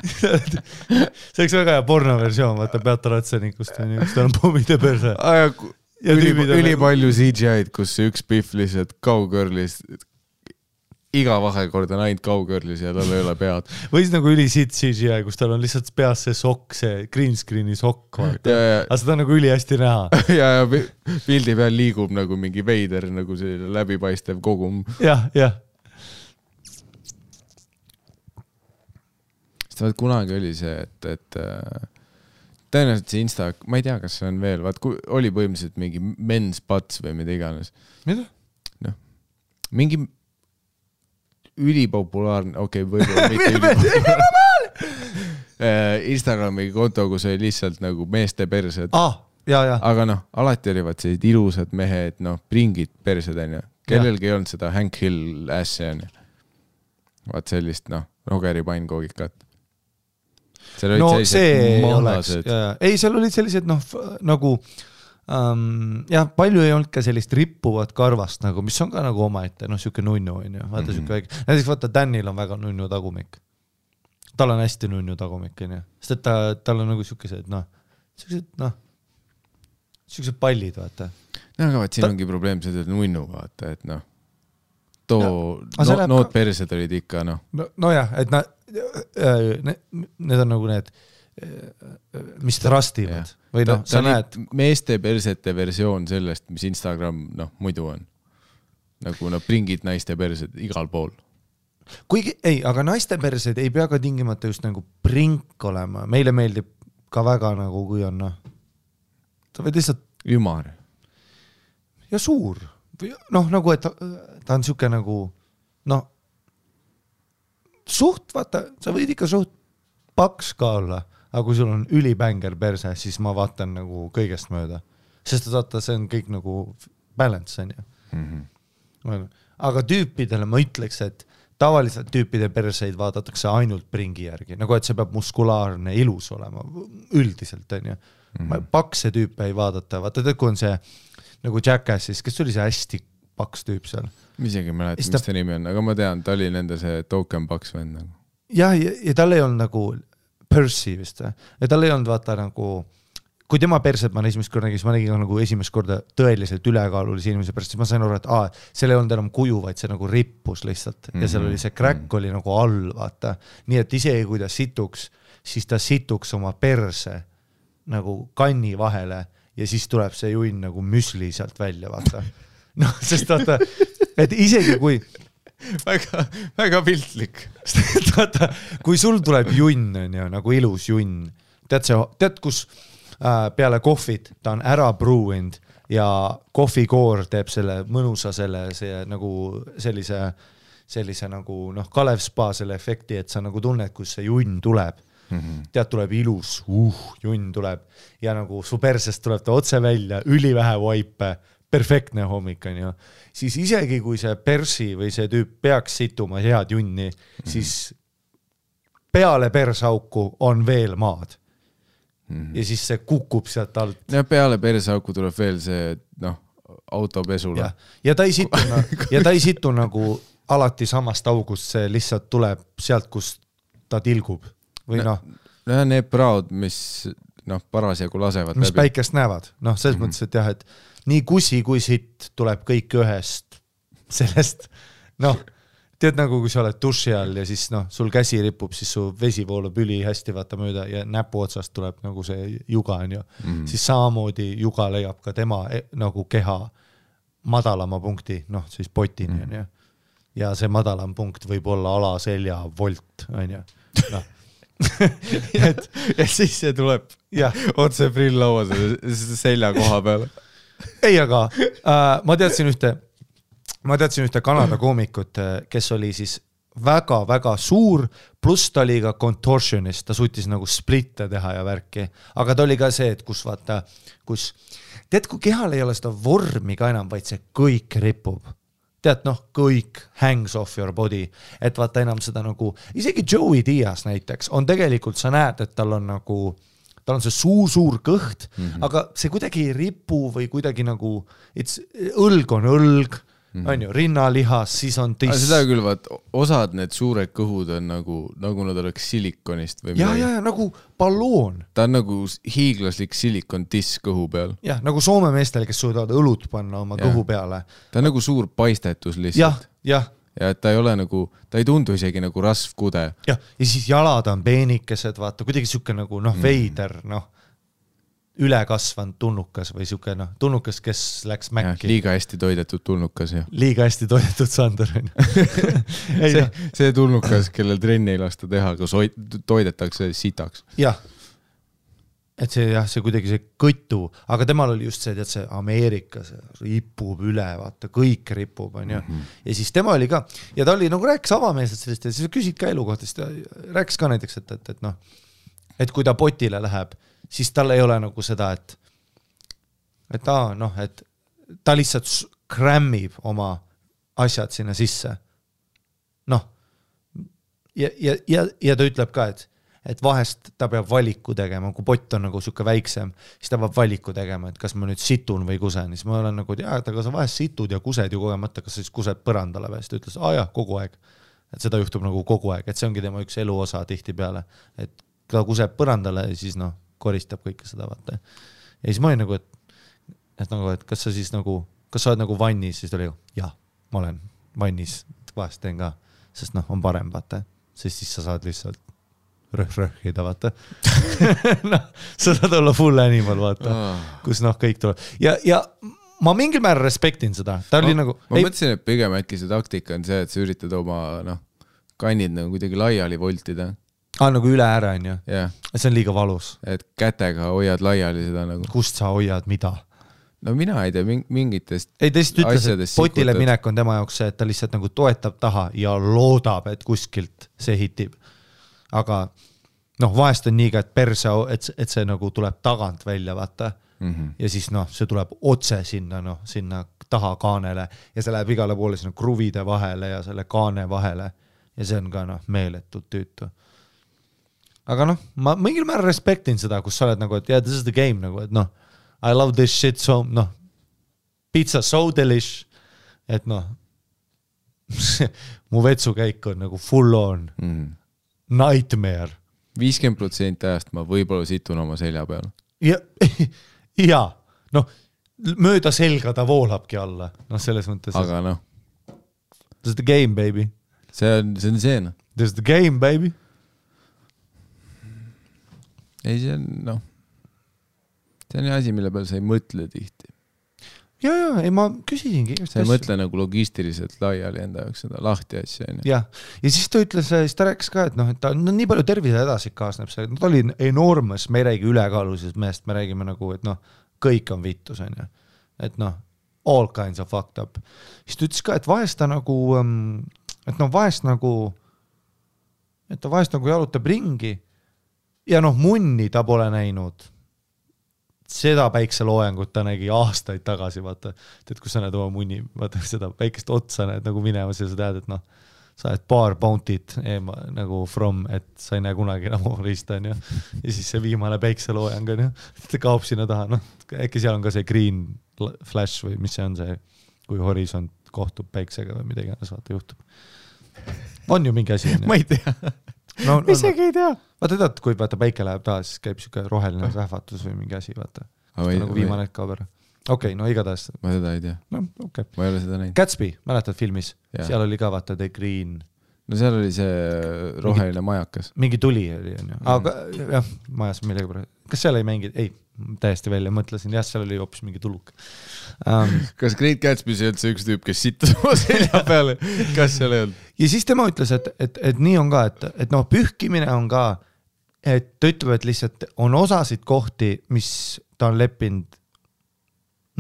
See oleks väga hea pornoversioon, vaata Peata Ratsanikust, kus ta on pommid ja perse. Üli palju CGI-d, kus üks Biff lihtsalt cowgirlis iga vahekord on ainult cowgirlis ja tal ei ole pead. Või siis nagu ülisit CGI, kus tal on lihtsalt peas see sokk, see green screeni sokk. Aga seda on nagu üli hästi näha. Ja pildi peal liigub nagu mingi veider, nagu selline läbipaistev kogum. Jah. Sest kunagi oli see, et tõenäoliselt see Insta, ma ei tea, kas see on veel, oli põhimõtteliselt mingi men's butts või mida iganes. Mida? No, mingi ülipopulaarne, võib-olla mitte ülipopulaarne. Instagrami konto, kus oli lihtsalt nagu meeste persed. Aga noh, alati olivad sellised ilusad mehed, noh, pringid persed, on ju. Kellelgi ei olnud seda Hank Hill ässi, on ju. Vaat sellist, noh, Rogeri painkoogikat. No see oleks. Ei, seal olid sellised, noh, nagu jah, palju ei olnud ka sellist rippuvat karvast, nagu, mis on ka nagu omaette, noh, siuke nunnu, on ju, vaata siuke väike. Näiteks vaata, Danil on väga nunnu tagumik. Tal on hästi nunnu tagumik, on ju. Sest et tal on nagu siukesed, noh, siuksed pallid, vaata. No, aga vaat siin ongi probleem seda nunnu, vaata, et noh, nood persed olid ikka, noh. No jah, et need on nagu need, mis trastivad. Või noh, sa näed. Meeste persete versioon sellest, mis Instagram, noh, muidu on. Nagu no pringid naiste persed igal pool. Kuigi, ei, aga naiste persed ei pea ka tingimata just nagu prink olema. Meile meeldib ka väga nagu, kui on, noh, ta võid lihtsalt ümar. Ja suur. Noh, nagu, et ta on siuke nagu, noh, suht, vaata, sa võid ikka suht paks ka olla. Aga kui sul on ülibänger perse, siis ma vaatan nagu kõigest mööda. Sest vaata, see on kõik nagu balance, on ju. Aga tüüpidele ma ütleks, et tavaliselt tüüpide perseid vaadatakse ainult pringi järgi. Nagu, et see peab muskulaarne ilus olema. Üldiselt, on ju. Pakse tüüpe ei vaadata. Vaata, kui on see nagu Jackassis, kes oli see hästi paks tüüp seal? Isegi mäletan, mis ta nimi on, aga ma tean, ta oli nende see token paks vend. Ja tal ei olnud nagu Percy vist. Ja tal ei olnud vaata nagu, kui tema perset ma esimest korda nägin, ma nägin nagu esimest korda tõeliselt ülekaalulise inimese pärast, siis ma sain aru, et seal ei olnud enam kuju, vaid see nagu rippus lihtsalt. Ja seal oli see crack oli nagu all, vaata. Nii et isegi kui ta situks, siis ta situks oma perse nagu kanni vahele ja siis tuleb see junn nagu müsli sealt välja, vaata. Noh, sest vaata, et isegi kui väga piltlik. Vaata, kui sul tuleb junn, on ju, nagu ilus junn, tead kus peale kohvit ta on ära brewing ja kohvikoor teeb selle mõnusa see nagu sellise nagu noh, Kalev Spa selle efekti, et sa nagu tunned, kus see junn tuleb. Tead, tuleb ilus, junn tuleb ja nagu su persest tuleb ta otse välja, ülivähe vaipe, perfektne hommik on ju. Siis isegi kui see persi või see tüüp peaks situma head junni, siis peale persauku on veel maad. Ja siis see kukub sealt alt. Ja peale persauku tuleb veel see, autopesule. Ja ta ei situ nagu alati samast august, see lihtsalt tuleb sealt, kus ta tilgub. Või need praod, mis parasjagu lasevad mis läbi. Päikest näevad. Selles mõttes, et jah, et nii kusi kui sitt tuleb kõik ühest sellest, tead nagu kui sa oled duši all ja siis sul käsi ripub, siis su vesi voolab üli hästi vaata mööda ja näpu otsast tuleb nagu see juga on ju. Siis samamoodi juga leiab ka tema nagu keha madalama punkti, siis potini on ju. Ja see madalam punkt võib olla alaselja volt on ju. ja siis see tuleb otse prill lauas selja koha peale. Ei, aga ma teadsin ühte Kanada koomikut, kes oli siis väga-väga suur, pluss ta oli ka contortionist, ta suutis nagu splitte teha ja värki, aga ta oli ka see, et kus vaata, tead, kui kehal ei ole seda vormi ka enam, vaid see kõik ripub. Tead, kõik hangs off your body, et vaata enam seda nagu, isegi Joey Diaz näiteks, on tegelikult, sa näed, et tal on see suur kõht, aga see kuidagi ei ripu või kuidagi nagu, õlg on õlg, on ju, rinnalihas, siis on tiss. Seda küll, vaat, osad need suured kõhud on nagu nad oleks silikonist või midagi. Ja, nagu balloon. Ta on nagu hiiglaslik silikon tiss kõhu peal. Ja, nagu Soome meestel, kes suudavad õlut panna oma kõhu peale. Ta on nagu suur paistetus lihtsalt. Ja, ja et ta ei ole nagu, ta ei tundu isegi nagu rasvkude. Ja siis jalad on peenikesed, vaata, kuidagi siuke nagu, veider, ülekasvanud tulnukas või siuke, tulnukas, kes läks mäkki. Liiga hästi toidetud tulnukas, jah. Liiga hästi toidetud Sander. see tulnukas, kellel trenni ei lasta teha, kus toidetakse sitaks. Jah. Et see kuidagi see kõtu, aga temal oli just see, et see Ameerikas ripub üle, vaata, kõik ripub, on ju. Ja siis tema oli ka, ja ta oli nagu rääkis avameelselt sellest, ja siis küsid ka elu kohta, siis ta rääkis ka näiteks, et kui ta potile läheb, siis tal ei ole nagu seda, et ta lihtsalt krämmib oma asjad sinna sisse. Ja ta ütleb ka, et vahest ta peab valiku tegema, kui pott on nagu siuke väiksem, siis ta peab valiku tegema, et kas ma nüüd situn või kusen. Siis ma olen nagu, et aga sa vahest situd ja kused ju kogemata, kas sa siis kused põrandale või? Siis ta ütles, kogu aeg. Et seda juhtub nagu kogu aeg, et see ongi tema üks eluosa tihti peale, et ta kuseb põrandale ja siis koristab kõike seda, vaata. Ja siis ma olin nagu, et kas sa siis nagu, kas sa oled nagu vannis, siis ta oli, ma olen vannis, vahest teen ka, sest on parem, vaata. Sest siis sa saad lihtsalt rõhida, vaata. Sa saad olla full animal, vaata, kus kõik tuleb. Ja ma mingil määral respektin seda. Ta oli nagu... Ma mõtlesin, et pigem äkki see taktika on see, et sa üritad oma kannid nagu kuidagi laiali voltida. Nagu üle ära on ju. See on liiga valus. Et kätega hoiad laiali seda nagu. Kust sa hoiad mida? No mina ei tea mingitest ei, ta lihtsalt ütles, et potile minek on tema jaoks see, et ta lihtsalt nagu toetab taha ja loodab, et kuskilt see hitib. Aga vahest on nii ka, et perse, et see nagu tuleb tagant välja, vaata. Ja siis see tuleb otse sinna taha kaanele ja see läheb igale poole sinna kruvide vahele ja selle kaane vahele. Ja see on ka meeletult tüütu. Aga ma mingil määral respektin seda, kus sa oled nagu, et this is the game, nagu, et I love this shit so, pizza so delish, et mu vetsukäik on nagu full on nightmare. 50% ajast ma võib-olla situn oma selja peal. Ja, mööda selga ta voolabki alla, selles mõttes. Aga this is the game, baby. See on see. This is the game, baby. Ei, see on, see on asi, mille peal sa ei mõtle tihti. Ja, ei ma küsisingi. Sa ei mõtle nagu logistiliselt laiali enda jaoks seda lahti asja. Ja siis ta ütles, siis ta rääkis ka, et ta on nii palju tervise edasi kaasneb see, ta oli enormous, me ei räägi ülekaalulisest mehest, me räägime nagu, et kõik on vittus, on ju. Et all kinds of fucked up. Siis ta ütles ka, et vahest ta nagu, et ta vahest nagu jalutab ringi ja munni ta pole näinud. Seda päikseloojangut ta nägi aastaid tagasi, vaata, et kus sa näed oma munni, vaata seda päikest otsa näed nagu minemas ja sa tead, et sa oled paar bounty't nagu from, et sa ei näe kunagi enam riista, on ju. Ja siis see viimane päikseloojang, on ju, ta kaob sinna taha, noh, äkki seal on ka see green flash või mis see on see, kui horisont kohtub päiksega või midagi, vaata juhtub. On ju mingi asi, on ju? Ma ei tea. No, isegi ei tea. Vaata tead, kui vaata päike läheb taha, siis käib siuke roheline vähvatus või mingi asi, vaata. Nagu viimane hetk kaob ära. Okei, no igatahes. Ma seda ei tea. No, okay. Ma ei ole seda näinud. Gatsby, mäletad filmis? Ja. Seal oli ka vaata The Green. No seal oli see roheline majakas. Mingi tuli oli, on ju. Aga jah, majas millegi praegu. Kas seal ei mängi? Ei, täiesti välja mõtlesin. Jah, seal oli hoopis mingi tuluk. Kas Great Gatsby see üldse üks tüüp, kes sittas oma selja peale? Kas seal ei olnud? Ja siis tema ütles, et nii on ka, et noh, pühkimine on ka, et ta ütleb, et lihtsalt on osasid kohti, mis ta on leppinud,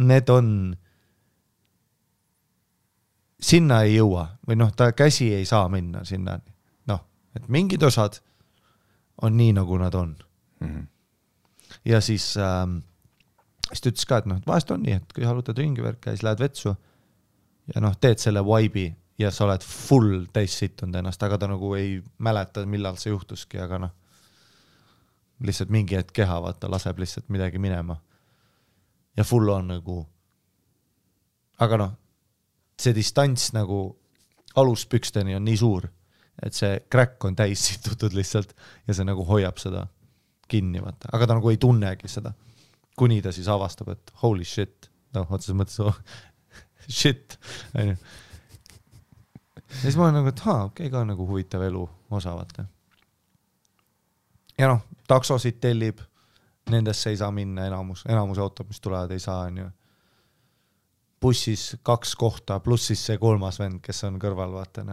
need on, sinna ei jõua või noh, ta käsi ei saa minna sinna. Noh, et mingid osad on nii, nagu nad on. Mm-hmm. Ja siis ta ütles ka, et noh, vahest on nii, et kui halutad ringivärka ja siis lähed vetsu ja noh, teed selle vibe'i ja sa oled full täis situnud ennast, aga ta nagu ei mäleta, millal see juhtuski, aga noh, lihtsalt mingi hetk keha, vaata, laseb lihtsalt midagi minema. Ja full on nagu, aga noh, see distants nagu aluspüksteni on nii suur, et see crack on täis situtud lihtsalt ja see nagu hoiab seda kinni, vaata. Aga ta nagu ei tunnegi seda, kuni ta siis avastab, et holy shit, noh, otseses mõttes shit. Ja siis ma olen nagu, et okei, ka nagu huvitav elu osa, vaata. Ja noh, taksosid tellib, nendesse ei saa minna enamus autod, mis tulevad, ei saa, on ju. Bussis 2 kohta, pluss siis see 3. vend, kes on kõrval, vaata.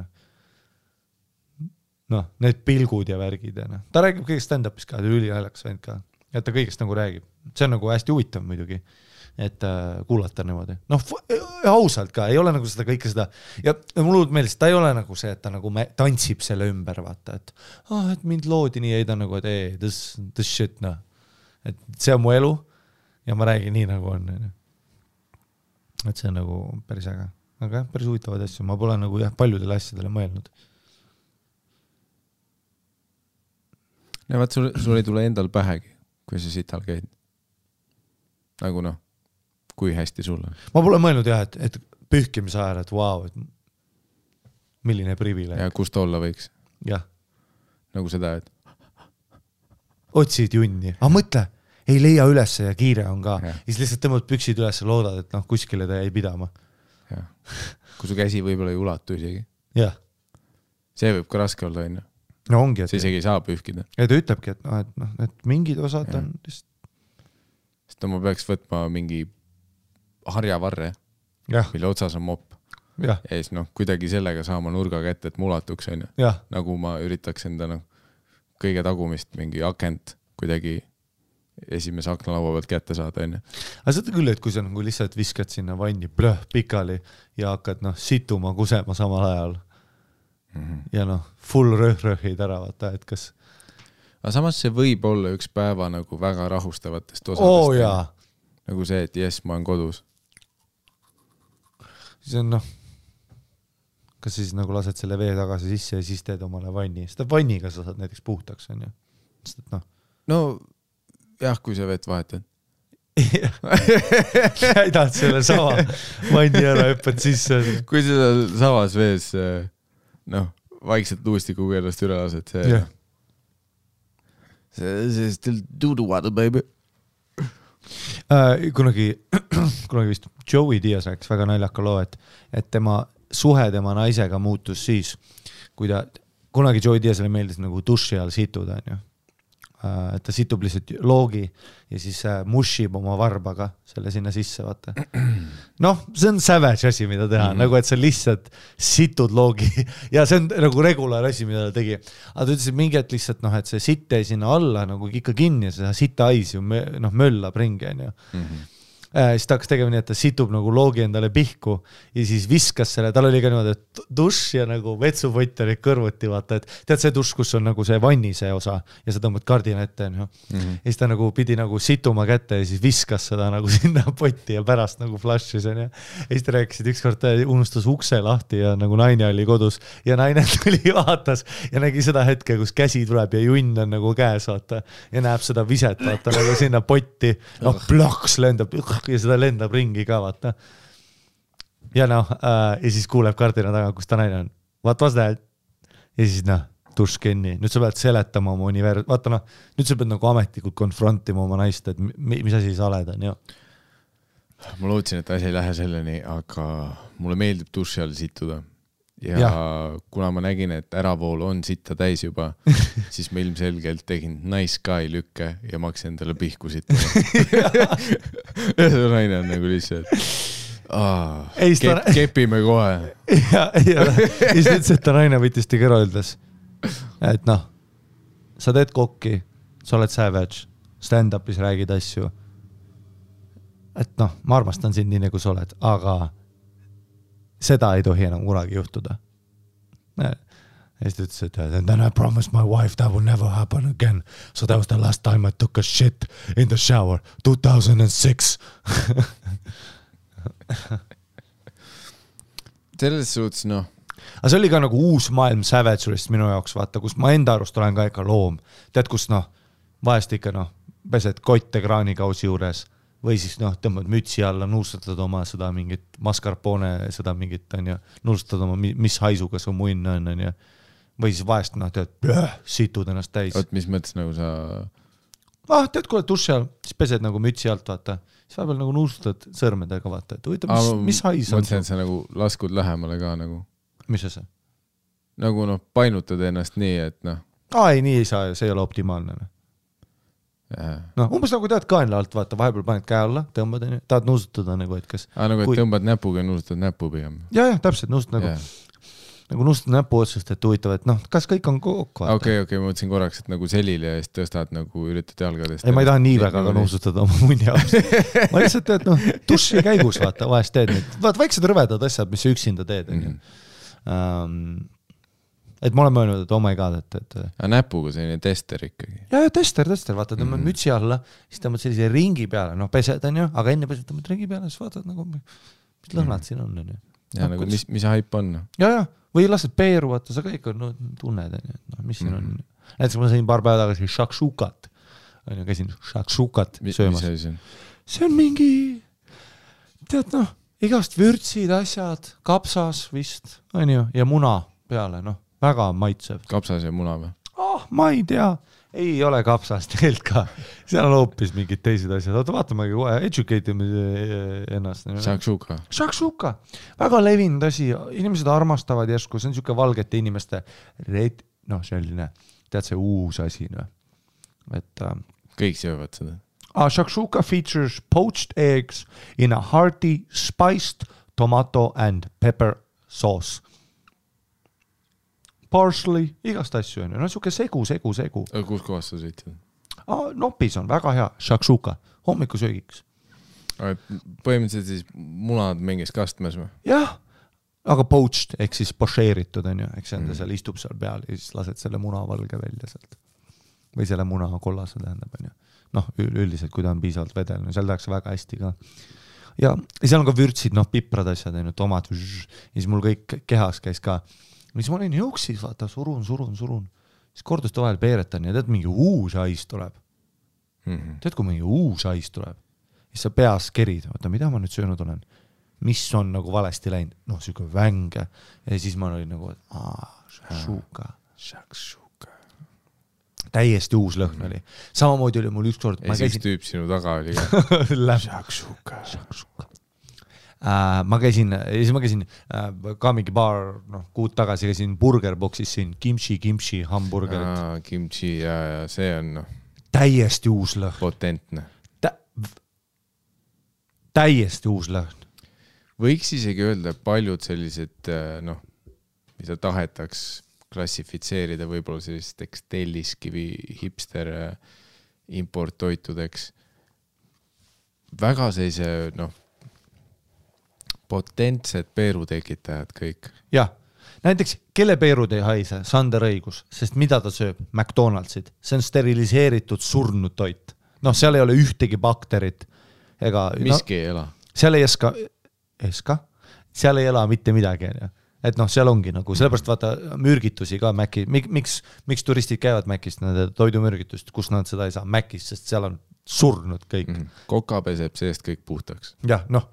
Noh, need pilgud ja värgid. Ja ta räägib kõigest stand-upis ka, ülinaljakas vend ka. Ja ta kõigest nagu räägib. See on nagu hästi huvitav muidugi, et kuulata niimoodi. Noh, ausalt ka, ei ole nagu seda kõike seda. Ja mul meeles, ta ei ole nagu see, et ta nagu tantsib selle ümber, vaata. Et mind loodi nii, ei ta nagu, et this shit, noh. Et see on mu elu ja ma räägin nii, nagu on. Et see on nagu päris äge. Aga päris huvitavad asju. Ma pole nagu paljudele asjadele mõelnud. Ja vaat sul ei tule endal pähegi, kui sa sital käid. Nagu noh, kui hästi sul on. Ma pole mõelnud jah, et pühkimise ajal, et vau, et milline privileeg. Ja kust olla võiks. Jah. Nagu seda, et otsid junni. Aga mõtle, ei leia üles ja kiire on ka. Ja siis lihtsalt tõmbad püksid üles ja loodad, et noh, kuskile ta jäi pidama. Ja. Kui su käsi võib-olla ei ulatu isegi. Jah. See võib ka raske olla, on ju. No ongi, et see isegi ei saa pühkida. Ja ta ütlebki, et mingid osad on lihtsalt. Sest ma peaks võtma mingi harjavarre, mille otsas on mopp. Ja siis noh, kuidagi sellega saama nurga kätte, et mulatuks, on ju. Nagu ma üritaks enda kõige tagumist mingi akent kuidagi esimese aknalaua pealt kätte saada, on ju. Aga seda küll, et kui sa nagu lihtsalt viskad sinna vanni pikali ja hakkad situma, kusema samal ajal ja noh, full rõhid ära, vaata, et kas. Aga samas see võib olla üks päeva nagu väga rahustavatest osadest. Nagu see, et jes, ma olen kodus. Siis on noh, kas siis nagu lased selle vee tagasi sisse ja siis teed omale vanni. Seda vanniga sa saad näiteks puhtaks, on ju. Sest, et noh. No jah, kui sa vett vahetad. Käidad selle sama vanni ära, hüppad sisse. Kui seda savas vees noh, vaikselt luustikuga ennast üle lased, see still do the water, baby. Kunagi vist Joey Diaz rääkis väga naljaka loo, et tema suhe tema naisega muutus siis, kui kunagi Joey Diazile meeldis nagu duši all situda, on ju. Et ta situb lihtsalt loogi ja siis mushib oma varbaga selle sinna sisse, vaata. Noh, see on savage asi, mida teha, nagu et sa lihtsalt situd loogi ja see on nagu regulaar asi, mida ta tegi. Aga ta ütles, et mingi et lihtsalt, noh, et see sitt ei sinna alla nagu ikka kinni ja seda sita ais ju möllab ringi, on ju. Siis ta hakkas tegema nii, et ta situb nagu loogi endale pihku ja siis viskas selle, tal oli ka niimoodi, et dušš ja nagu vetsupott oli kõrvuti, vaata, et tead see dušš, kus on nagu see vanni see osa ja sa tõmbad kardina ette, ja siis ta nagu pidi nagu situma kätte ja siis viskas seda nagu sinna potti ja pärast nagu flash'is, ja siis ta rääkisid ükskord, unustas ukse lahti ja nagu naine oli kodus ja naine tuli vaatas ja nägi seda hetke, kus käsi tuleb ja junn on nagu käes, vaata, ja näeb seda viset, vaata, nagu sinna potti, noh, plaks lendab ja seda lendab ringi ka, vaata. Ja noh, ja siis kuuleb kardina taga, kus ta naine on. What was that? Ja siis noh, duškenni. Nüüd sa pead seletama oma vaata noh, nüüd sa pead nagu ametlikult konfrontima oma naist, et mis asi sa oled, on ju. Ma lootsin, et asi ei lähe selleni, aga mulle meeldib duši all situda. Ja kuna ma nägin, et äravool on sitta täis juba, siis ma ilmselgelt tegin nice guy lükke ja ma hakkasin endale pihku sitta. Ja see naine on nagu lihtsalt kepime kohe. Ja siis ütles, et ta naine võttis ta kõrva ütles, et noh, sa teed kokki, sa oled savage, stand-upis räägid asju, et noh, ma armastan sind nii nagu sa oled, aga seda ei tohi enam kunagi juhtuda. Ja siis ta ütles, et and then I promised my wife that will never happen again. So that was the last time I took a shit in the shower. 2006. Selles suhtes, noh. Aga see oli ka nagu uus maailm Savage'ist minu jaoks, vaata, kus ma enda arust olen ka ikka loom. Tead, kus noh, vahest ikka noh, pesed kotte kraanikausi juures. Või siis noh, tõmbad mütsi alla, nuustad oma seda mingit mascarpone, seda mingit, on ju, nuustad oma, mis haisuga su munn on ju. Või siis vahest, noh, tead, situd ennast täis. Oot, mis mõttes nagu sa... tead, kui oled duši all, siis pesed nagu mütsi alt, vaata. Siis vahepeal nagu nuustad sõrmedega, vaata. Et huvita, mis hais on? Mõtlen, et sa nagu laskud lähemale ka nagu. Mis see? Nagu noh, painutad ennast nii, et noh. Ei, nii ei saa, see ei ole optimaalne. No, umbes nagu tead kaenla alt, vaata, vahepeal paned käe alla, tõmbad, tahad nuusutada nagu, et kas... nagu, et tõmbad näpuga ja nuusutad näpu pigem. Ja, täpselt, nuusutad nagu nuusutad näpu otsust, et huvitav, et noh, kas kõik on kokku, vaata. Okei, ma mõtlesin korraks, et nagu selili ja siis tõstad nagu üritad jalgadest. Ei, ma ei taha nii väga ka nuusutada oma munni jaoks. Ma lihtsalt teed, noh, duši käigus, vaata, vahest teed nüüd. Vaata, väiksed rõvedad asjad, mis üksinda teed. Et ma olen mõelnud, et oh my god, et... näpuga selline tester ikkagi. Ja, tester, vaata, tõmbad mütsi alla, siis tõmbad sellise ringi peale, noh, pesed on ju, aga enne pesed tõmbad ringi peale, siis vaatad nagu, mis lõhnad siin on ju. Ja nagu, mis haip on? Ja, või lased peeru, vaata, sa kõik on, tunned, mis siin on. Näiteks ma sain paar päeva tagasi shakshukat, on ju, käisin shakshukat söömas. Mis see on? See on mingi, tead noh, igast vürtsid, asjad, kapsas vist, on ju, ja muna peale, noh. Väga maitsev. Kapsas ja muna või? Ma ei tea. Ei ole kapsas tegelikult ka. Seal on hoopis mingid teised asjad. Oota, vaatamegi kohe, educate ennast. Shakshuka. Väga levinud asi. Inimesed armastavad järsku. See on siuke valgete inimeste selline, tead see uus asi. Et, kõik söövad seda. Shakshuka features poached eggs in a hearty spiced tomato and pepper sauce. Parsley, igast asju on ju, no siuke segu. Kus kohas sa sõitsid? Nopis on väga hea, shakshuka, hommikusöögiks. Põhimõtteliselt siis munad mingis kastmes või? Jah, aga poached, ehk siis pošeeritud on ju, eks enda seal istub seal peal ja siis lased selle muna valge välja sealt. Või selle muna kollase tähendab on ju. Noh, üldiselt, kui ta on piisavalt vedel, no seal tehakse väga hästi ka. Ja seal on ka vürtsid, noh, piprad asjad, tomat, ja siis mul kõik kehas käis ka. Mis ma olin jõuksis, vaata, surun. Siis korduste vahel peeretan ja tead, mingi uus hais tuleb. Tead, kui mingi uus hais tuleb, siis sa peas kerid, vaata, mida ma nüüd söönud olen? Mis on nagu valesti läinud? Noh, siuke vänge. Ja siis ma olin nagu, shakshuka. Täiesti uus lõhn oli. Samamoodi oli mul ükskord... Ja siis tüüp sinu taga oli ka. Shakshuka. Ma käisin ka mingi paar kuud tagasi käisin burgerboxis siin kimchi hamburgerit. Kimchi ja see on täiesti uus lõhn. Potentne. Täiesti uus lõhn. Võiks isegi öelda, paljud sellised, mida tahetaks klassifitseerida võib-olla sellisteks telliskivi hipster importtoitudeks. väga sellise, potentsed peerutekitajad kõik. jah, näiteks kelle peerud ei haise, Sander õigus, sest mida ta sööb? McDonaldsid, see on steriliseeritud surnud toit. Noh, seal ei ole ühtegi bakterit ega... Miski ei ela. Seal ei seal ei ela mitte midagi, et noh, seal ongi nagu, sellepärast vaata mürgitusi ka Mäki, miks turistid käivad Mäkist, nende toidumürgitust, kus nad seda ei saa Mäkist, sest seal on surnud kõik. Koka peseb seest kõik puhtaks. Jah, noh,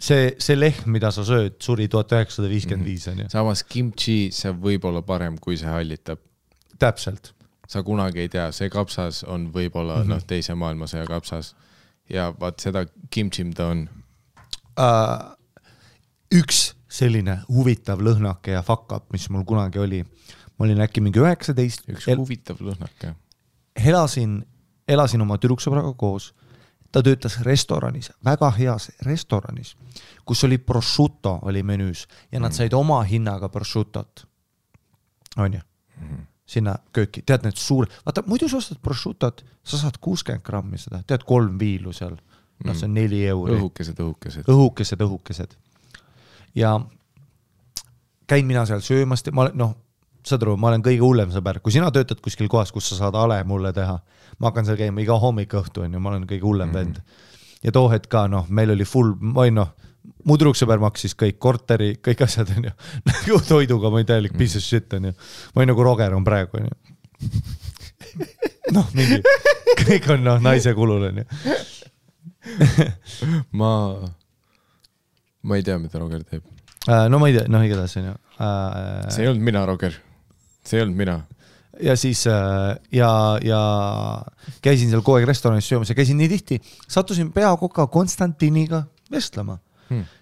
see lehm, mida sa sööd, suri 1955 on ju. Samas kimchi, see võib olla parem, kui see hallitab. Täpselt. Sa kunagi ei tea, see kapsas on võib-olla teise maailmasõja kapsas ja vaat seda kimchi, mida on. Üks selline huvitav lõhnake ja fuck up, mis mul kunagi oli. Ma olin äkki mingi 19. Üks huvitav lõhnake. Elasin oma tüdruksõbraga koos. Ta töötas restoranis, väga heas restoranis, kus oli prosciutto oli menüüs ja nad said oma hinnaga prosciuttot. On ju? Sinna kööki. Tead need vaata, muidu sa ostad prosciuttot, sa saad 60 grammi seda. Tead 3 viilu seal. No see on 4 euri. Õhukesed. Ja käin mina seal söömast. Saad aru, ma olen kõige hullem sõber. Kui sina töötad kuskil kohas, kus sa saad ale mulle teha, ma hakkan seal käima iga hommik õhtu, on ju, ma olen kõige hullem vend. Ja too hetk ka, meil oli full, mu tüdruksõber maksis kõik korteri, kõik asjad, on ju. Nagu toiduga, ma ei täielik piece of shit, on ju. Ma ei nagu Roger on praegu, on ju. Mingi, kõik on naise kulul, on ju. Ma ei tea, mida Roger teeb. No ma ei tea, igatahes, on ju. See ei olnud mina, Roger. See ei olnud mina. Ja siis ja käisin seal kogu aeg restoranis söömas ja käisin nii tihti, sattusin peakoka Konstantiniga vestlema.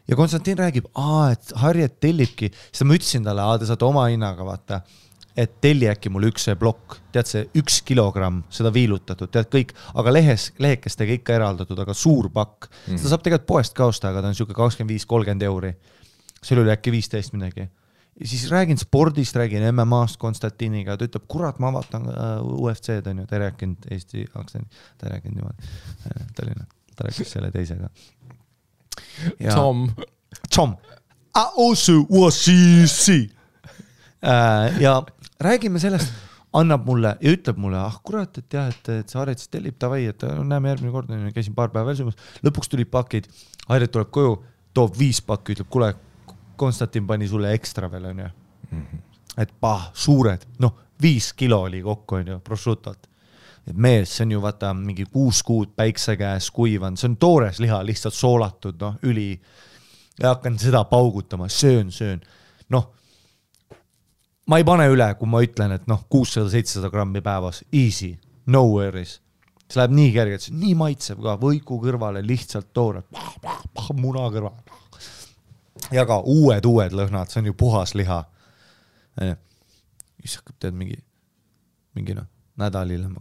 Ja Konstantin räägib, et Harriet tellibki, siis ma ütlesin talle, te saate oma hinnaga vaata, et telli äkki mul üks plokk, tead see 1 kilogramm, seda viilutatud, tead kõik, aga lehekestega ikka eraldatud, aga suur pakk. Seda saab tegelikult poest ka osta, aga ta on siuke 25-30 euri. See oli äkki 15 midagi. Ja siis räägin spordist, räägin MMA-st Konstantiniga, ta ütleb, kurat, ma vaatan UFC-d, on ju, ta ei rääkinud Eesti aktsendi, ta ei rääkinud niimoodi, ta rääkis selle teisega. Tom. Also was she. Ja räägime sellest, annab mulle ja ütleb mulle, kurat, et jah, et see Harriet tellib tavai, et näeme järgmine kord, käisin paar päeva veel söömas, lõpuks tulid pakid, Harriet tuleb koju, toob 5 pakki, ütleb, kuule, Konstantin pani sulle ekstra veel, on ju. Et suured, 5 kilo oli kokku, on ju, prosciutot. Et mees, see on ju vaata mingi 6 kuud päikse käes kuivan, see on toores liha, lihtsalt soolatud, üli. Ja hakkan seda paugutama, söön. Ma ei pane üle, kui ma ütlen, et 600-700 grammi päevas, easy, no worries. See läheb nii kergelt, nii maitseb ka, võiku kõrvale, lihtsalt toore, muna kõrvale. Ja ka uued lõhnad, see on ju puhas liha. Siis hakkab tead mingi nädal hiljem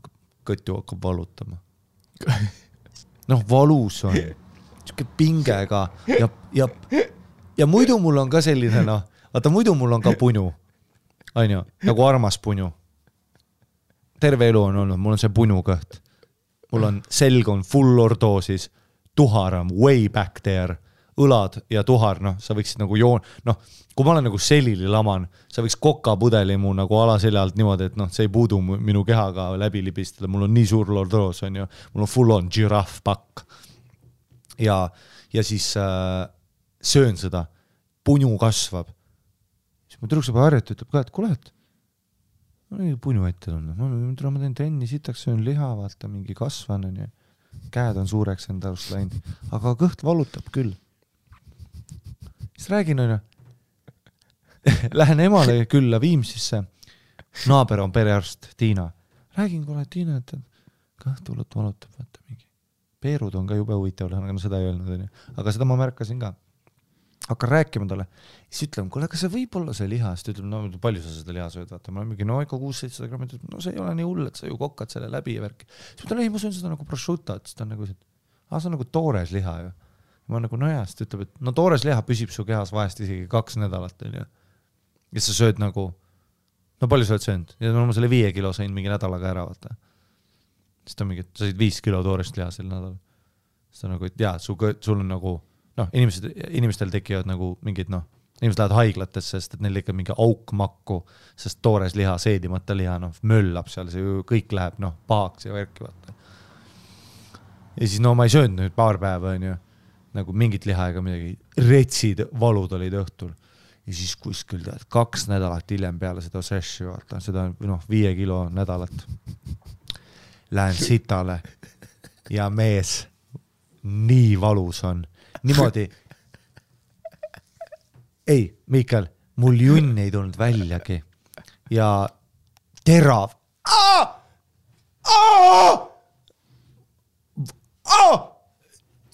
kõttu hakkab valutama. Valus on. Siuke pinge ka. Ja muidu mul on ka selline, vaata muidu mul on ka punu. On ju, nagu armas punu. Terve elu on olnud, mul on see punu kõht. Mul on selg on full lordoosis, tuhar on way back there. Õlad ja tuhar, sa võiksid nagu kui ma olen nagu selili laman, sa võiks kokapudeli mu nagu alaseljalt niimoodi, et see ei puudu minu kehaga läbi libistada, mul on nii suur lordoos, on ju, mul on full on giraffe pakk. Ja siis söön seda, punu kasvab. Siis ma tüdruksõber Harriet ütleb ka, et kuule, et ma olen punu ette tulnud, ma teen trenni, sitaks söön liha, vaata mingi kasvan, on ju, käed on suureks enda arust läinud, aga kõht valutab küll. Siis räägin, on ju, lähen emale külla Viimsisse, naaber on perearst Tiina. Räägin, kuule, Tiina, et kõht valutab, vaata mingi. Peerud on ka jube huvitav, aga seda ei öelnud, on ju. Aga seda ma märkasin ka. Hakkan rääkima talle. Siis ütleme, kuule, kas see võib olla see liha? Siis ütleb, palju sa seda liha sööd, vaata. Ma olen mingi, ikka 600-700 grammi. See ei ole nii hull, et sa ju kokkad selle läbi ja värki. Siis ütlen, ei, ma söön seda nagu prosciutto, et ta on nagu, see on nagu toores liha ju. Ma nagu nojast, ütleb, et toores liha püsib su kehas vahest isegi 2 nädalat, on ju. Ja sa sööd nagu, palju sa oled söönud? Ja ma selle 5 kilo sain mingi nädalaga ära, vaata. Siis ta mingi, sa said 5 kilo toorest liha sel nädal. seda nagu, et jaa, sul on nagu, noh, inimestel tekivad nagu mingid, noh, inimesed lähevad haiglatesse, sest et neil ikka mingi aukmakku, sest toores liha, seedimata liha, noh, möllab seal, see ju kõik läheb, noh, pahaks ja värki, vaata. Ja siis, no ma ei söönud nüüd paar päeva, on ju, nagu mingit liha ega midagi, retsid valud olid õhtul. Ja siis kuskil 2 nädalat hiljem peale seda sessi, vaata, seda, noh, 5 kilo nädalat. Lähen sitale ja mees nii valus on. Niimoodi. Ei, Miikal, mul junn ei tulnud väljagi. Ja terav.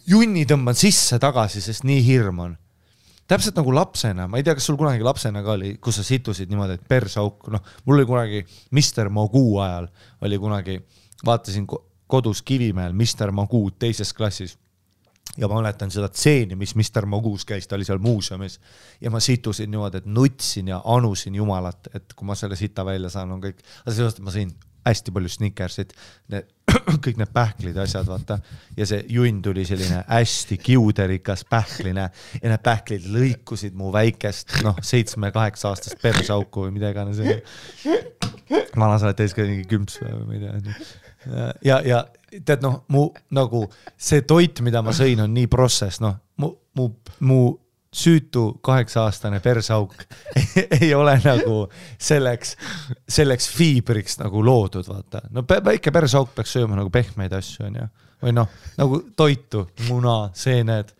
Junni tõmban sisse tagasi, sest nii hirm on. Täpselt nagu lapsena, ma ei tea, kas sul kunagi lapsena ka oli, kus sa situsid niimoodi, et persauk, noh, mul oli kunagi Mr. Magoo ajal, oli kunagi, vaatasin kodus Kivimäel Mr. Magoo teises klassis ja ma mäletan seda tseeni, mis Mr. Magoos käis, ta oli seal muuseumis ja ma situsin niimoodi, et nutsin ja anusin jumalat, et kui ma selle sita välja saan, on kõik, aga sellest, et ma sõin hästi palju Snickersit, kõik need pähklid ja asjad, vaata, ja see junn tuli selline hästi kiuderikas pähkline ja need pähklid lõikusid mu väikest, noh, 7-8 aastast persauku või mida iganes. Vana sa oled täis ka mingi kümps või ma ei tea. Ja tead, noh, mu nagu see toit, mida ma sõin, on nii protsess, noh, mu süütu 8-aastane persauk ei ole nagu selleks fiibriks nagu loodud, vaata. No väike persauk peaks sööma nagu pehmeid asju, on ju. Või noh, nagu toitu, muna, seened.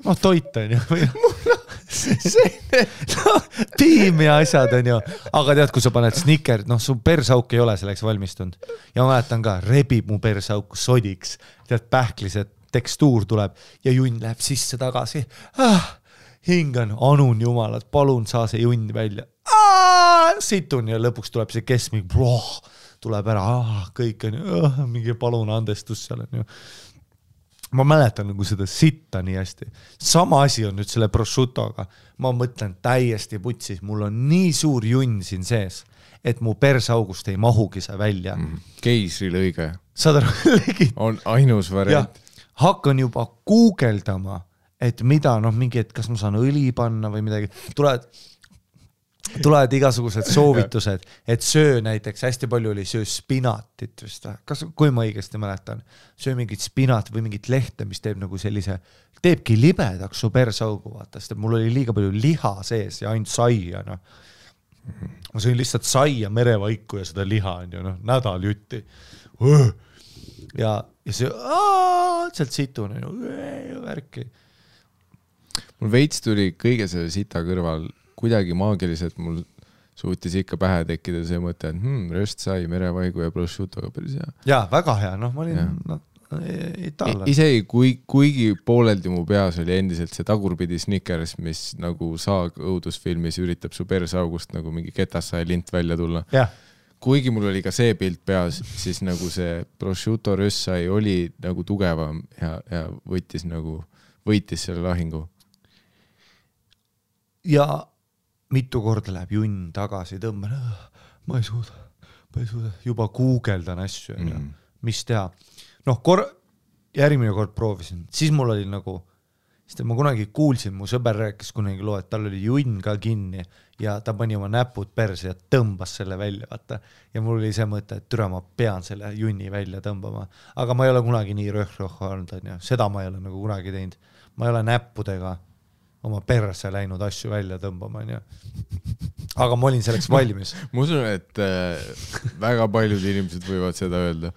Noh, toit on ju. Muna, seened. No, piim ja asjad on ju. Aga tead, kui sa paned Snickers, noh, su persauk ei ole selleks valmistunud. Ja ma mäletan ka, rebib mu persauku sodiks. Tead, pähklised tekstuur tuleb ja junn läheb sisse tagasi. Hingan, anun jumalat, palun saa see junn välja. Situn ja lõpuks tuleb see keskmik, tuleb ära, kõik on ju, mingi palun andestus seal on ju. Ma mäletan nagu seda sitta nii hästi. Sama asi on nüüd selle prosciuttoga. Ma mõtlen täiesti putsis, mul on nii suur junn siin sees, et mu persaugust ei mahugi see välja. Keisri lõige. Saad aru, on ainus variant. Hakkan juba guugeldama, et mida, noh, mingi, et kas ma saan õli panna või midagi. Tulevad igasugused soovitused, et söö näiteks, hästi palju oli söö spinatit vist. Kas, kui ma õigesti mäletan, söö mingit spinat või mingit lehte, mis teeb nagu sellise, teebki libedaks su persaugu, vaata, sest mul oli liiga palju liha sees ja ainult saia, noh. Ma sõin lihtsalt saia, merevaiku ja seda liha, noh, nädal jutti. Ja see, sealt situn, värki. Mul veits tuli kõige selle sita kõrval kuidagi maagiliselt, mul suutis ikka pähe tekkida see mõte, et röstsai, merevaigu ja prosciuttoga päris hea. Jaa, väga hea, noh, ma olin itaallane. Isegi kuigi pooleldi mu peas oli endiselt see tagurpidi Snickers, mis nagu saag õudusfilmis üritab su persaugust nagu mingi ketassaja lint välja tulla. Kuigi mul oli ka see pilt peas, siis nagu see prosciutto röstsai oli nagu tugevam ja võitis selle lahingu. Ja mitu korda läheb junn tagasi, tõmban, ma ei suuda, juba guugeldan asju, mis teha. Noh, järgmine kord proovisin, siis mul oli nagu, sest ma kunagi kuulsin, mu sõber rääkis kunagi loo, et tal oli junn ka kinni ja ta pani oma näpud perse ja tõmbas selle välja, vaata. Ja mul oli see mõte, et türa ma pean selle junni välja tõmbama. Aga ma ei ole kunagi nii röhroh olnud, seda ma ei ole nagu kunagi teinud. Ma ei ole näppudega oma perse läinud asju välja tõmbama, on ju. Aga ma olin selleks valmis. Ma usun, et väga paljud inimesed võivad seda öelda.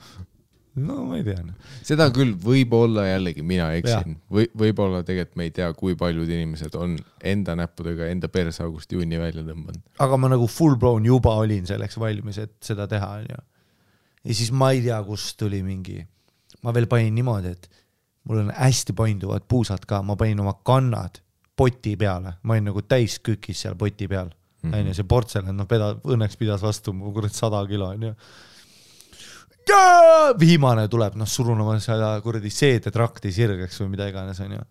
No ma ei tea. Seda küll võib-olla jällegi mina eksin. Võib-olla tegelikult me ei tea, kui paljud inimesed on enda näppudega enda persaugust junni välja tõmbanud. Aga ma nagu full blown juba olin selleks valmis, et seda teha, on ju. Ja siis ma ei tea, kus tuli mingi. Ma veel panin niimoodi, et mul on hästi painduvad puusad ka. Ma panin oma kannad poti peale. Ma olin nagu täis kükis seal poti peal. See portselan, no õnneks pidas vastu 100 kilo, on ju. Viimane tuleb, surun oma seda kuradi seedetrakti sirgeks või mida iganes, on ju.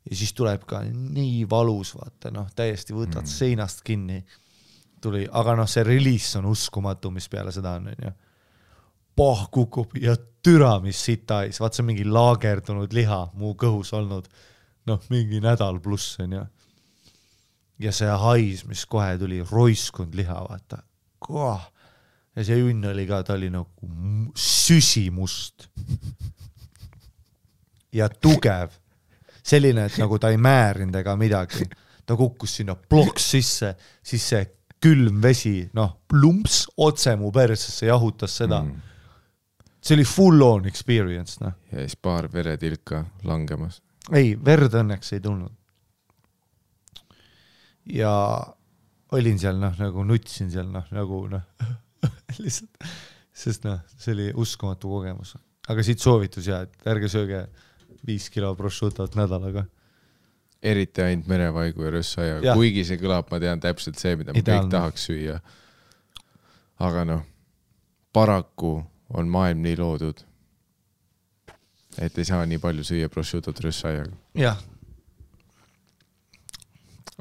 Ja siis tuleb ka nii valus, vaata, täiesti võtad seinast kinni. Tuli, aga see release on uskumatu, mis peale seda on, on ju. pah kukub ja türa, mis sitais, vaat see on mingi laagerdunud liha mu kõhus olnud, mingi nädal pluss on ja see hais, mis kohe tuli, roiskund liha, vaata. Ja see junn oli ka, ta oli nagu süsimust ja tugev. Selline, et nagu ta ei määrinud ega midagi. Ta kukkus sinna ploks sisse, siis see külm vesi, plumps otse mu persesse jahutas seda. See oli full on experience. Ja siis paar veretilka langemas. Ei, verd õnneks ei tulnud. Ja olin seal, nagu nutsin seal, nagu lihtsalt, sest see oli uskumatu kogemus. Aga siit soovitus ja, et ärge sööge 5 kilo prosciutot nädalaga. Eriti ainult merevaigu ja rössaia. Kuigi see kõlab, ma tean täpselt see, mida ma kõik tahaks süüa. Aga paraku on maailm nii loodud, et ei saa nii palju süüa prosciutot rössaiaga. Jah.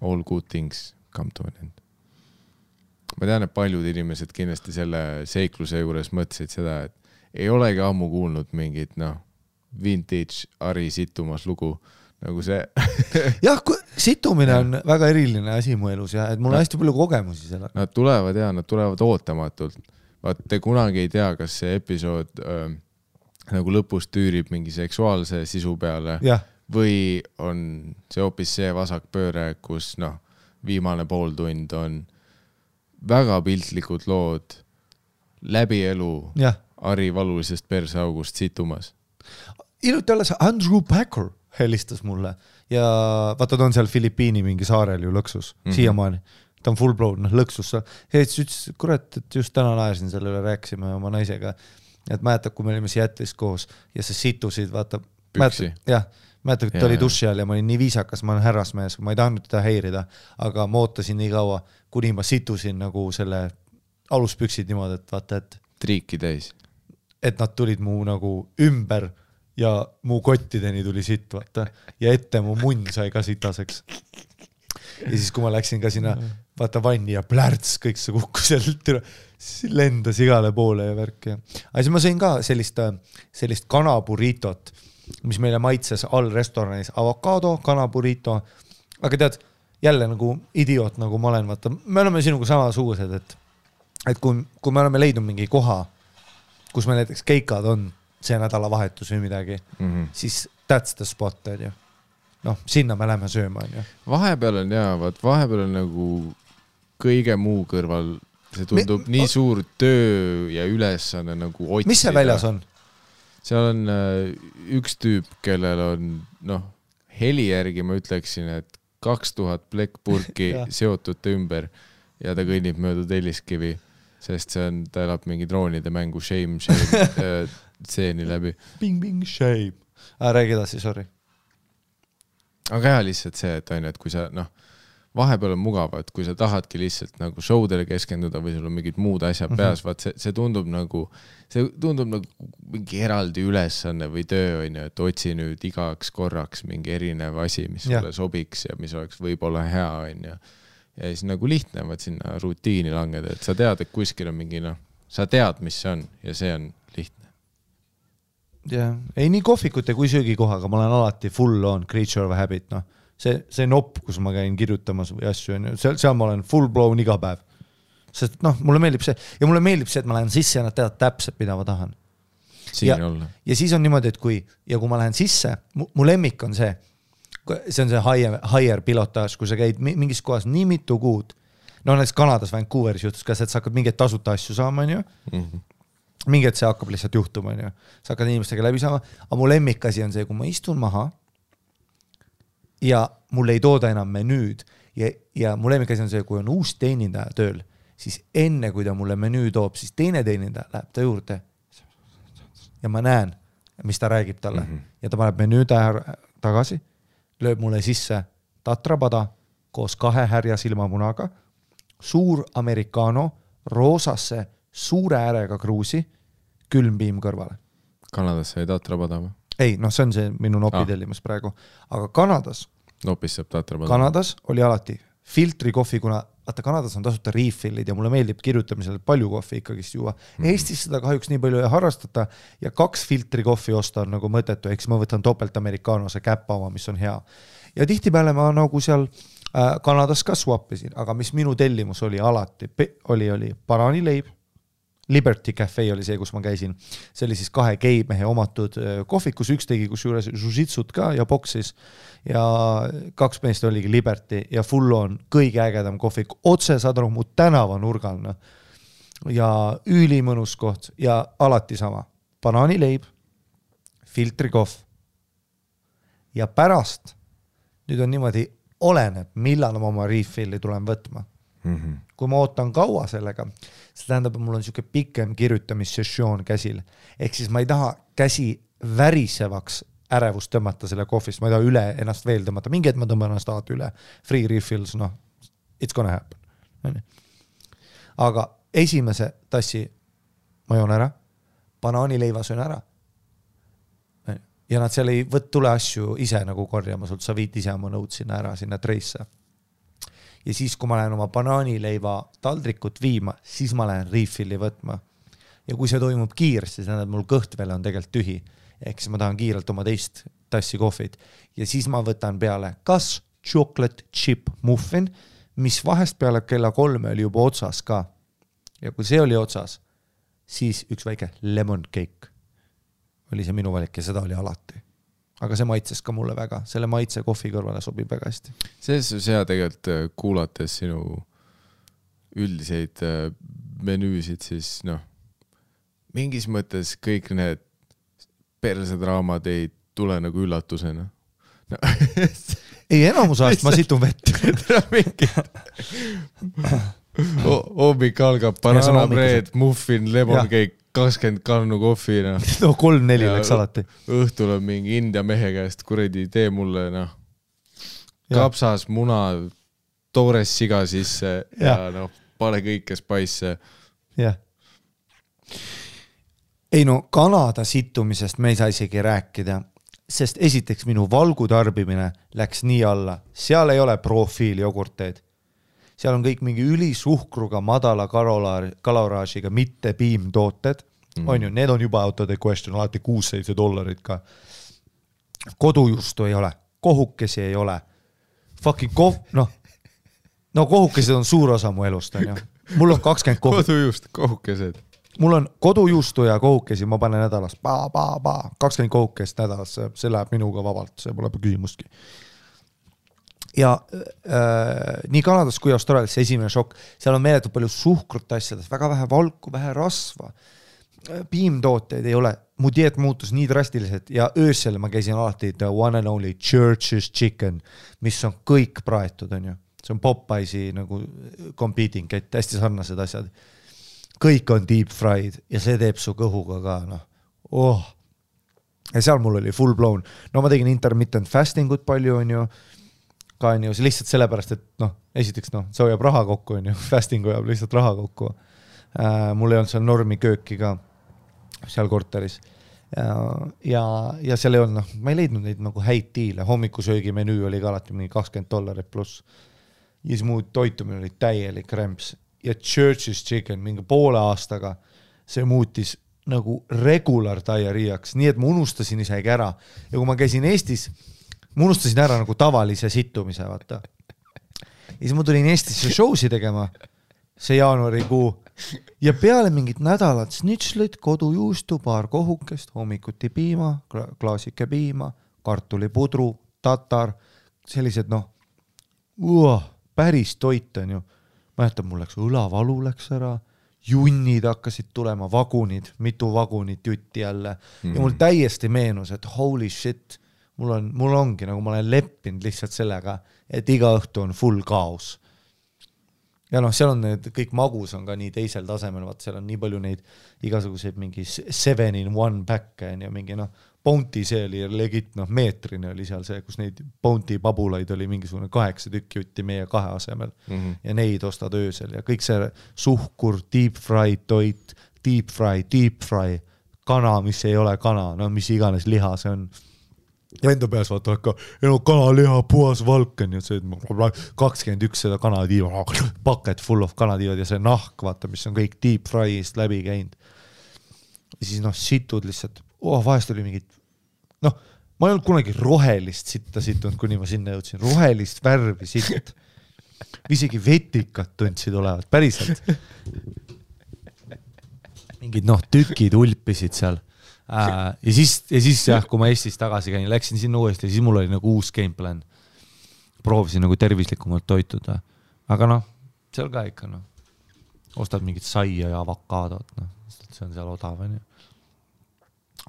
All good things come to an end. Ma tean, et paljud inimesed kindlasti selle seikluse juures mõtlesid seda, et ei olegi ammu kuulnud mingit, vintage Ari situmas lugu, nagu see. Jah, situmine on väga eriline asi mu elus ja et mul on hästi palju kogemusi selle. Nad tulevad ootamatult. Vaat te kunagi ei tea, kas see episood nagu lõpus tüürib mingi seksuaalse sisu peale või on see hoopis see vasakpööre, kus viimane pool tund on väga piltlikud lood läbi elu Ari valulisest perseaugust situmas. Iluti alles Andrew Packer helistas mulle ja vaata, ta on seal Filipiini mingi saarel ju lõksus, siiamaani. Ta on full blown, lõksus. Siis ütles, kurat, et just täna naersin selle üle, rääksime oma naisega, et mäletad, kui me olime Seattle'is koos ja see situsid, vaata. Püksi. Mäletad, et ta oli duši all ja ma olin nii viisakas, ma olen härrasmees, ma ei tahtnud teda häirida, aga ma ootasin nii kaua, kuni ma situsin nagu selle aluspüksid niimoodi, et vaata, et triiki täis. Et nad tulid mu nagu ümber ja mu kottideni tuli sitt, vaata, ja ette mu munn sai ka sitaseks. Ja siis, kui ma läksin ka sinna, vaata vanni ja plärts, kõik see kukkus sealt, lendas igale poole ja värk. Aga siis ma sõin ka sellist kanaburitot, mis meile maitses all restoranis, avokado, kanaburiito. Aga tead, jälle nagu idioot, nagu ma olen, vaata, me oleme sinuga samasugused, et kui me oleme leidnud mingi koha, kus me näiteks keikad on see nädalavahetus või midagi, siis that's the spot, on ju. Sinna me lähme sööma, on ju. Vahepeal on nagu kõige muu kõrval, see tundub nii suur töö ja ülesanne nagu otsida. Mis see väljas on? Seal on üks tüüp, kellel on, heli järgi ma ütleksin, et 2000 plekkpurki seotud ümber ja ta kõnnib mööda Telliskivi, sest ta elab mingi droonide mängu shame tseeni läbi. Bing, shame. Räägi edasi, sorry. Aga lihtsalt see, et kui sa, vahepeal on mugav, et kui sa tahadki lihtsalt nagu showdele keskenduda või sul on mingid muud asjad peas, vaat see tundub nagu mingi eraldi ülesanne või töö, et otsi nüüd igaks korraks mingi erinev asi, mis sulle sobiks ja mis oleks võib-olla hea, ja siis nagu lihtne, vaat sinna rutiini langeda, et sa tead, et kuskil on mingi, sa tead, mis see on ja see on lihtne. Ei nii kohvikute kui söögikohaga, ma olen alati full on creature of habit, see nopp, kus ma käin kirjutamas või asju, seal ma olen full blown iga päev. Sest mulle meeldib see, ja mulle meeldib see, et ma lähen sisse ja nad teavad täpselt, mida ma tahan. Ja siis on niimoodi, et kui ma lähen sisse, mu lemmik on see on see higher pilotaaž, kui sa käid mingis kohas nii mitu kuud, näiteks Kanadas Vancouveris juhtus ka see, et sa hakkad mingeid tasuta asju saama, on ju. Mingi, et see hakkab lihtsalt juhtuma, on ju. Sa hakkad inimestega läbi saama, aga mu lemmikasi on see, kui ma istun maha ja mul ei tooda enam menüüd ja mu lemmikasi on see, kui on uus teenindaja tööl, siis enne, kui ta mulle menüü toob, siis teine teenindaja läheb ta juurde ja ma näen, mis ta räägib talle ja ta paneb menüü tagasi, lööb mulle sisse tatrapada koos 2 härja silmamunaga, suur americano, roosasse, suure äärega kruusi, külmpiim kõrvale. Kanadas sai tatrapada või? Ei, see on see minu nopidellimas praegu. Aga Kanadas nopis saab tatrapada. Kanadas oli alati filtrikohvi, kuna vaata Kanadas on tasuta refillid ja mulle meeldib kirjutamisel palju kohvi ikkagist juua. Eestis seda kahjuks nii palju ei harrastata ja 2 filtri kohvi osta on nagu mõttetu, eks ma võtan topelt amerikaanose käppa oma, mis on hea. Ja tihtipeale ma nagu seal Kanadas ka swappisin, aga mis minu tellimus oli alati, oli banaanileib, Liberty Cafe oli see, kus ma käisin. See oli siis 2 geimehe omatud kohvikus, üks tegi kus juures jiu-jitsut ka ja boksis ja 2 meest oligi Liberty ja full on kõige ägedam kohvik. Otse saad aru mu tänava nurgal ja ülimõnus koht ja alati sama. Banaanileib, filtrikohv ja pärast, nüüd on niimoodi, oleneb, millal ma oma refilli tulen võtma. Kui ma ootan kaua sellega, see tähendab, et mul on siuke pikem kirjutamissessioon käsil. Ehk siis ma ei taha käsi värisevaks ärevust tõmmata selle kohvist, ma ei taha üle ennast veel tõmmata, mingi et ma tõmban ennast alati üle. Free refills, it's gonna happen. Aga esimese tassi ma joon ära, banaanileiva söön ära. Ja nad seal ei tule asju ise nagu korjama sult, sa viid ise oma nõud sinna ära, sinna treisse. Ja siis, kui ma lähen oma banaanileiva taldrikut viima, siis ma lähen refilli võtma. Ja kui see toimub kiiresti, siis mul kõht veel on tegelikult tühi. Ehk siis ma tahan kiirelt oma teist tassi kohvit. Ja siis ma võtan peale kas chocolate chip muffin, mis vahest peale kella 3 oli juba otsas ka. Ja kui see oli otsas, siis üks väike lemon cake oli see minu valik ja seda oli alati. Aga see maitses ka mulle väga, selle maitse kohvi kõrvale sobib väga hästi. Selles on hea tegelikult kuulates sinu üldiseid menüüsid, siis mingis mõttes kõik need persedraamad ei tule nagu üllatusena. Ei, enamus ajast ma situn vett. Hommik algab, bananabreed, muffin, lemon cake, 20 kannu kohvi. 3-4 läks alati. Õhtul on mingi India mehe käest, kuredi tee mulle kapsas, muna, toores siga sisse ja pane kõike spice. Jah. Ei Kanada situmisest me ei saa isegi rääkida, sest esiteks minu valgu tarbimine läks nii alla. Seal ei ole profiil jogurteid. Seal on kõik mingi ülisuhkruga, madala kaloraažiga, mitte piimtooted. On ju, need on juba out of the question, alati $6-7 ka. Kodujuustu ei ole, kohukesi ei ole. Fucking kohukesed on suur osa mu elust, on ju. Mul on 20 kodujuust, kohukesed. Mul on kodujuustu ja kohukesi, ma panen nädalas 20 kohukest nädalas, see läheb minuga vabalt, see pole küsimustki. Ja nii Kanadas kui Austraalias esimene šokk, seal on meeletult palju suhkrut asjades, väga vähe valku, vähe rasva, piimtooteid ei ole, mu dieet muutus nii drastiliselt ja öösel ma käisin alati the one and only Church's chicken, mis on kõik praetud, on ju. See on Popeyesi nagu competing, et hästi sarnased asjad. Kõik on deep fried ja see teeb su kõhuga ka, Ja seal mul oli full blown. Ma tegin intermittent fastingut palju, on ju, ka on ju, see lihtsalt sellepärast, et esiteks see hoiab raha kokku, on ju, fasting hoiab lihtsalt raha kokku. Mul ei olnud seal normi kööki ka seal korteris. Ja seal ei olnud, ma ei leidnud neid nagu häid diile, hommikusöögi menüü oli ka alati mingi $20 pluss. Ja siis muu toitumine oli täielik rämps. Ja Church's chicken mingi poole aastaga see muutis nagu regular diarrheaks, nii et ma unustasin isegi ära. Ja kui ma käisin Eestis, ma unustasin ära nagu tavalise situmise, vaata. Ja siis ma tulin Eestisse showsi tegema, see jaanuarikuu, ja peale mingit nädalat snitšlit, kodujuustu, paar kohukest, hommikuti piima, klaasike piima, kartulipudru, tatar, sellised päris toit on ju. Mäletan, mul läks õlavalu läks ära, junnid hakkasid tulema, vagunid, mitu vagunit jutti jälle. Ja mul täiesti meenus, et holy shit, mul ongi, nagu ma olen leppinud lihtsalt sellega, et iga õhtu on full kaos. Ja seal on need, kõik magus on ka nii teisel tasemel, vaat seal on nii palju neid igasuguseid mingi 7-in-1 pack ja mingi Bounty see oli legit, meetrine oli seal see, kus neid Bounty pabulaid oli mingisugune 8 tükki jutti meie 2 asemel ja neid ostad öösel ja kõik see suhkur, deep fry toit, deep fry, kana, mis ei ole kana, mis iganes liha see on. ja enda peas vaata ka, kanaliha, puhas valk on ju, see 21 seda kanatiiva, paket full of kanatiivad ja see nahk, vaata, mis on kõik deep fry'ist läbi käinud. Ja siis situd lihtsalt, vahest oli mingid, ma ei olnud kunagi rohelist sitta situnud, kuni ma sinna jõudsin, rohelist värvi sitt. Isegi vetikad tundsid olevat, päriselt. Mingid tükid ulpisid seal. Ja siis jah, kui ma Eestis tagasi käin, läksin sinna uuesti ja siis mul oli nagu uus gameplan. Proovisin nagu tervislikumalt toituda. Aga seal ka ikka ostad mingit saia ja avokaadot, see on seal odav.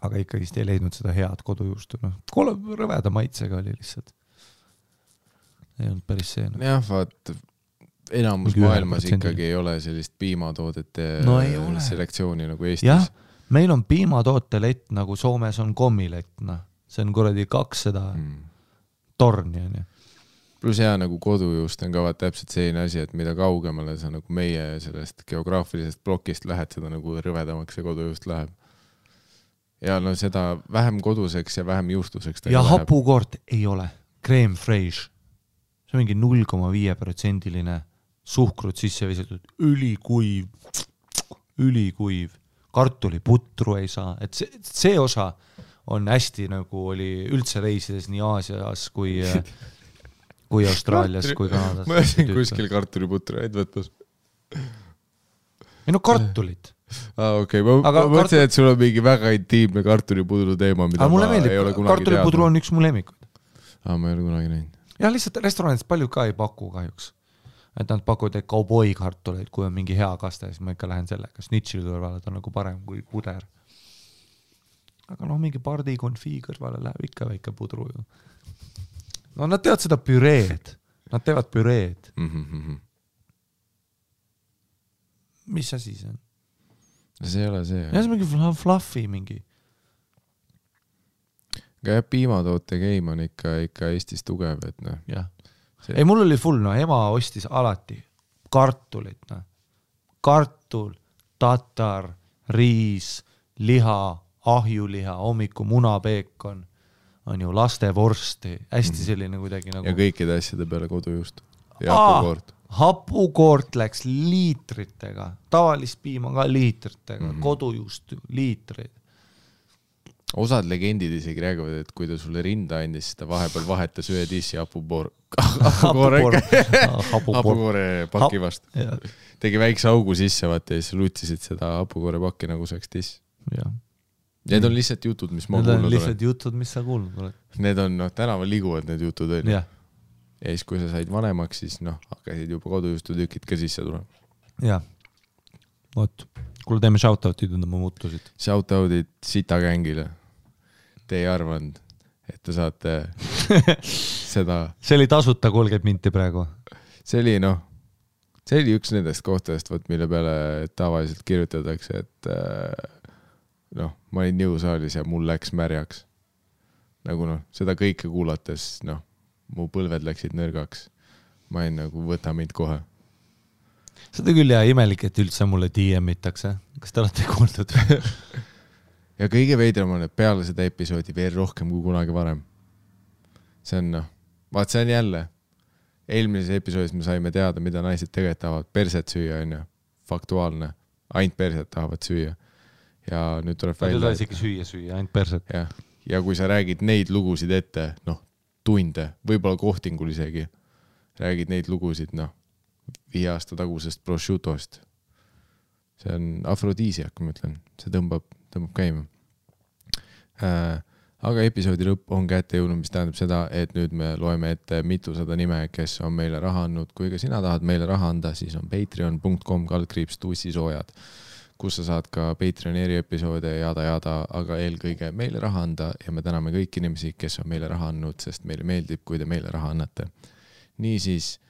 Aga ikkagi ei leidnud seda head kodujuustu. Rõveda maitsega oli lihtsalt. Ei olnud päris see. Jah, vaat enamus maailmas ikkagi ei ole sellist piimatoodete selektsiooni nagu Eestis. Jah, meil on piimatootelett nagu Soomes on kommilett. See on kuradi 200 torni. Plus hea nagu kodujuust on ka täpselt selline asi, et mida kaugemale sa nagu meie sellest geograafilisest plokist lähed, seda nagu rõvedamaks see kodujuust läheb. Ja seda vähem koduseks ja vähem juustuseks. Ja hapukoort ei ole. Crème fraiche. See on mingi 0,5% suhkrut sisse visatud, ülikuiv, kartuliputru ei saa, et see osa on hästi nagu oli üldse reisides nii Aasias kui Austraalias kui Kanadas. Ma jäsin kuskil kartuliputru häid võtmas. Ei kartulit. Okei, ma mõtlesin, et sul on mingi väga intiimne kartulipudru teema, mida ma ei ole kunagi teadnud. Kartulipudru on üks mu lemmikuid. Ma ei ole kunagi näinud. Ja lihtsalt restoranidest palju ka ei paku kahjuks. Et nad pakuvad kauboi kartuleid, kui on mingi hea kaste, siis ma ikka lähen sellega. Snitchil kõrvale ta on nagu parem kui puder. Aga mingi pardi konfii kõrvale läheb ikka väike pudru ju. Nad teevad seda püreed. Nad teevad püreed. Mis asi see on? See ei ole see. Ja see on mingi fluffy mingi. Aga piimatoote game on ikka Eestis tugev, et jah. Ei, mul oli full, ema ostis alati kartulit, kartul, tatar, riis, liha, ahjuliha, hommiku munapeekon, on ju lastevorsti, hästi selline kuidagi nagu... Ja kõikide asjade peale kodujuust. Ja hapukoort. Hapukoort läks liitritega, tavalist piima ka liitritega, kodujuust liitreid. Osad legendid isegi räägivad, et kui ta sulle rinda andis, ta vahepeal vahetas ühe tissi hapukoore paki vastu. Tegi väikse augu sisse, vaata, ja siis lutisid seda hapukoore pakki nagu saaks tiss. Need on lihtsalt jutud, mis ma kuulnud olen. Need on lihtsalt jutud, mis sa kuulnud oled. Need on, tänaval liguvad need jutud. Ja siis, kui sa said vanemaks, siis hakkasid juba kodujuustu tükid ka sisse tulema. Jah. Oot. Kuule teeme shoutoutid enda ma muutusid. Shoutoutid Sita gängile. Te ei arvanud, et te saate seda... See oli tasuta 30 minti praegu. See oli üks nendest kohtadest, mille peale tavaliselt kirjutatakse, et ma olin jõusaalis ja mul läks märjaks. Nagu seda kõike kuulates, mu põlved läksid nõrgaks. Ma olin nagu, võta mind kohe. Seda küll ja imelik, et üldse mulle DM-itakse. Kas te olete kuuldud? Ja kõige veidram on, et peale seda episoodi veel rohkem kui kunagi varem. See on, see on jälle. Eelmises episoodis me saime teada, mida naised tegelikult tahavad perset süüa, on ju. Faktuaalne. Ainult perset tahavad süüa. Ja nüüd tuleb välja... Nad ei saa isegi süüa, ainult perset. Ja kui sa räägid neid lugusid ette, tunde, võib-olla kohtingul isegi, räägid neid lugusid, 5 aasta tagusest prosciutost. See on afrodiisiak, ma ütlen. See tõmbab käima. Aga episoodi lõpp on kätte jõudnud, mis tähendab seda, et nüüd me loeme ette mitusada nime, kes on meile raha andnud. Kui ka sina tahad meile raha anda, siis on patreon.com/tussisoojad, kus sa saad ka Patreoni eriepisoode jada, aga eelkõige meile raha anda ja me täname kõik inimesi, kes on meile raha andnud, sest meile meeldib, kui te meile raha annate. Niisiis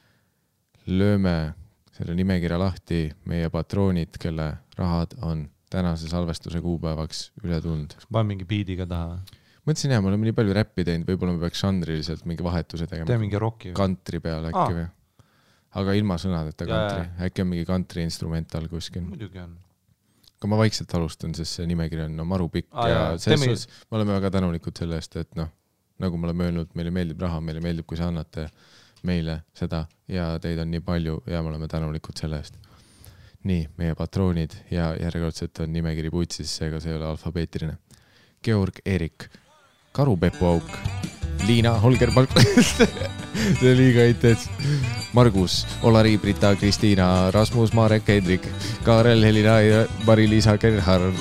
lööme selle nimekirja lahti meie patroonid, kelle rahad on tänase salvestuse kuupäevaks üle tulnud. Kas panen mingi biidiga taha? Mõtlesin me oleme nii palju räppi teinud, võib-olla me peaks žanriliselt mingi vahetuse tegema. Tee mingi rocki. Kantri peale äkki või? Aga ilma sõnadeta kantri. Äkki on mingi kantri instrumental kuskil. Muidugi on. Aga ma vaikselt alustan, sest see nimekiri on maru pikk ja me oleme väga tänulikud selle eest, et nagu me oleme öelnud, meile meeldib raha, meile meeldib, kui sa annate meile seda ja teid on nii palju ja me oleme tänulikud selle eest. Nii, meie patroonid ja järjekordselt on nimekiri putsis, seega see ei ole alfabeetiline. Georg Erik, Karu Pepu Auk, Liina Holger Palk, see oli liiga intens. Margus, Olari, Brita, Kristiina, Rasmus, Marek, Hendrik, Kaarel, Helina, Mari-Liisa, Gerhard,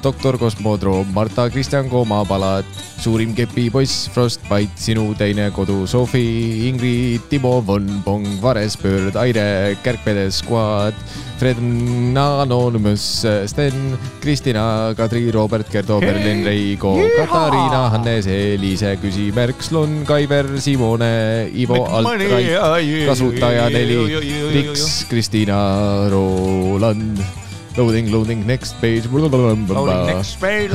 Doktor Kosmodroom, Marta, Kristjan Kooma, Palat, Suurim Kepipoiss, Frostbite, Sinu teine kodu, Sofi, Ingrid, Timo, Von, Pong, Varespöörd, Aire, Kärkpedes, Squad, Fred, Anonymous, Sten, Kristina, Kadri, Robert, Gerdo, Berlin, Reigo, Katariina, Hannes, Elise, Küsimärk, Slon, Kaiver, Simone, Ivo, Altrait, Kasutaja 4, Riks, Kristina, Roland, Loading, next page. Loading, next page.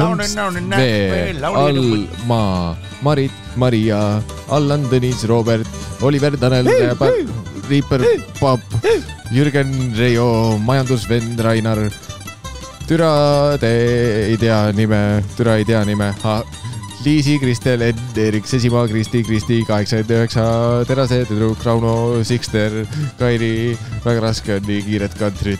Alma, Marit, Maria, Allan, Tõnis, Robert, Oliver, Tanel, Riiper, Paap, Jürgen, Reijo, majandusvend, Rainar, Türa ei tea nime, Liisi, Kristel, Ed, Erik, Sesimaa, Kristi, 89, Terase, Tüdruk, Rauno, Sikster, Kairi, väga raske on nii kiiret kantrit.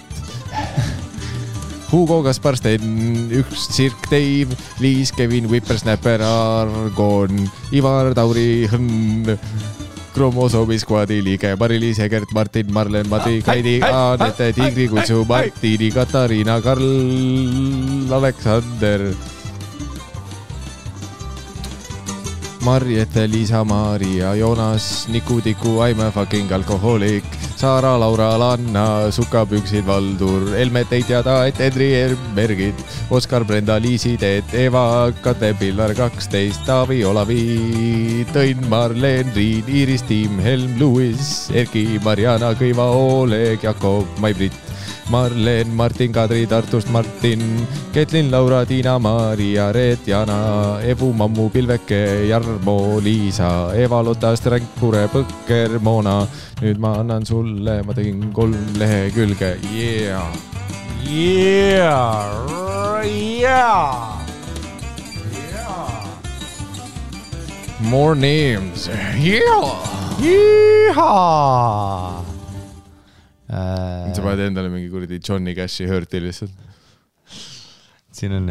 Hugo, Kaspar, Sten, üks Sirk, Dave, Liis, Kevin, Whippersnapper, Argon, Ivar, Tauri, Hõnn, Kromosomi Squadi liige, Mari-Liis, Egert, Martin, Marlen, Mati, Kaidi, Anette, Tigri, Kutsu, Martini, Katariina, Karl, Aleksander, Marjete, Liisa, Maria, Joonas, Niku, Tiku, I'm a fucking alkohoolik, Saara, Laura, Lanna, Sukapüksid, Valdur, Elmet ei teada, et Edri, Bergid, Oskar, Brenda, Liisi, Teet, Eva, Kate, Pillar, 12, Taavi, Olavi, Tõnn, Marleen, Riin, Iiris, Tiim, Helm, Luis, Erki, Mariana, Kõiva, Oleg, Jakob, Mai-Brit, Marleen, Martin, Kadri, Tartust, Martin, Ketlin, Laura, Tiina, Maria, Reet, Jana, Evu, Mammu, Pilveke, Jarmo, Liisa, Eva, Lotta, Stränkure, Põkker, Moona. Nüüd ma annan sulle, ma tegin 3 lehekülge. Yeah! More names. Sa paned endale mingi kuradi Johnny Cashi hörti lihtsalt. Siin on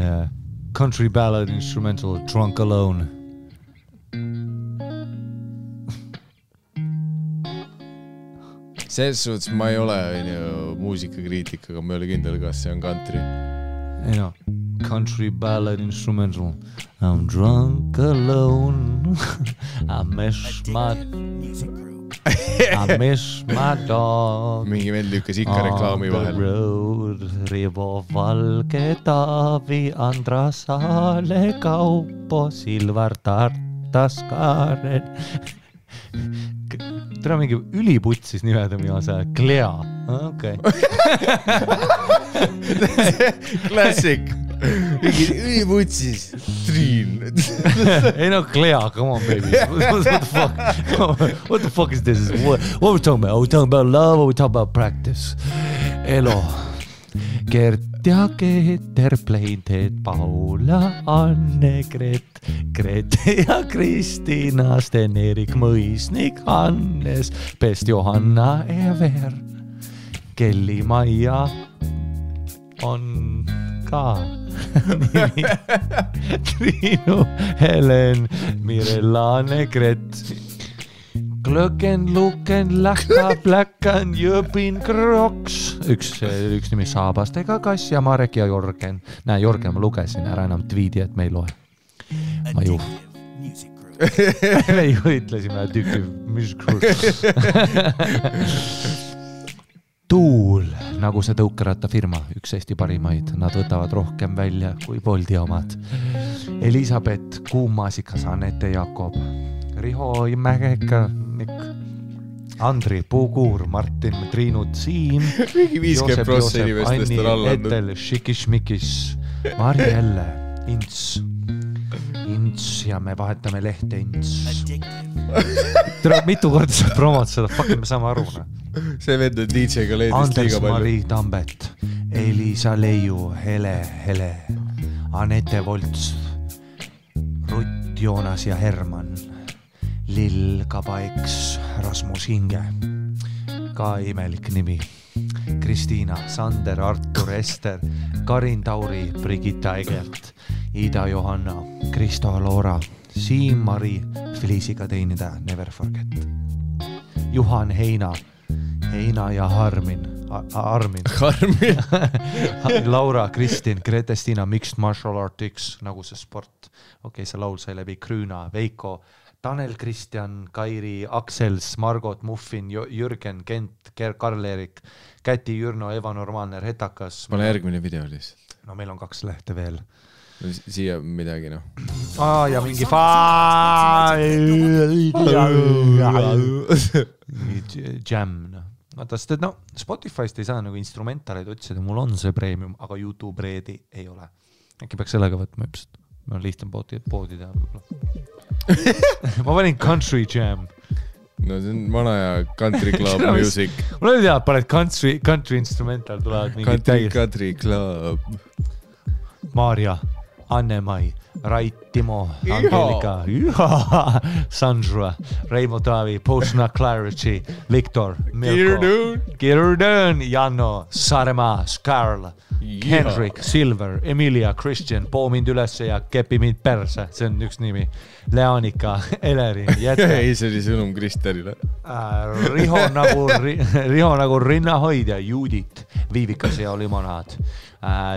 country ballad instrumental Drunk Alone. Selles suhtes ma ei ole muusikakriitik, aga ma ei ole kindel, kas see on country. Ei no, country ballad instrumental. I'm drunk alone. I miss my dog. Mingi vend lükkas ikka reklaami vahel. Road, Rivo, Valge, Taavi, Andrasaale, Kaupo, Silvar, Tartas, Kaaren. Tere mingi üliputsis nimeda miasa. Klea. Okay. Classic. Mingi üliputsis. Triin. Ei no, Klea, come on baby. What the fuck? What the fuck is this? What are we talking about? Are we talking about love or are we talking about practice? Elo. Gert ja Keeter, Pleinteed, Paula, Anne, Grete ja Kristina, Sten, Erik, Mõisnik, Hannes, Pest, Johanna, Ever, Kelly, Maia on ka nimi. Triinu, Helen, Mirella, Negret, Glöken, Luken, Lähka, Pläkan, Jöpin, Kroks. Üks nimi Saabastega Kass ja Marek ja Jorgen. Näe, Jorgen, ma lugesin ära enam tweedi, et me ei loe. Ma ju. Me ju ütlesime Addictive Music Group. Tuul, nagu see tõukeratta firma, üks Eesti parimaid. Nad võtavad rohkem välja kui Boldi omad. Elisabeth, Kuumasikas, Anette, Jakob, Riho, Mägeka, Andri, Puukuur, Martin, Triinu, Siim, Joosep, Anni, Etel, Šikis-Mikis, Marjelle, Ints ja me vahetame lehte Ints. Tere, mitu korda sa promod seda, fucking me saame aru. See vend on DJ-ga leedist Anders, liiga palju. Mari Tambet, Elisa Leiu, Hele, Anette Volts, Rutt Joonas ja Herman, Lill Kabaiks, Rasmus Hinge, ka imelik nimi, Kristiina, Sander, Artur, Ester, Karin Tauri, Brigitta Egelt, Ida Johanna, Kristo Loora, Siim-Mari, Felisiga teenida, Never Forget, Juhan Heina, Heina ja Armin, Laura, Kristin, Grete-Stina, Mixed Martial Arts, nagu see sport. Okei, see laul sai läbi Krüüna, Veiko, Tanel, Kristjan, Kairi, Aksels, Margot, Muffin, Jürgen, Kent, Karl-Erik, Käti, Jürno, Eva Normaalne, Retakas. Pane järgmine video lihtsalt. No meil on 2 lehte veel. Siia midagi, noh. Ja mingi jam, noh. Vaata, sest et Spotify'st ei saa nagu instrumentaleid otsida, mul on see premium, aga YouTube Redi ei ole. Äkki peaks sellega võtma üpselt. Ma on lihtsam poodi teha võib-olla. Ma panin Country Jam. No see on vana ja Country Club Music. Mul ei tea, paned country instrumental tulevad mingid Country Club. Maarja, Anne-Mai, Rait, Timo, Angelika, Sandra, Reimo Taavi, Postna Clarity, Viktor, Milko, Girdön, Janno, Saaremaa, Karl, Henrik, Silver, Emilia, Christian, poo mind ülesse ja kepi mind perse, see on üks nimi, Leanika, Eleri, Jette. Ei, see oli sõnum Kristerile. Riho nagu rinnahoidja, Judit, Viivikas ja limonaad,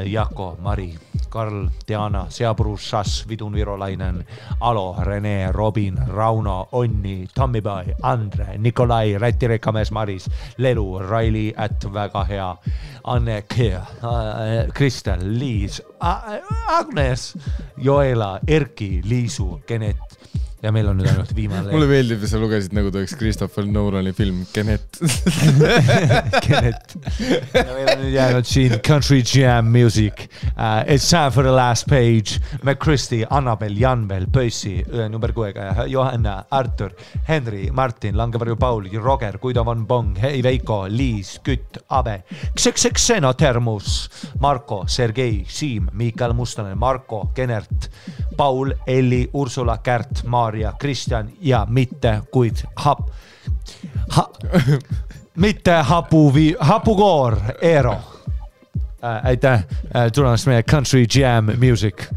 Jako, Mari, Karl, Diana, Seapruus, Šas, Vidun Virolainen, Alo, Rene, Robin, Rauno, Onni, Tammibai, Andre, Nikolai, Räti Rekamees, Maris, Lelu, Raili, väga hea, Anne, Kristel, Liis, Agnes, Joela, Erki, Liisu, Genet. Ja meil on nüüd ainult viimane. Mulle meeldib, sa lugesid nagu ta oleks Christopher Nolani film Genet. Genet. Ja meil on nüüd jäänud siin Country Jam Music. It's time for the last page. McChristy, Annabel, Janvel, Pössi, number 6, Johanna, Artur, Henry, Martin, Langevarju Paul, Roger, Guido von Bong, Hei Veiko, Liis, Kütt, Abe, Xeno Termus, Marko, Sergei, Siim, Miikael Mustonen, Marko, Genert, Paul, Elli, Ursula, Kärt, Maarja, Kristjan ja mitte kuid mitte hapukoor Eero. Aitäh tulemast meie Country Jam Music.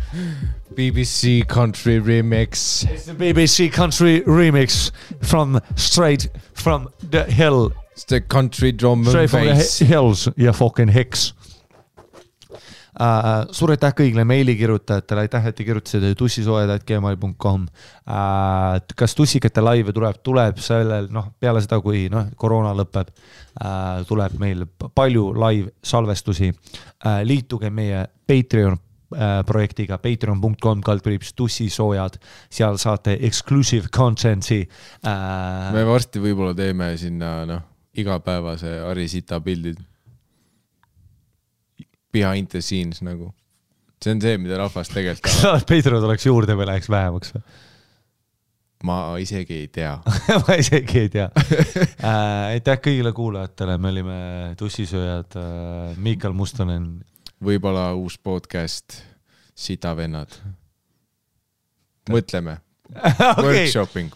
BBC Country Remix. It's the BBC Country Remix straight from the hill. It's the country drum and bass. Straight from the hills, you fucking hicks. Suur aitäh kõigile meilikirjutajatele, aitäh, et te kirjutasite tussisoojad@gmail.com. Kas tussikate laive tuleb sellel, peale seda, kui koroona lõpeb, tuleb meil palju live salvestusi. Liituge meie Patreon projektiga patreon.com/tussisoojad, seal saate exclusive content'i. Me varsti võib-olla teeme sinna igapäevase Arisita pildid. Behind the scenes nagu. See on see, mida rahvas tegelikult tahab. Patreon oleks juurde või läheks vähemaks? Ma isegi ei tea. Ma isegi ei tea. Aitäh kõigile kuulajatele, me olime tussisööjad, Miikael Mustonen. Võib-olla uus podcast, Sita vennad. Mõtleme. Workshopping,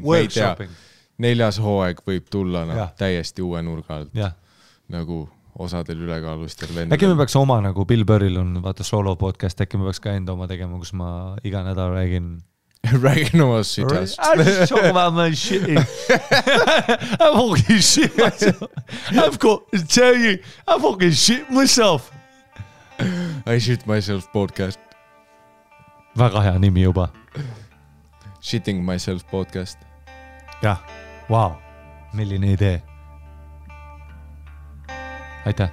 me ei tea. 4. hooaeg võib tulla täiesti uue nurga alt. Nagu osadel ülekaalustel vendadel. Äkki me peaks oma, nagu Bill Burril on, vaata solo podcast, äkki me peaks ka enda oma tegema, kus ma iga nädal räägin oma shitast. I just talk about my shit. I fucking shit myself. I've got to tell you, I fucking shit myself. I shit myself podcast. Väga hea nimi juba. Shitting myself podcast. Jah, wow, milline idee. Aitäh.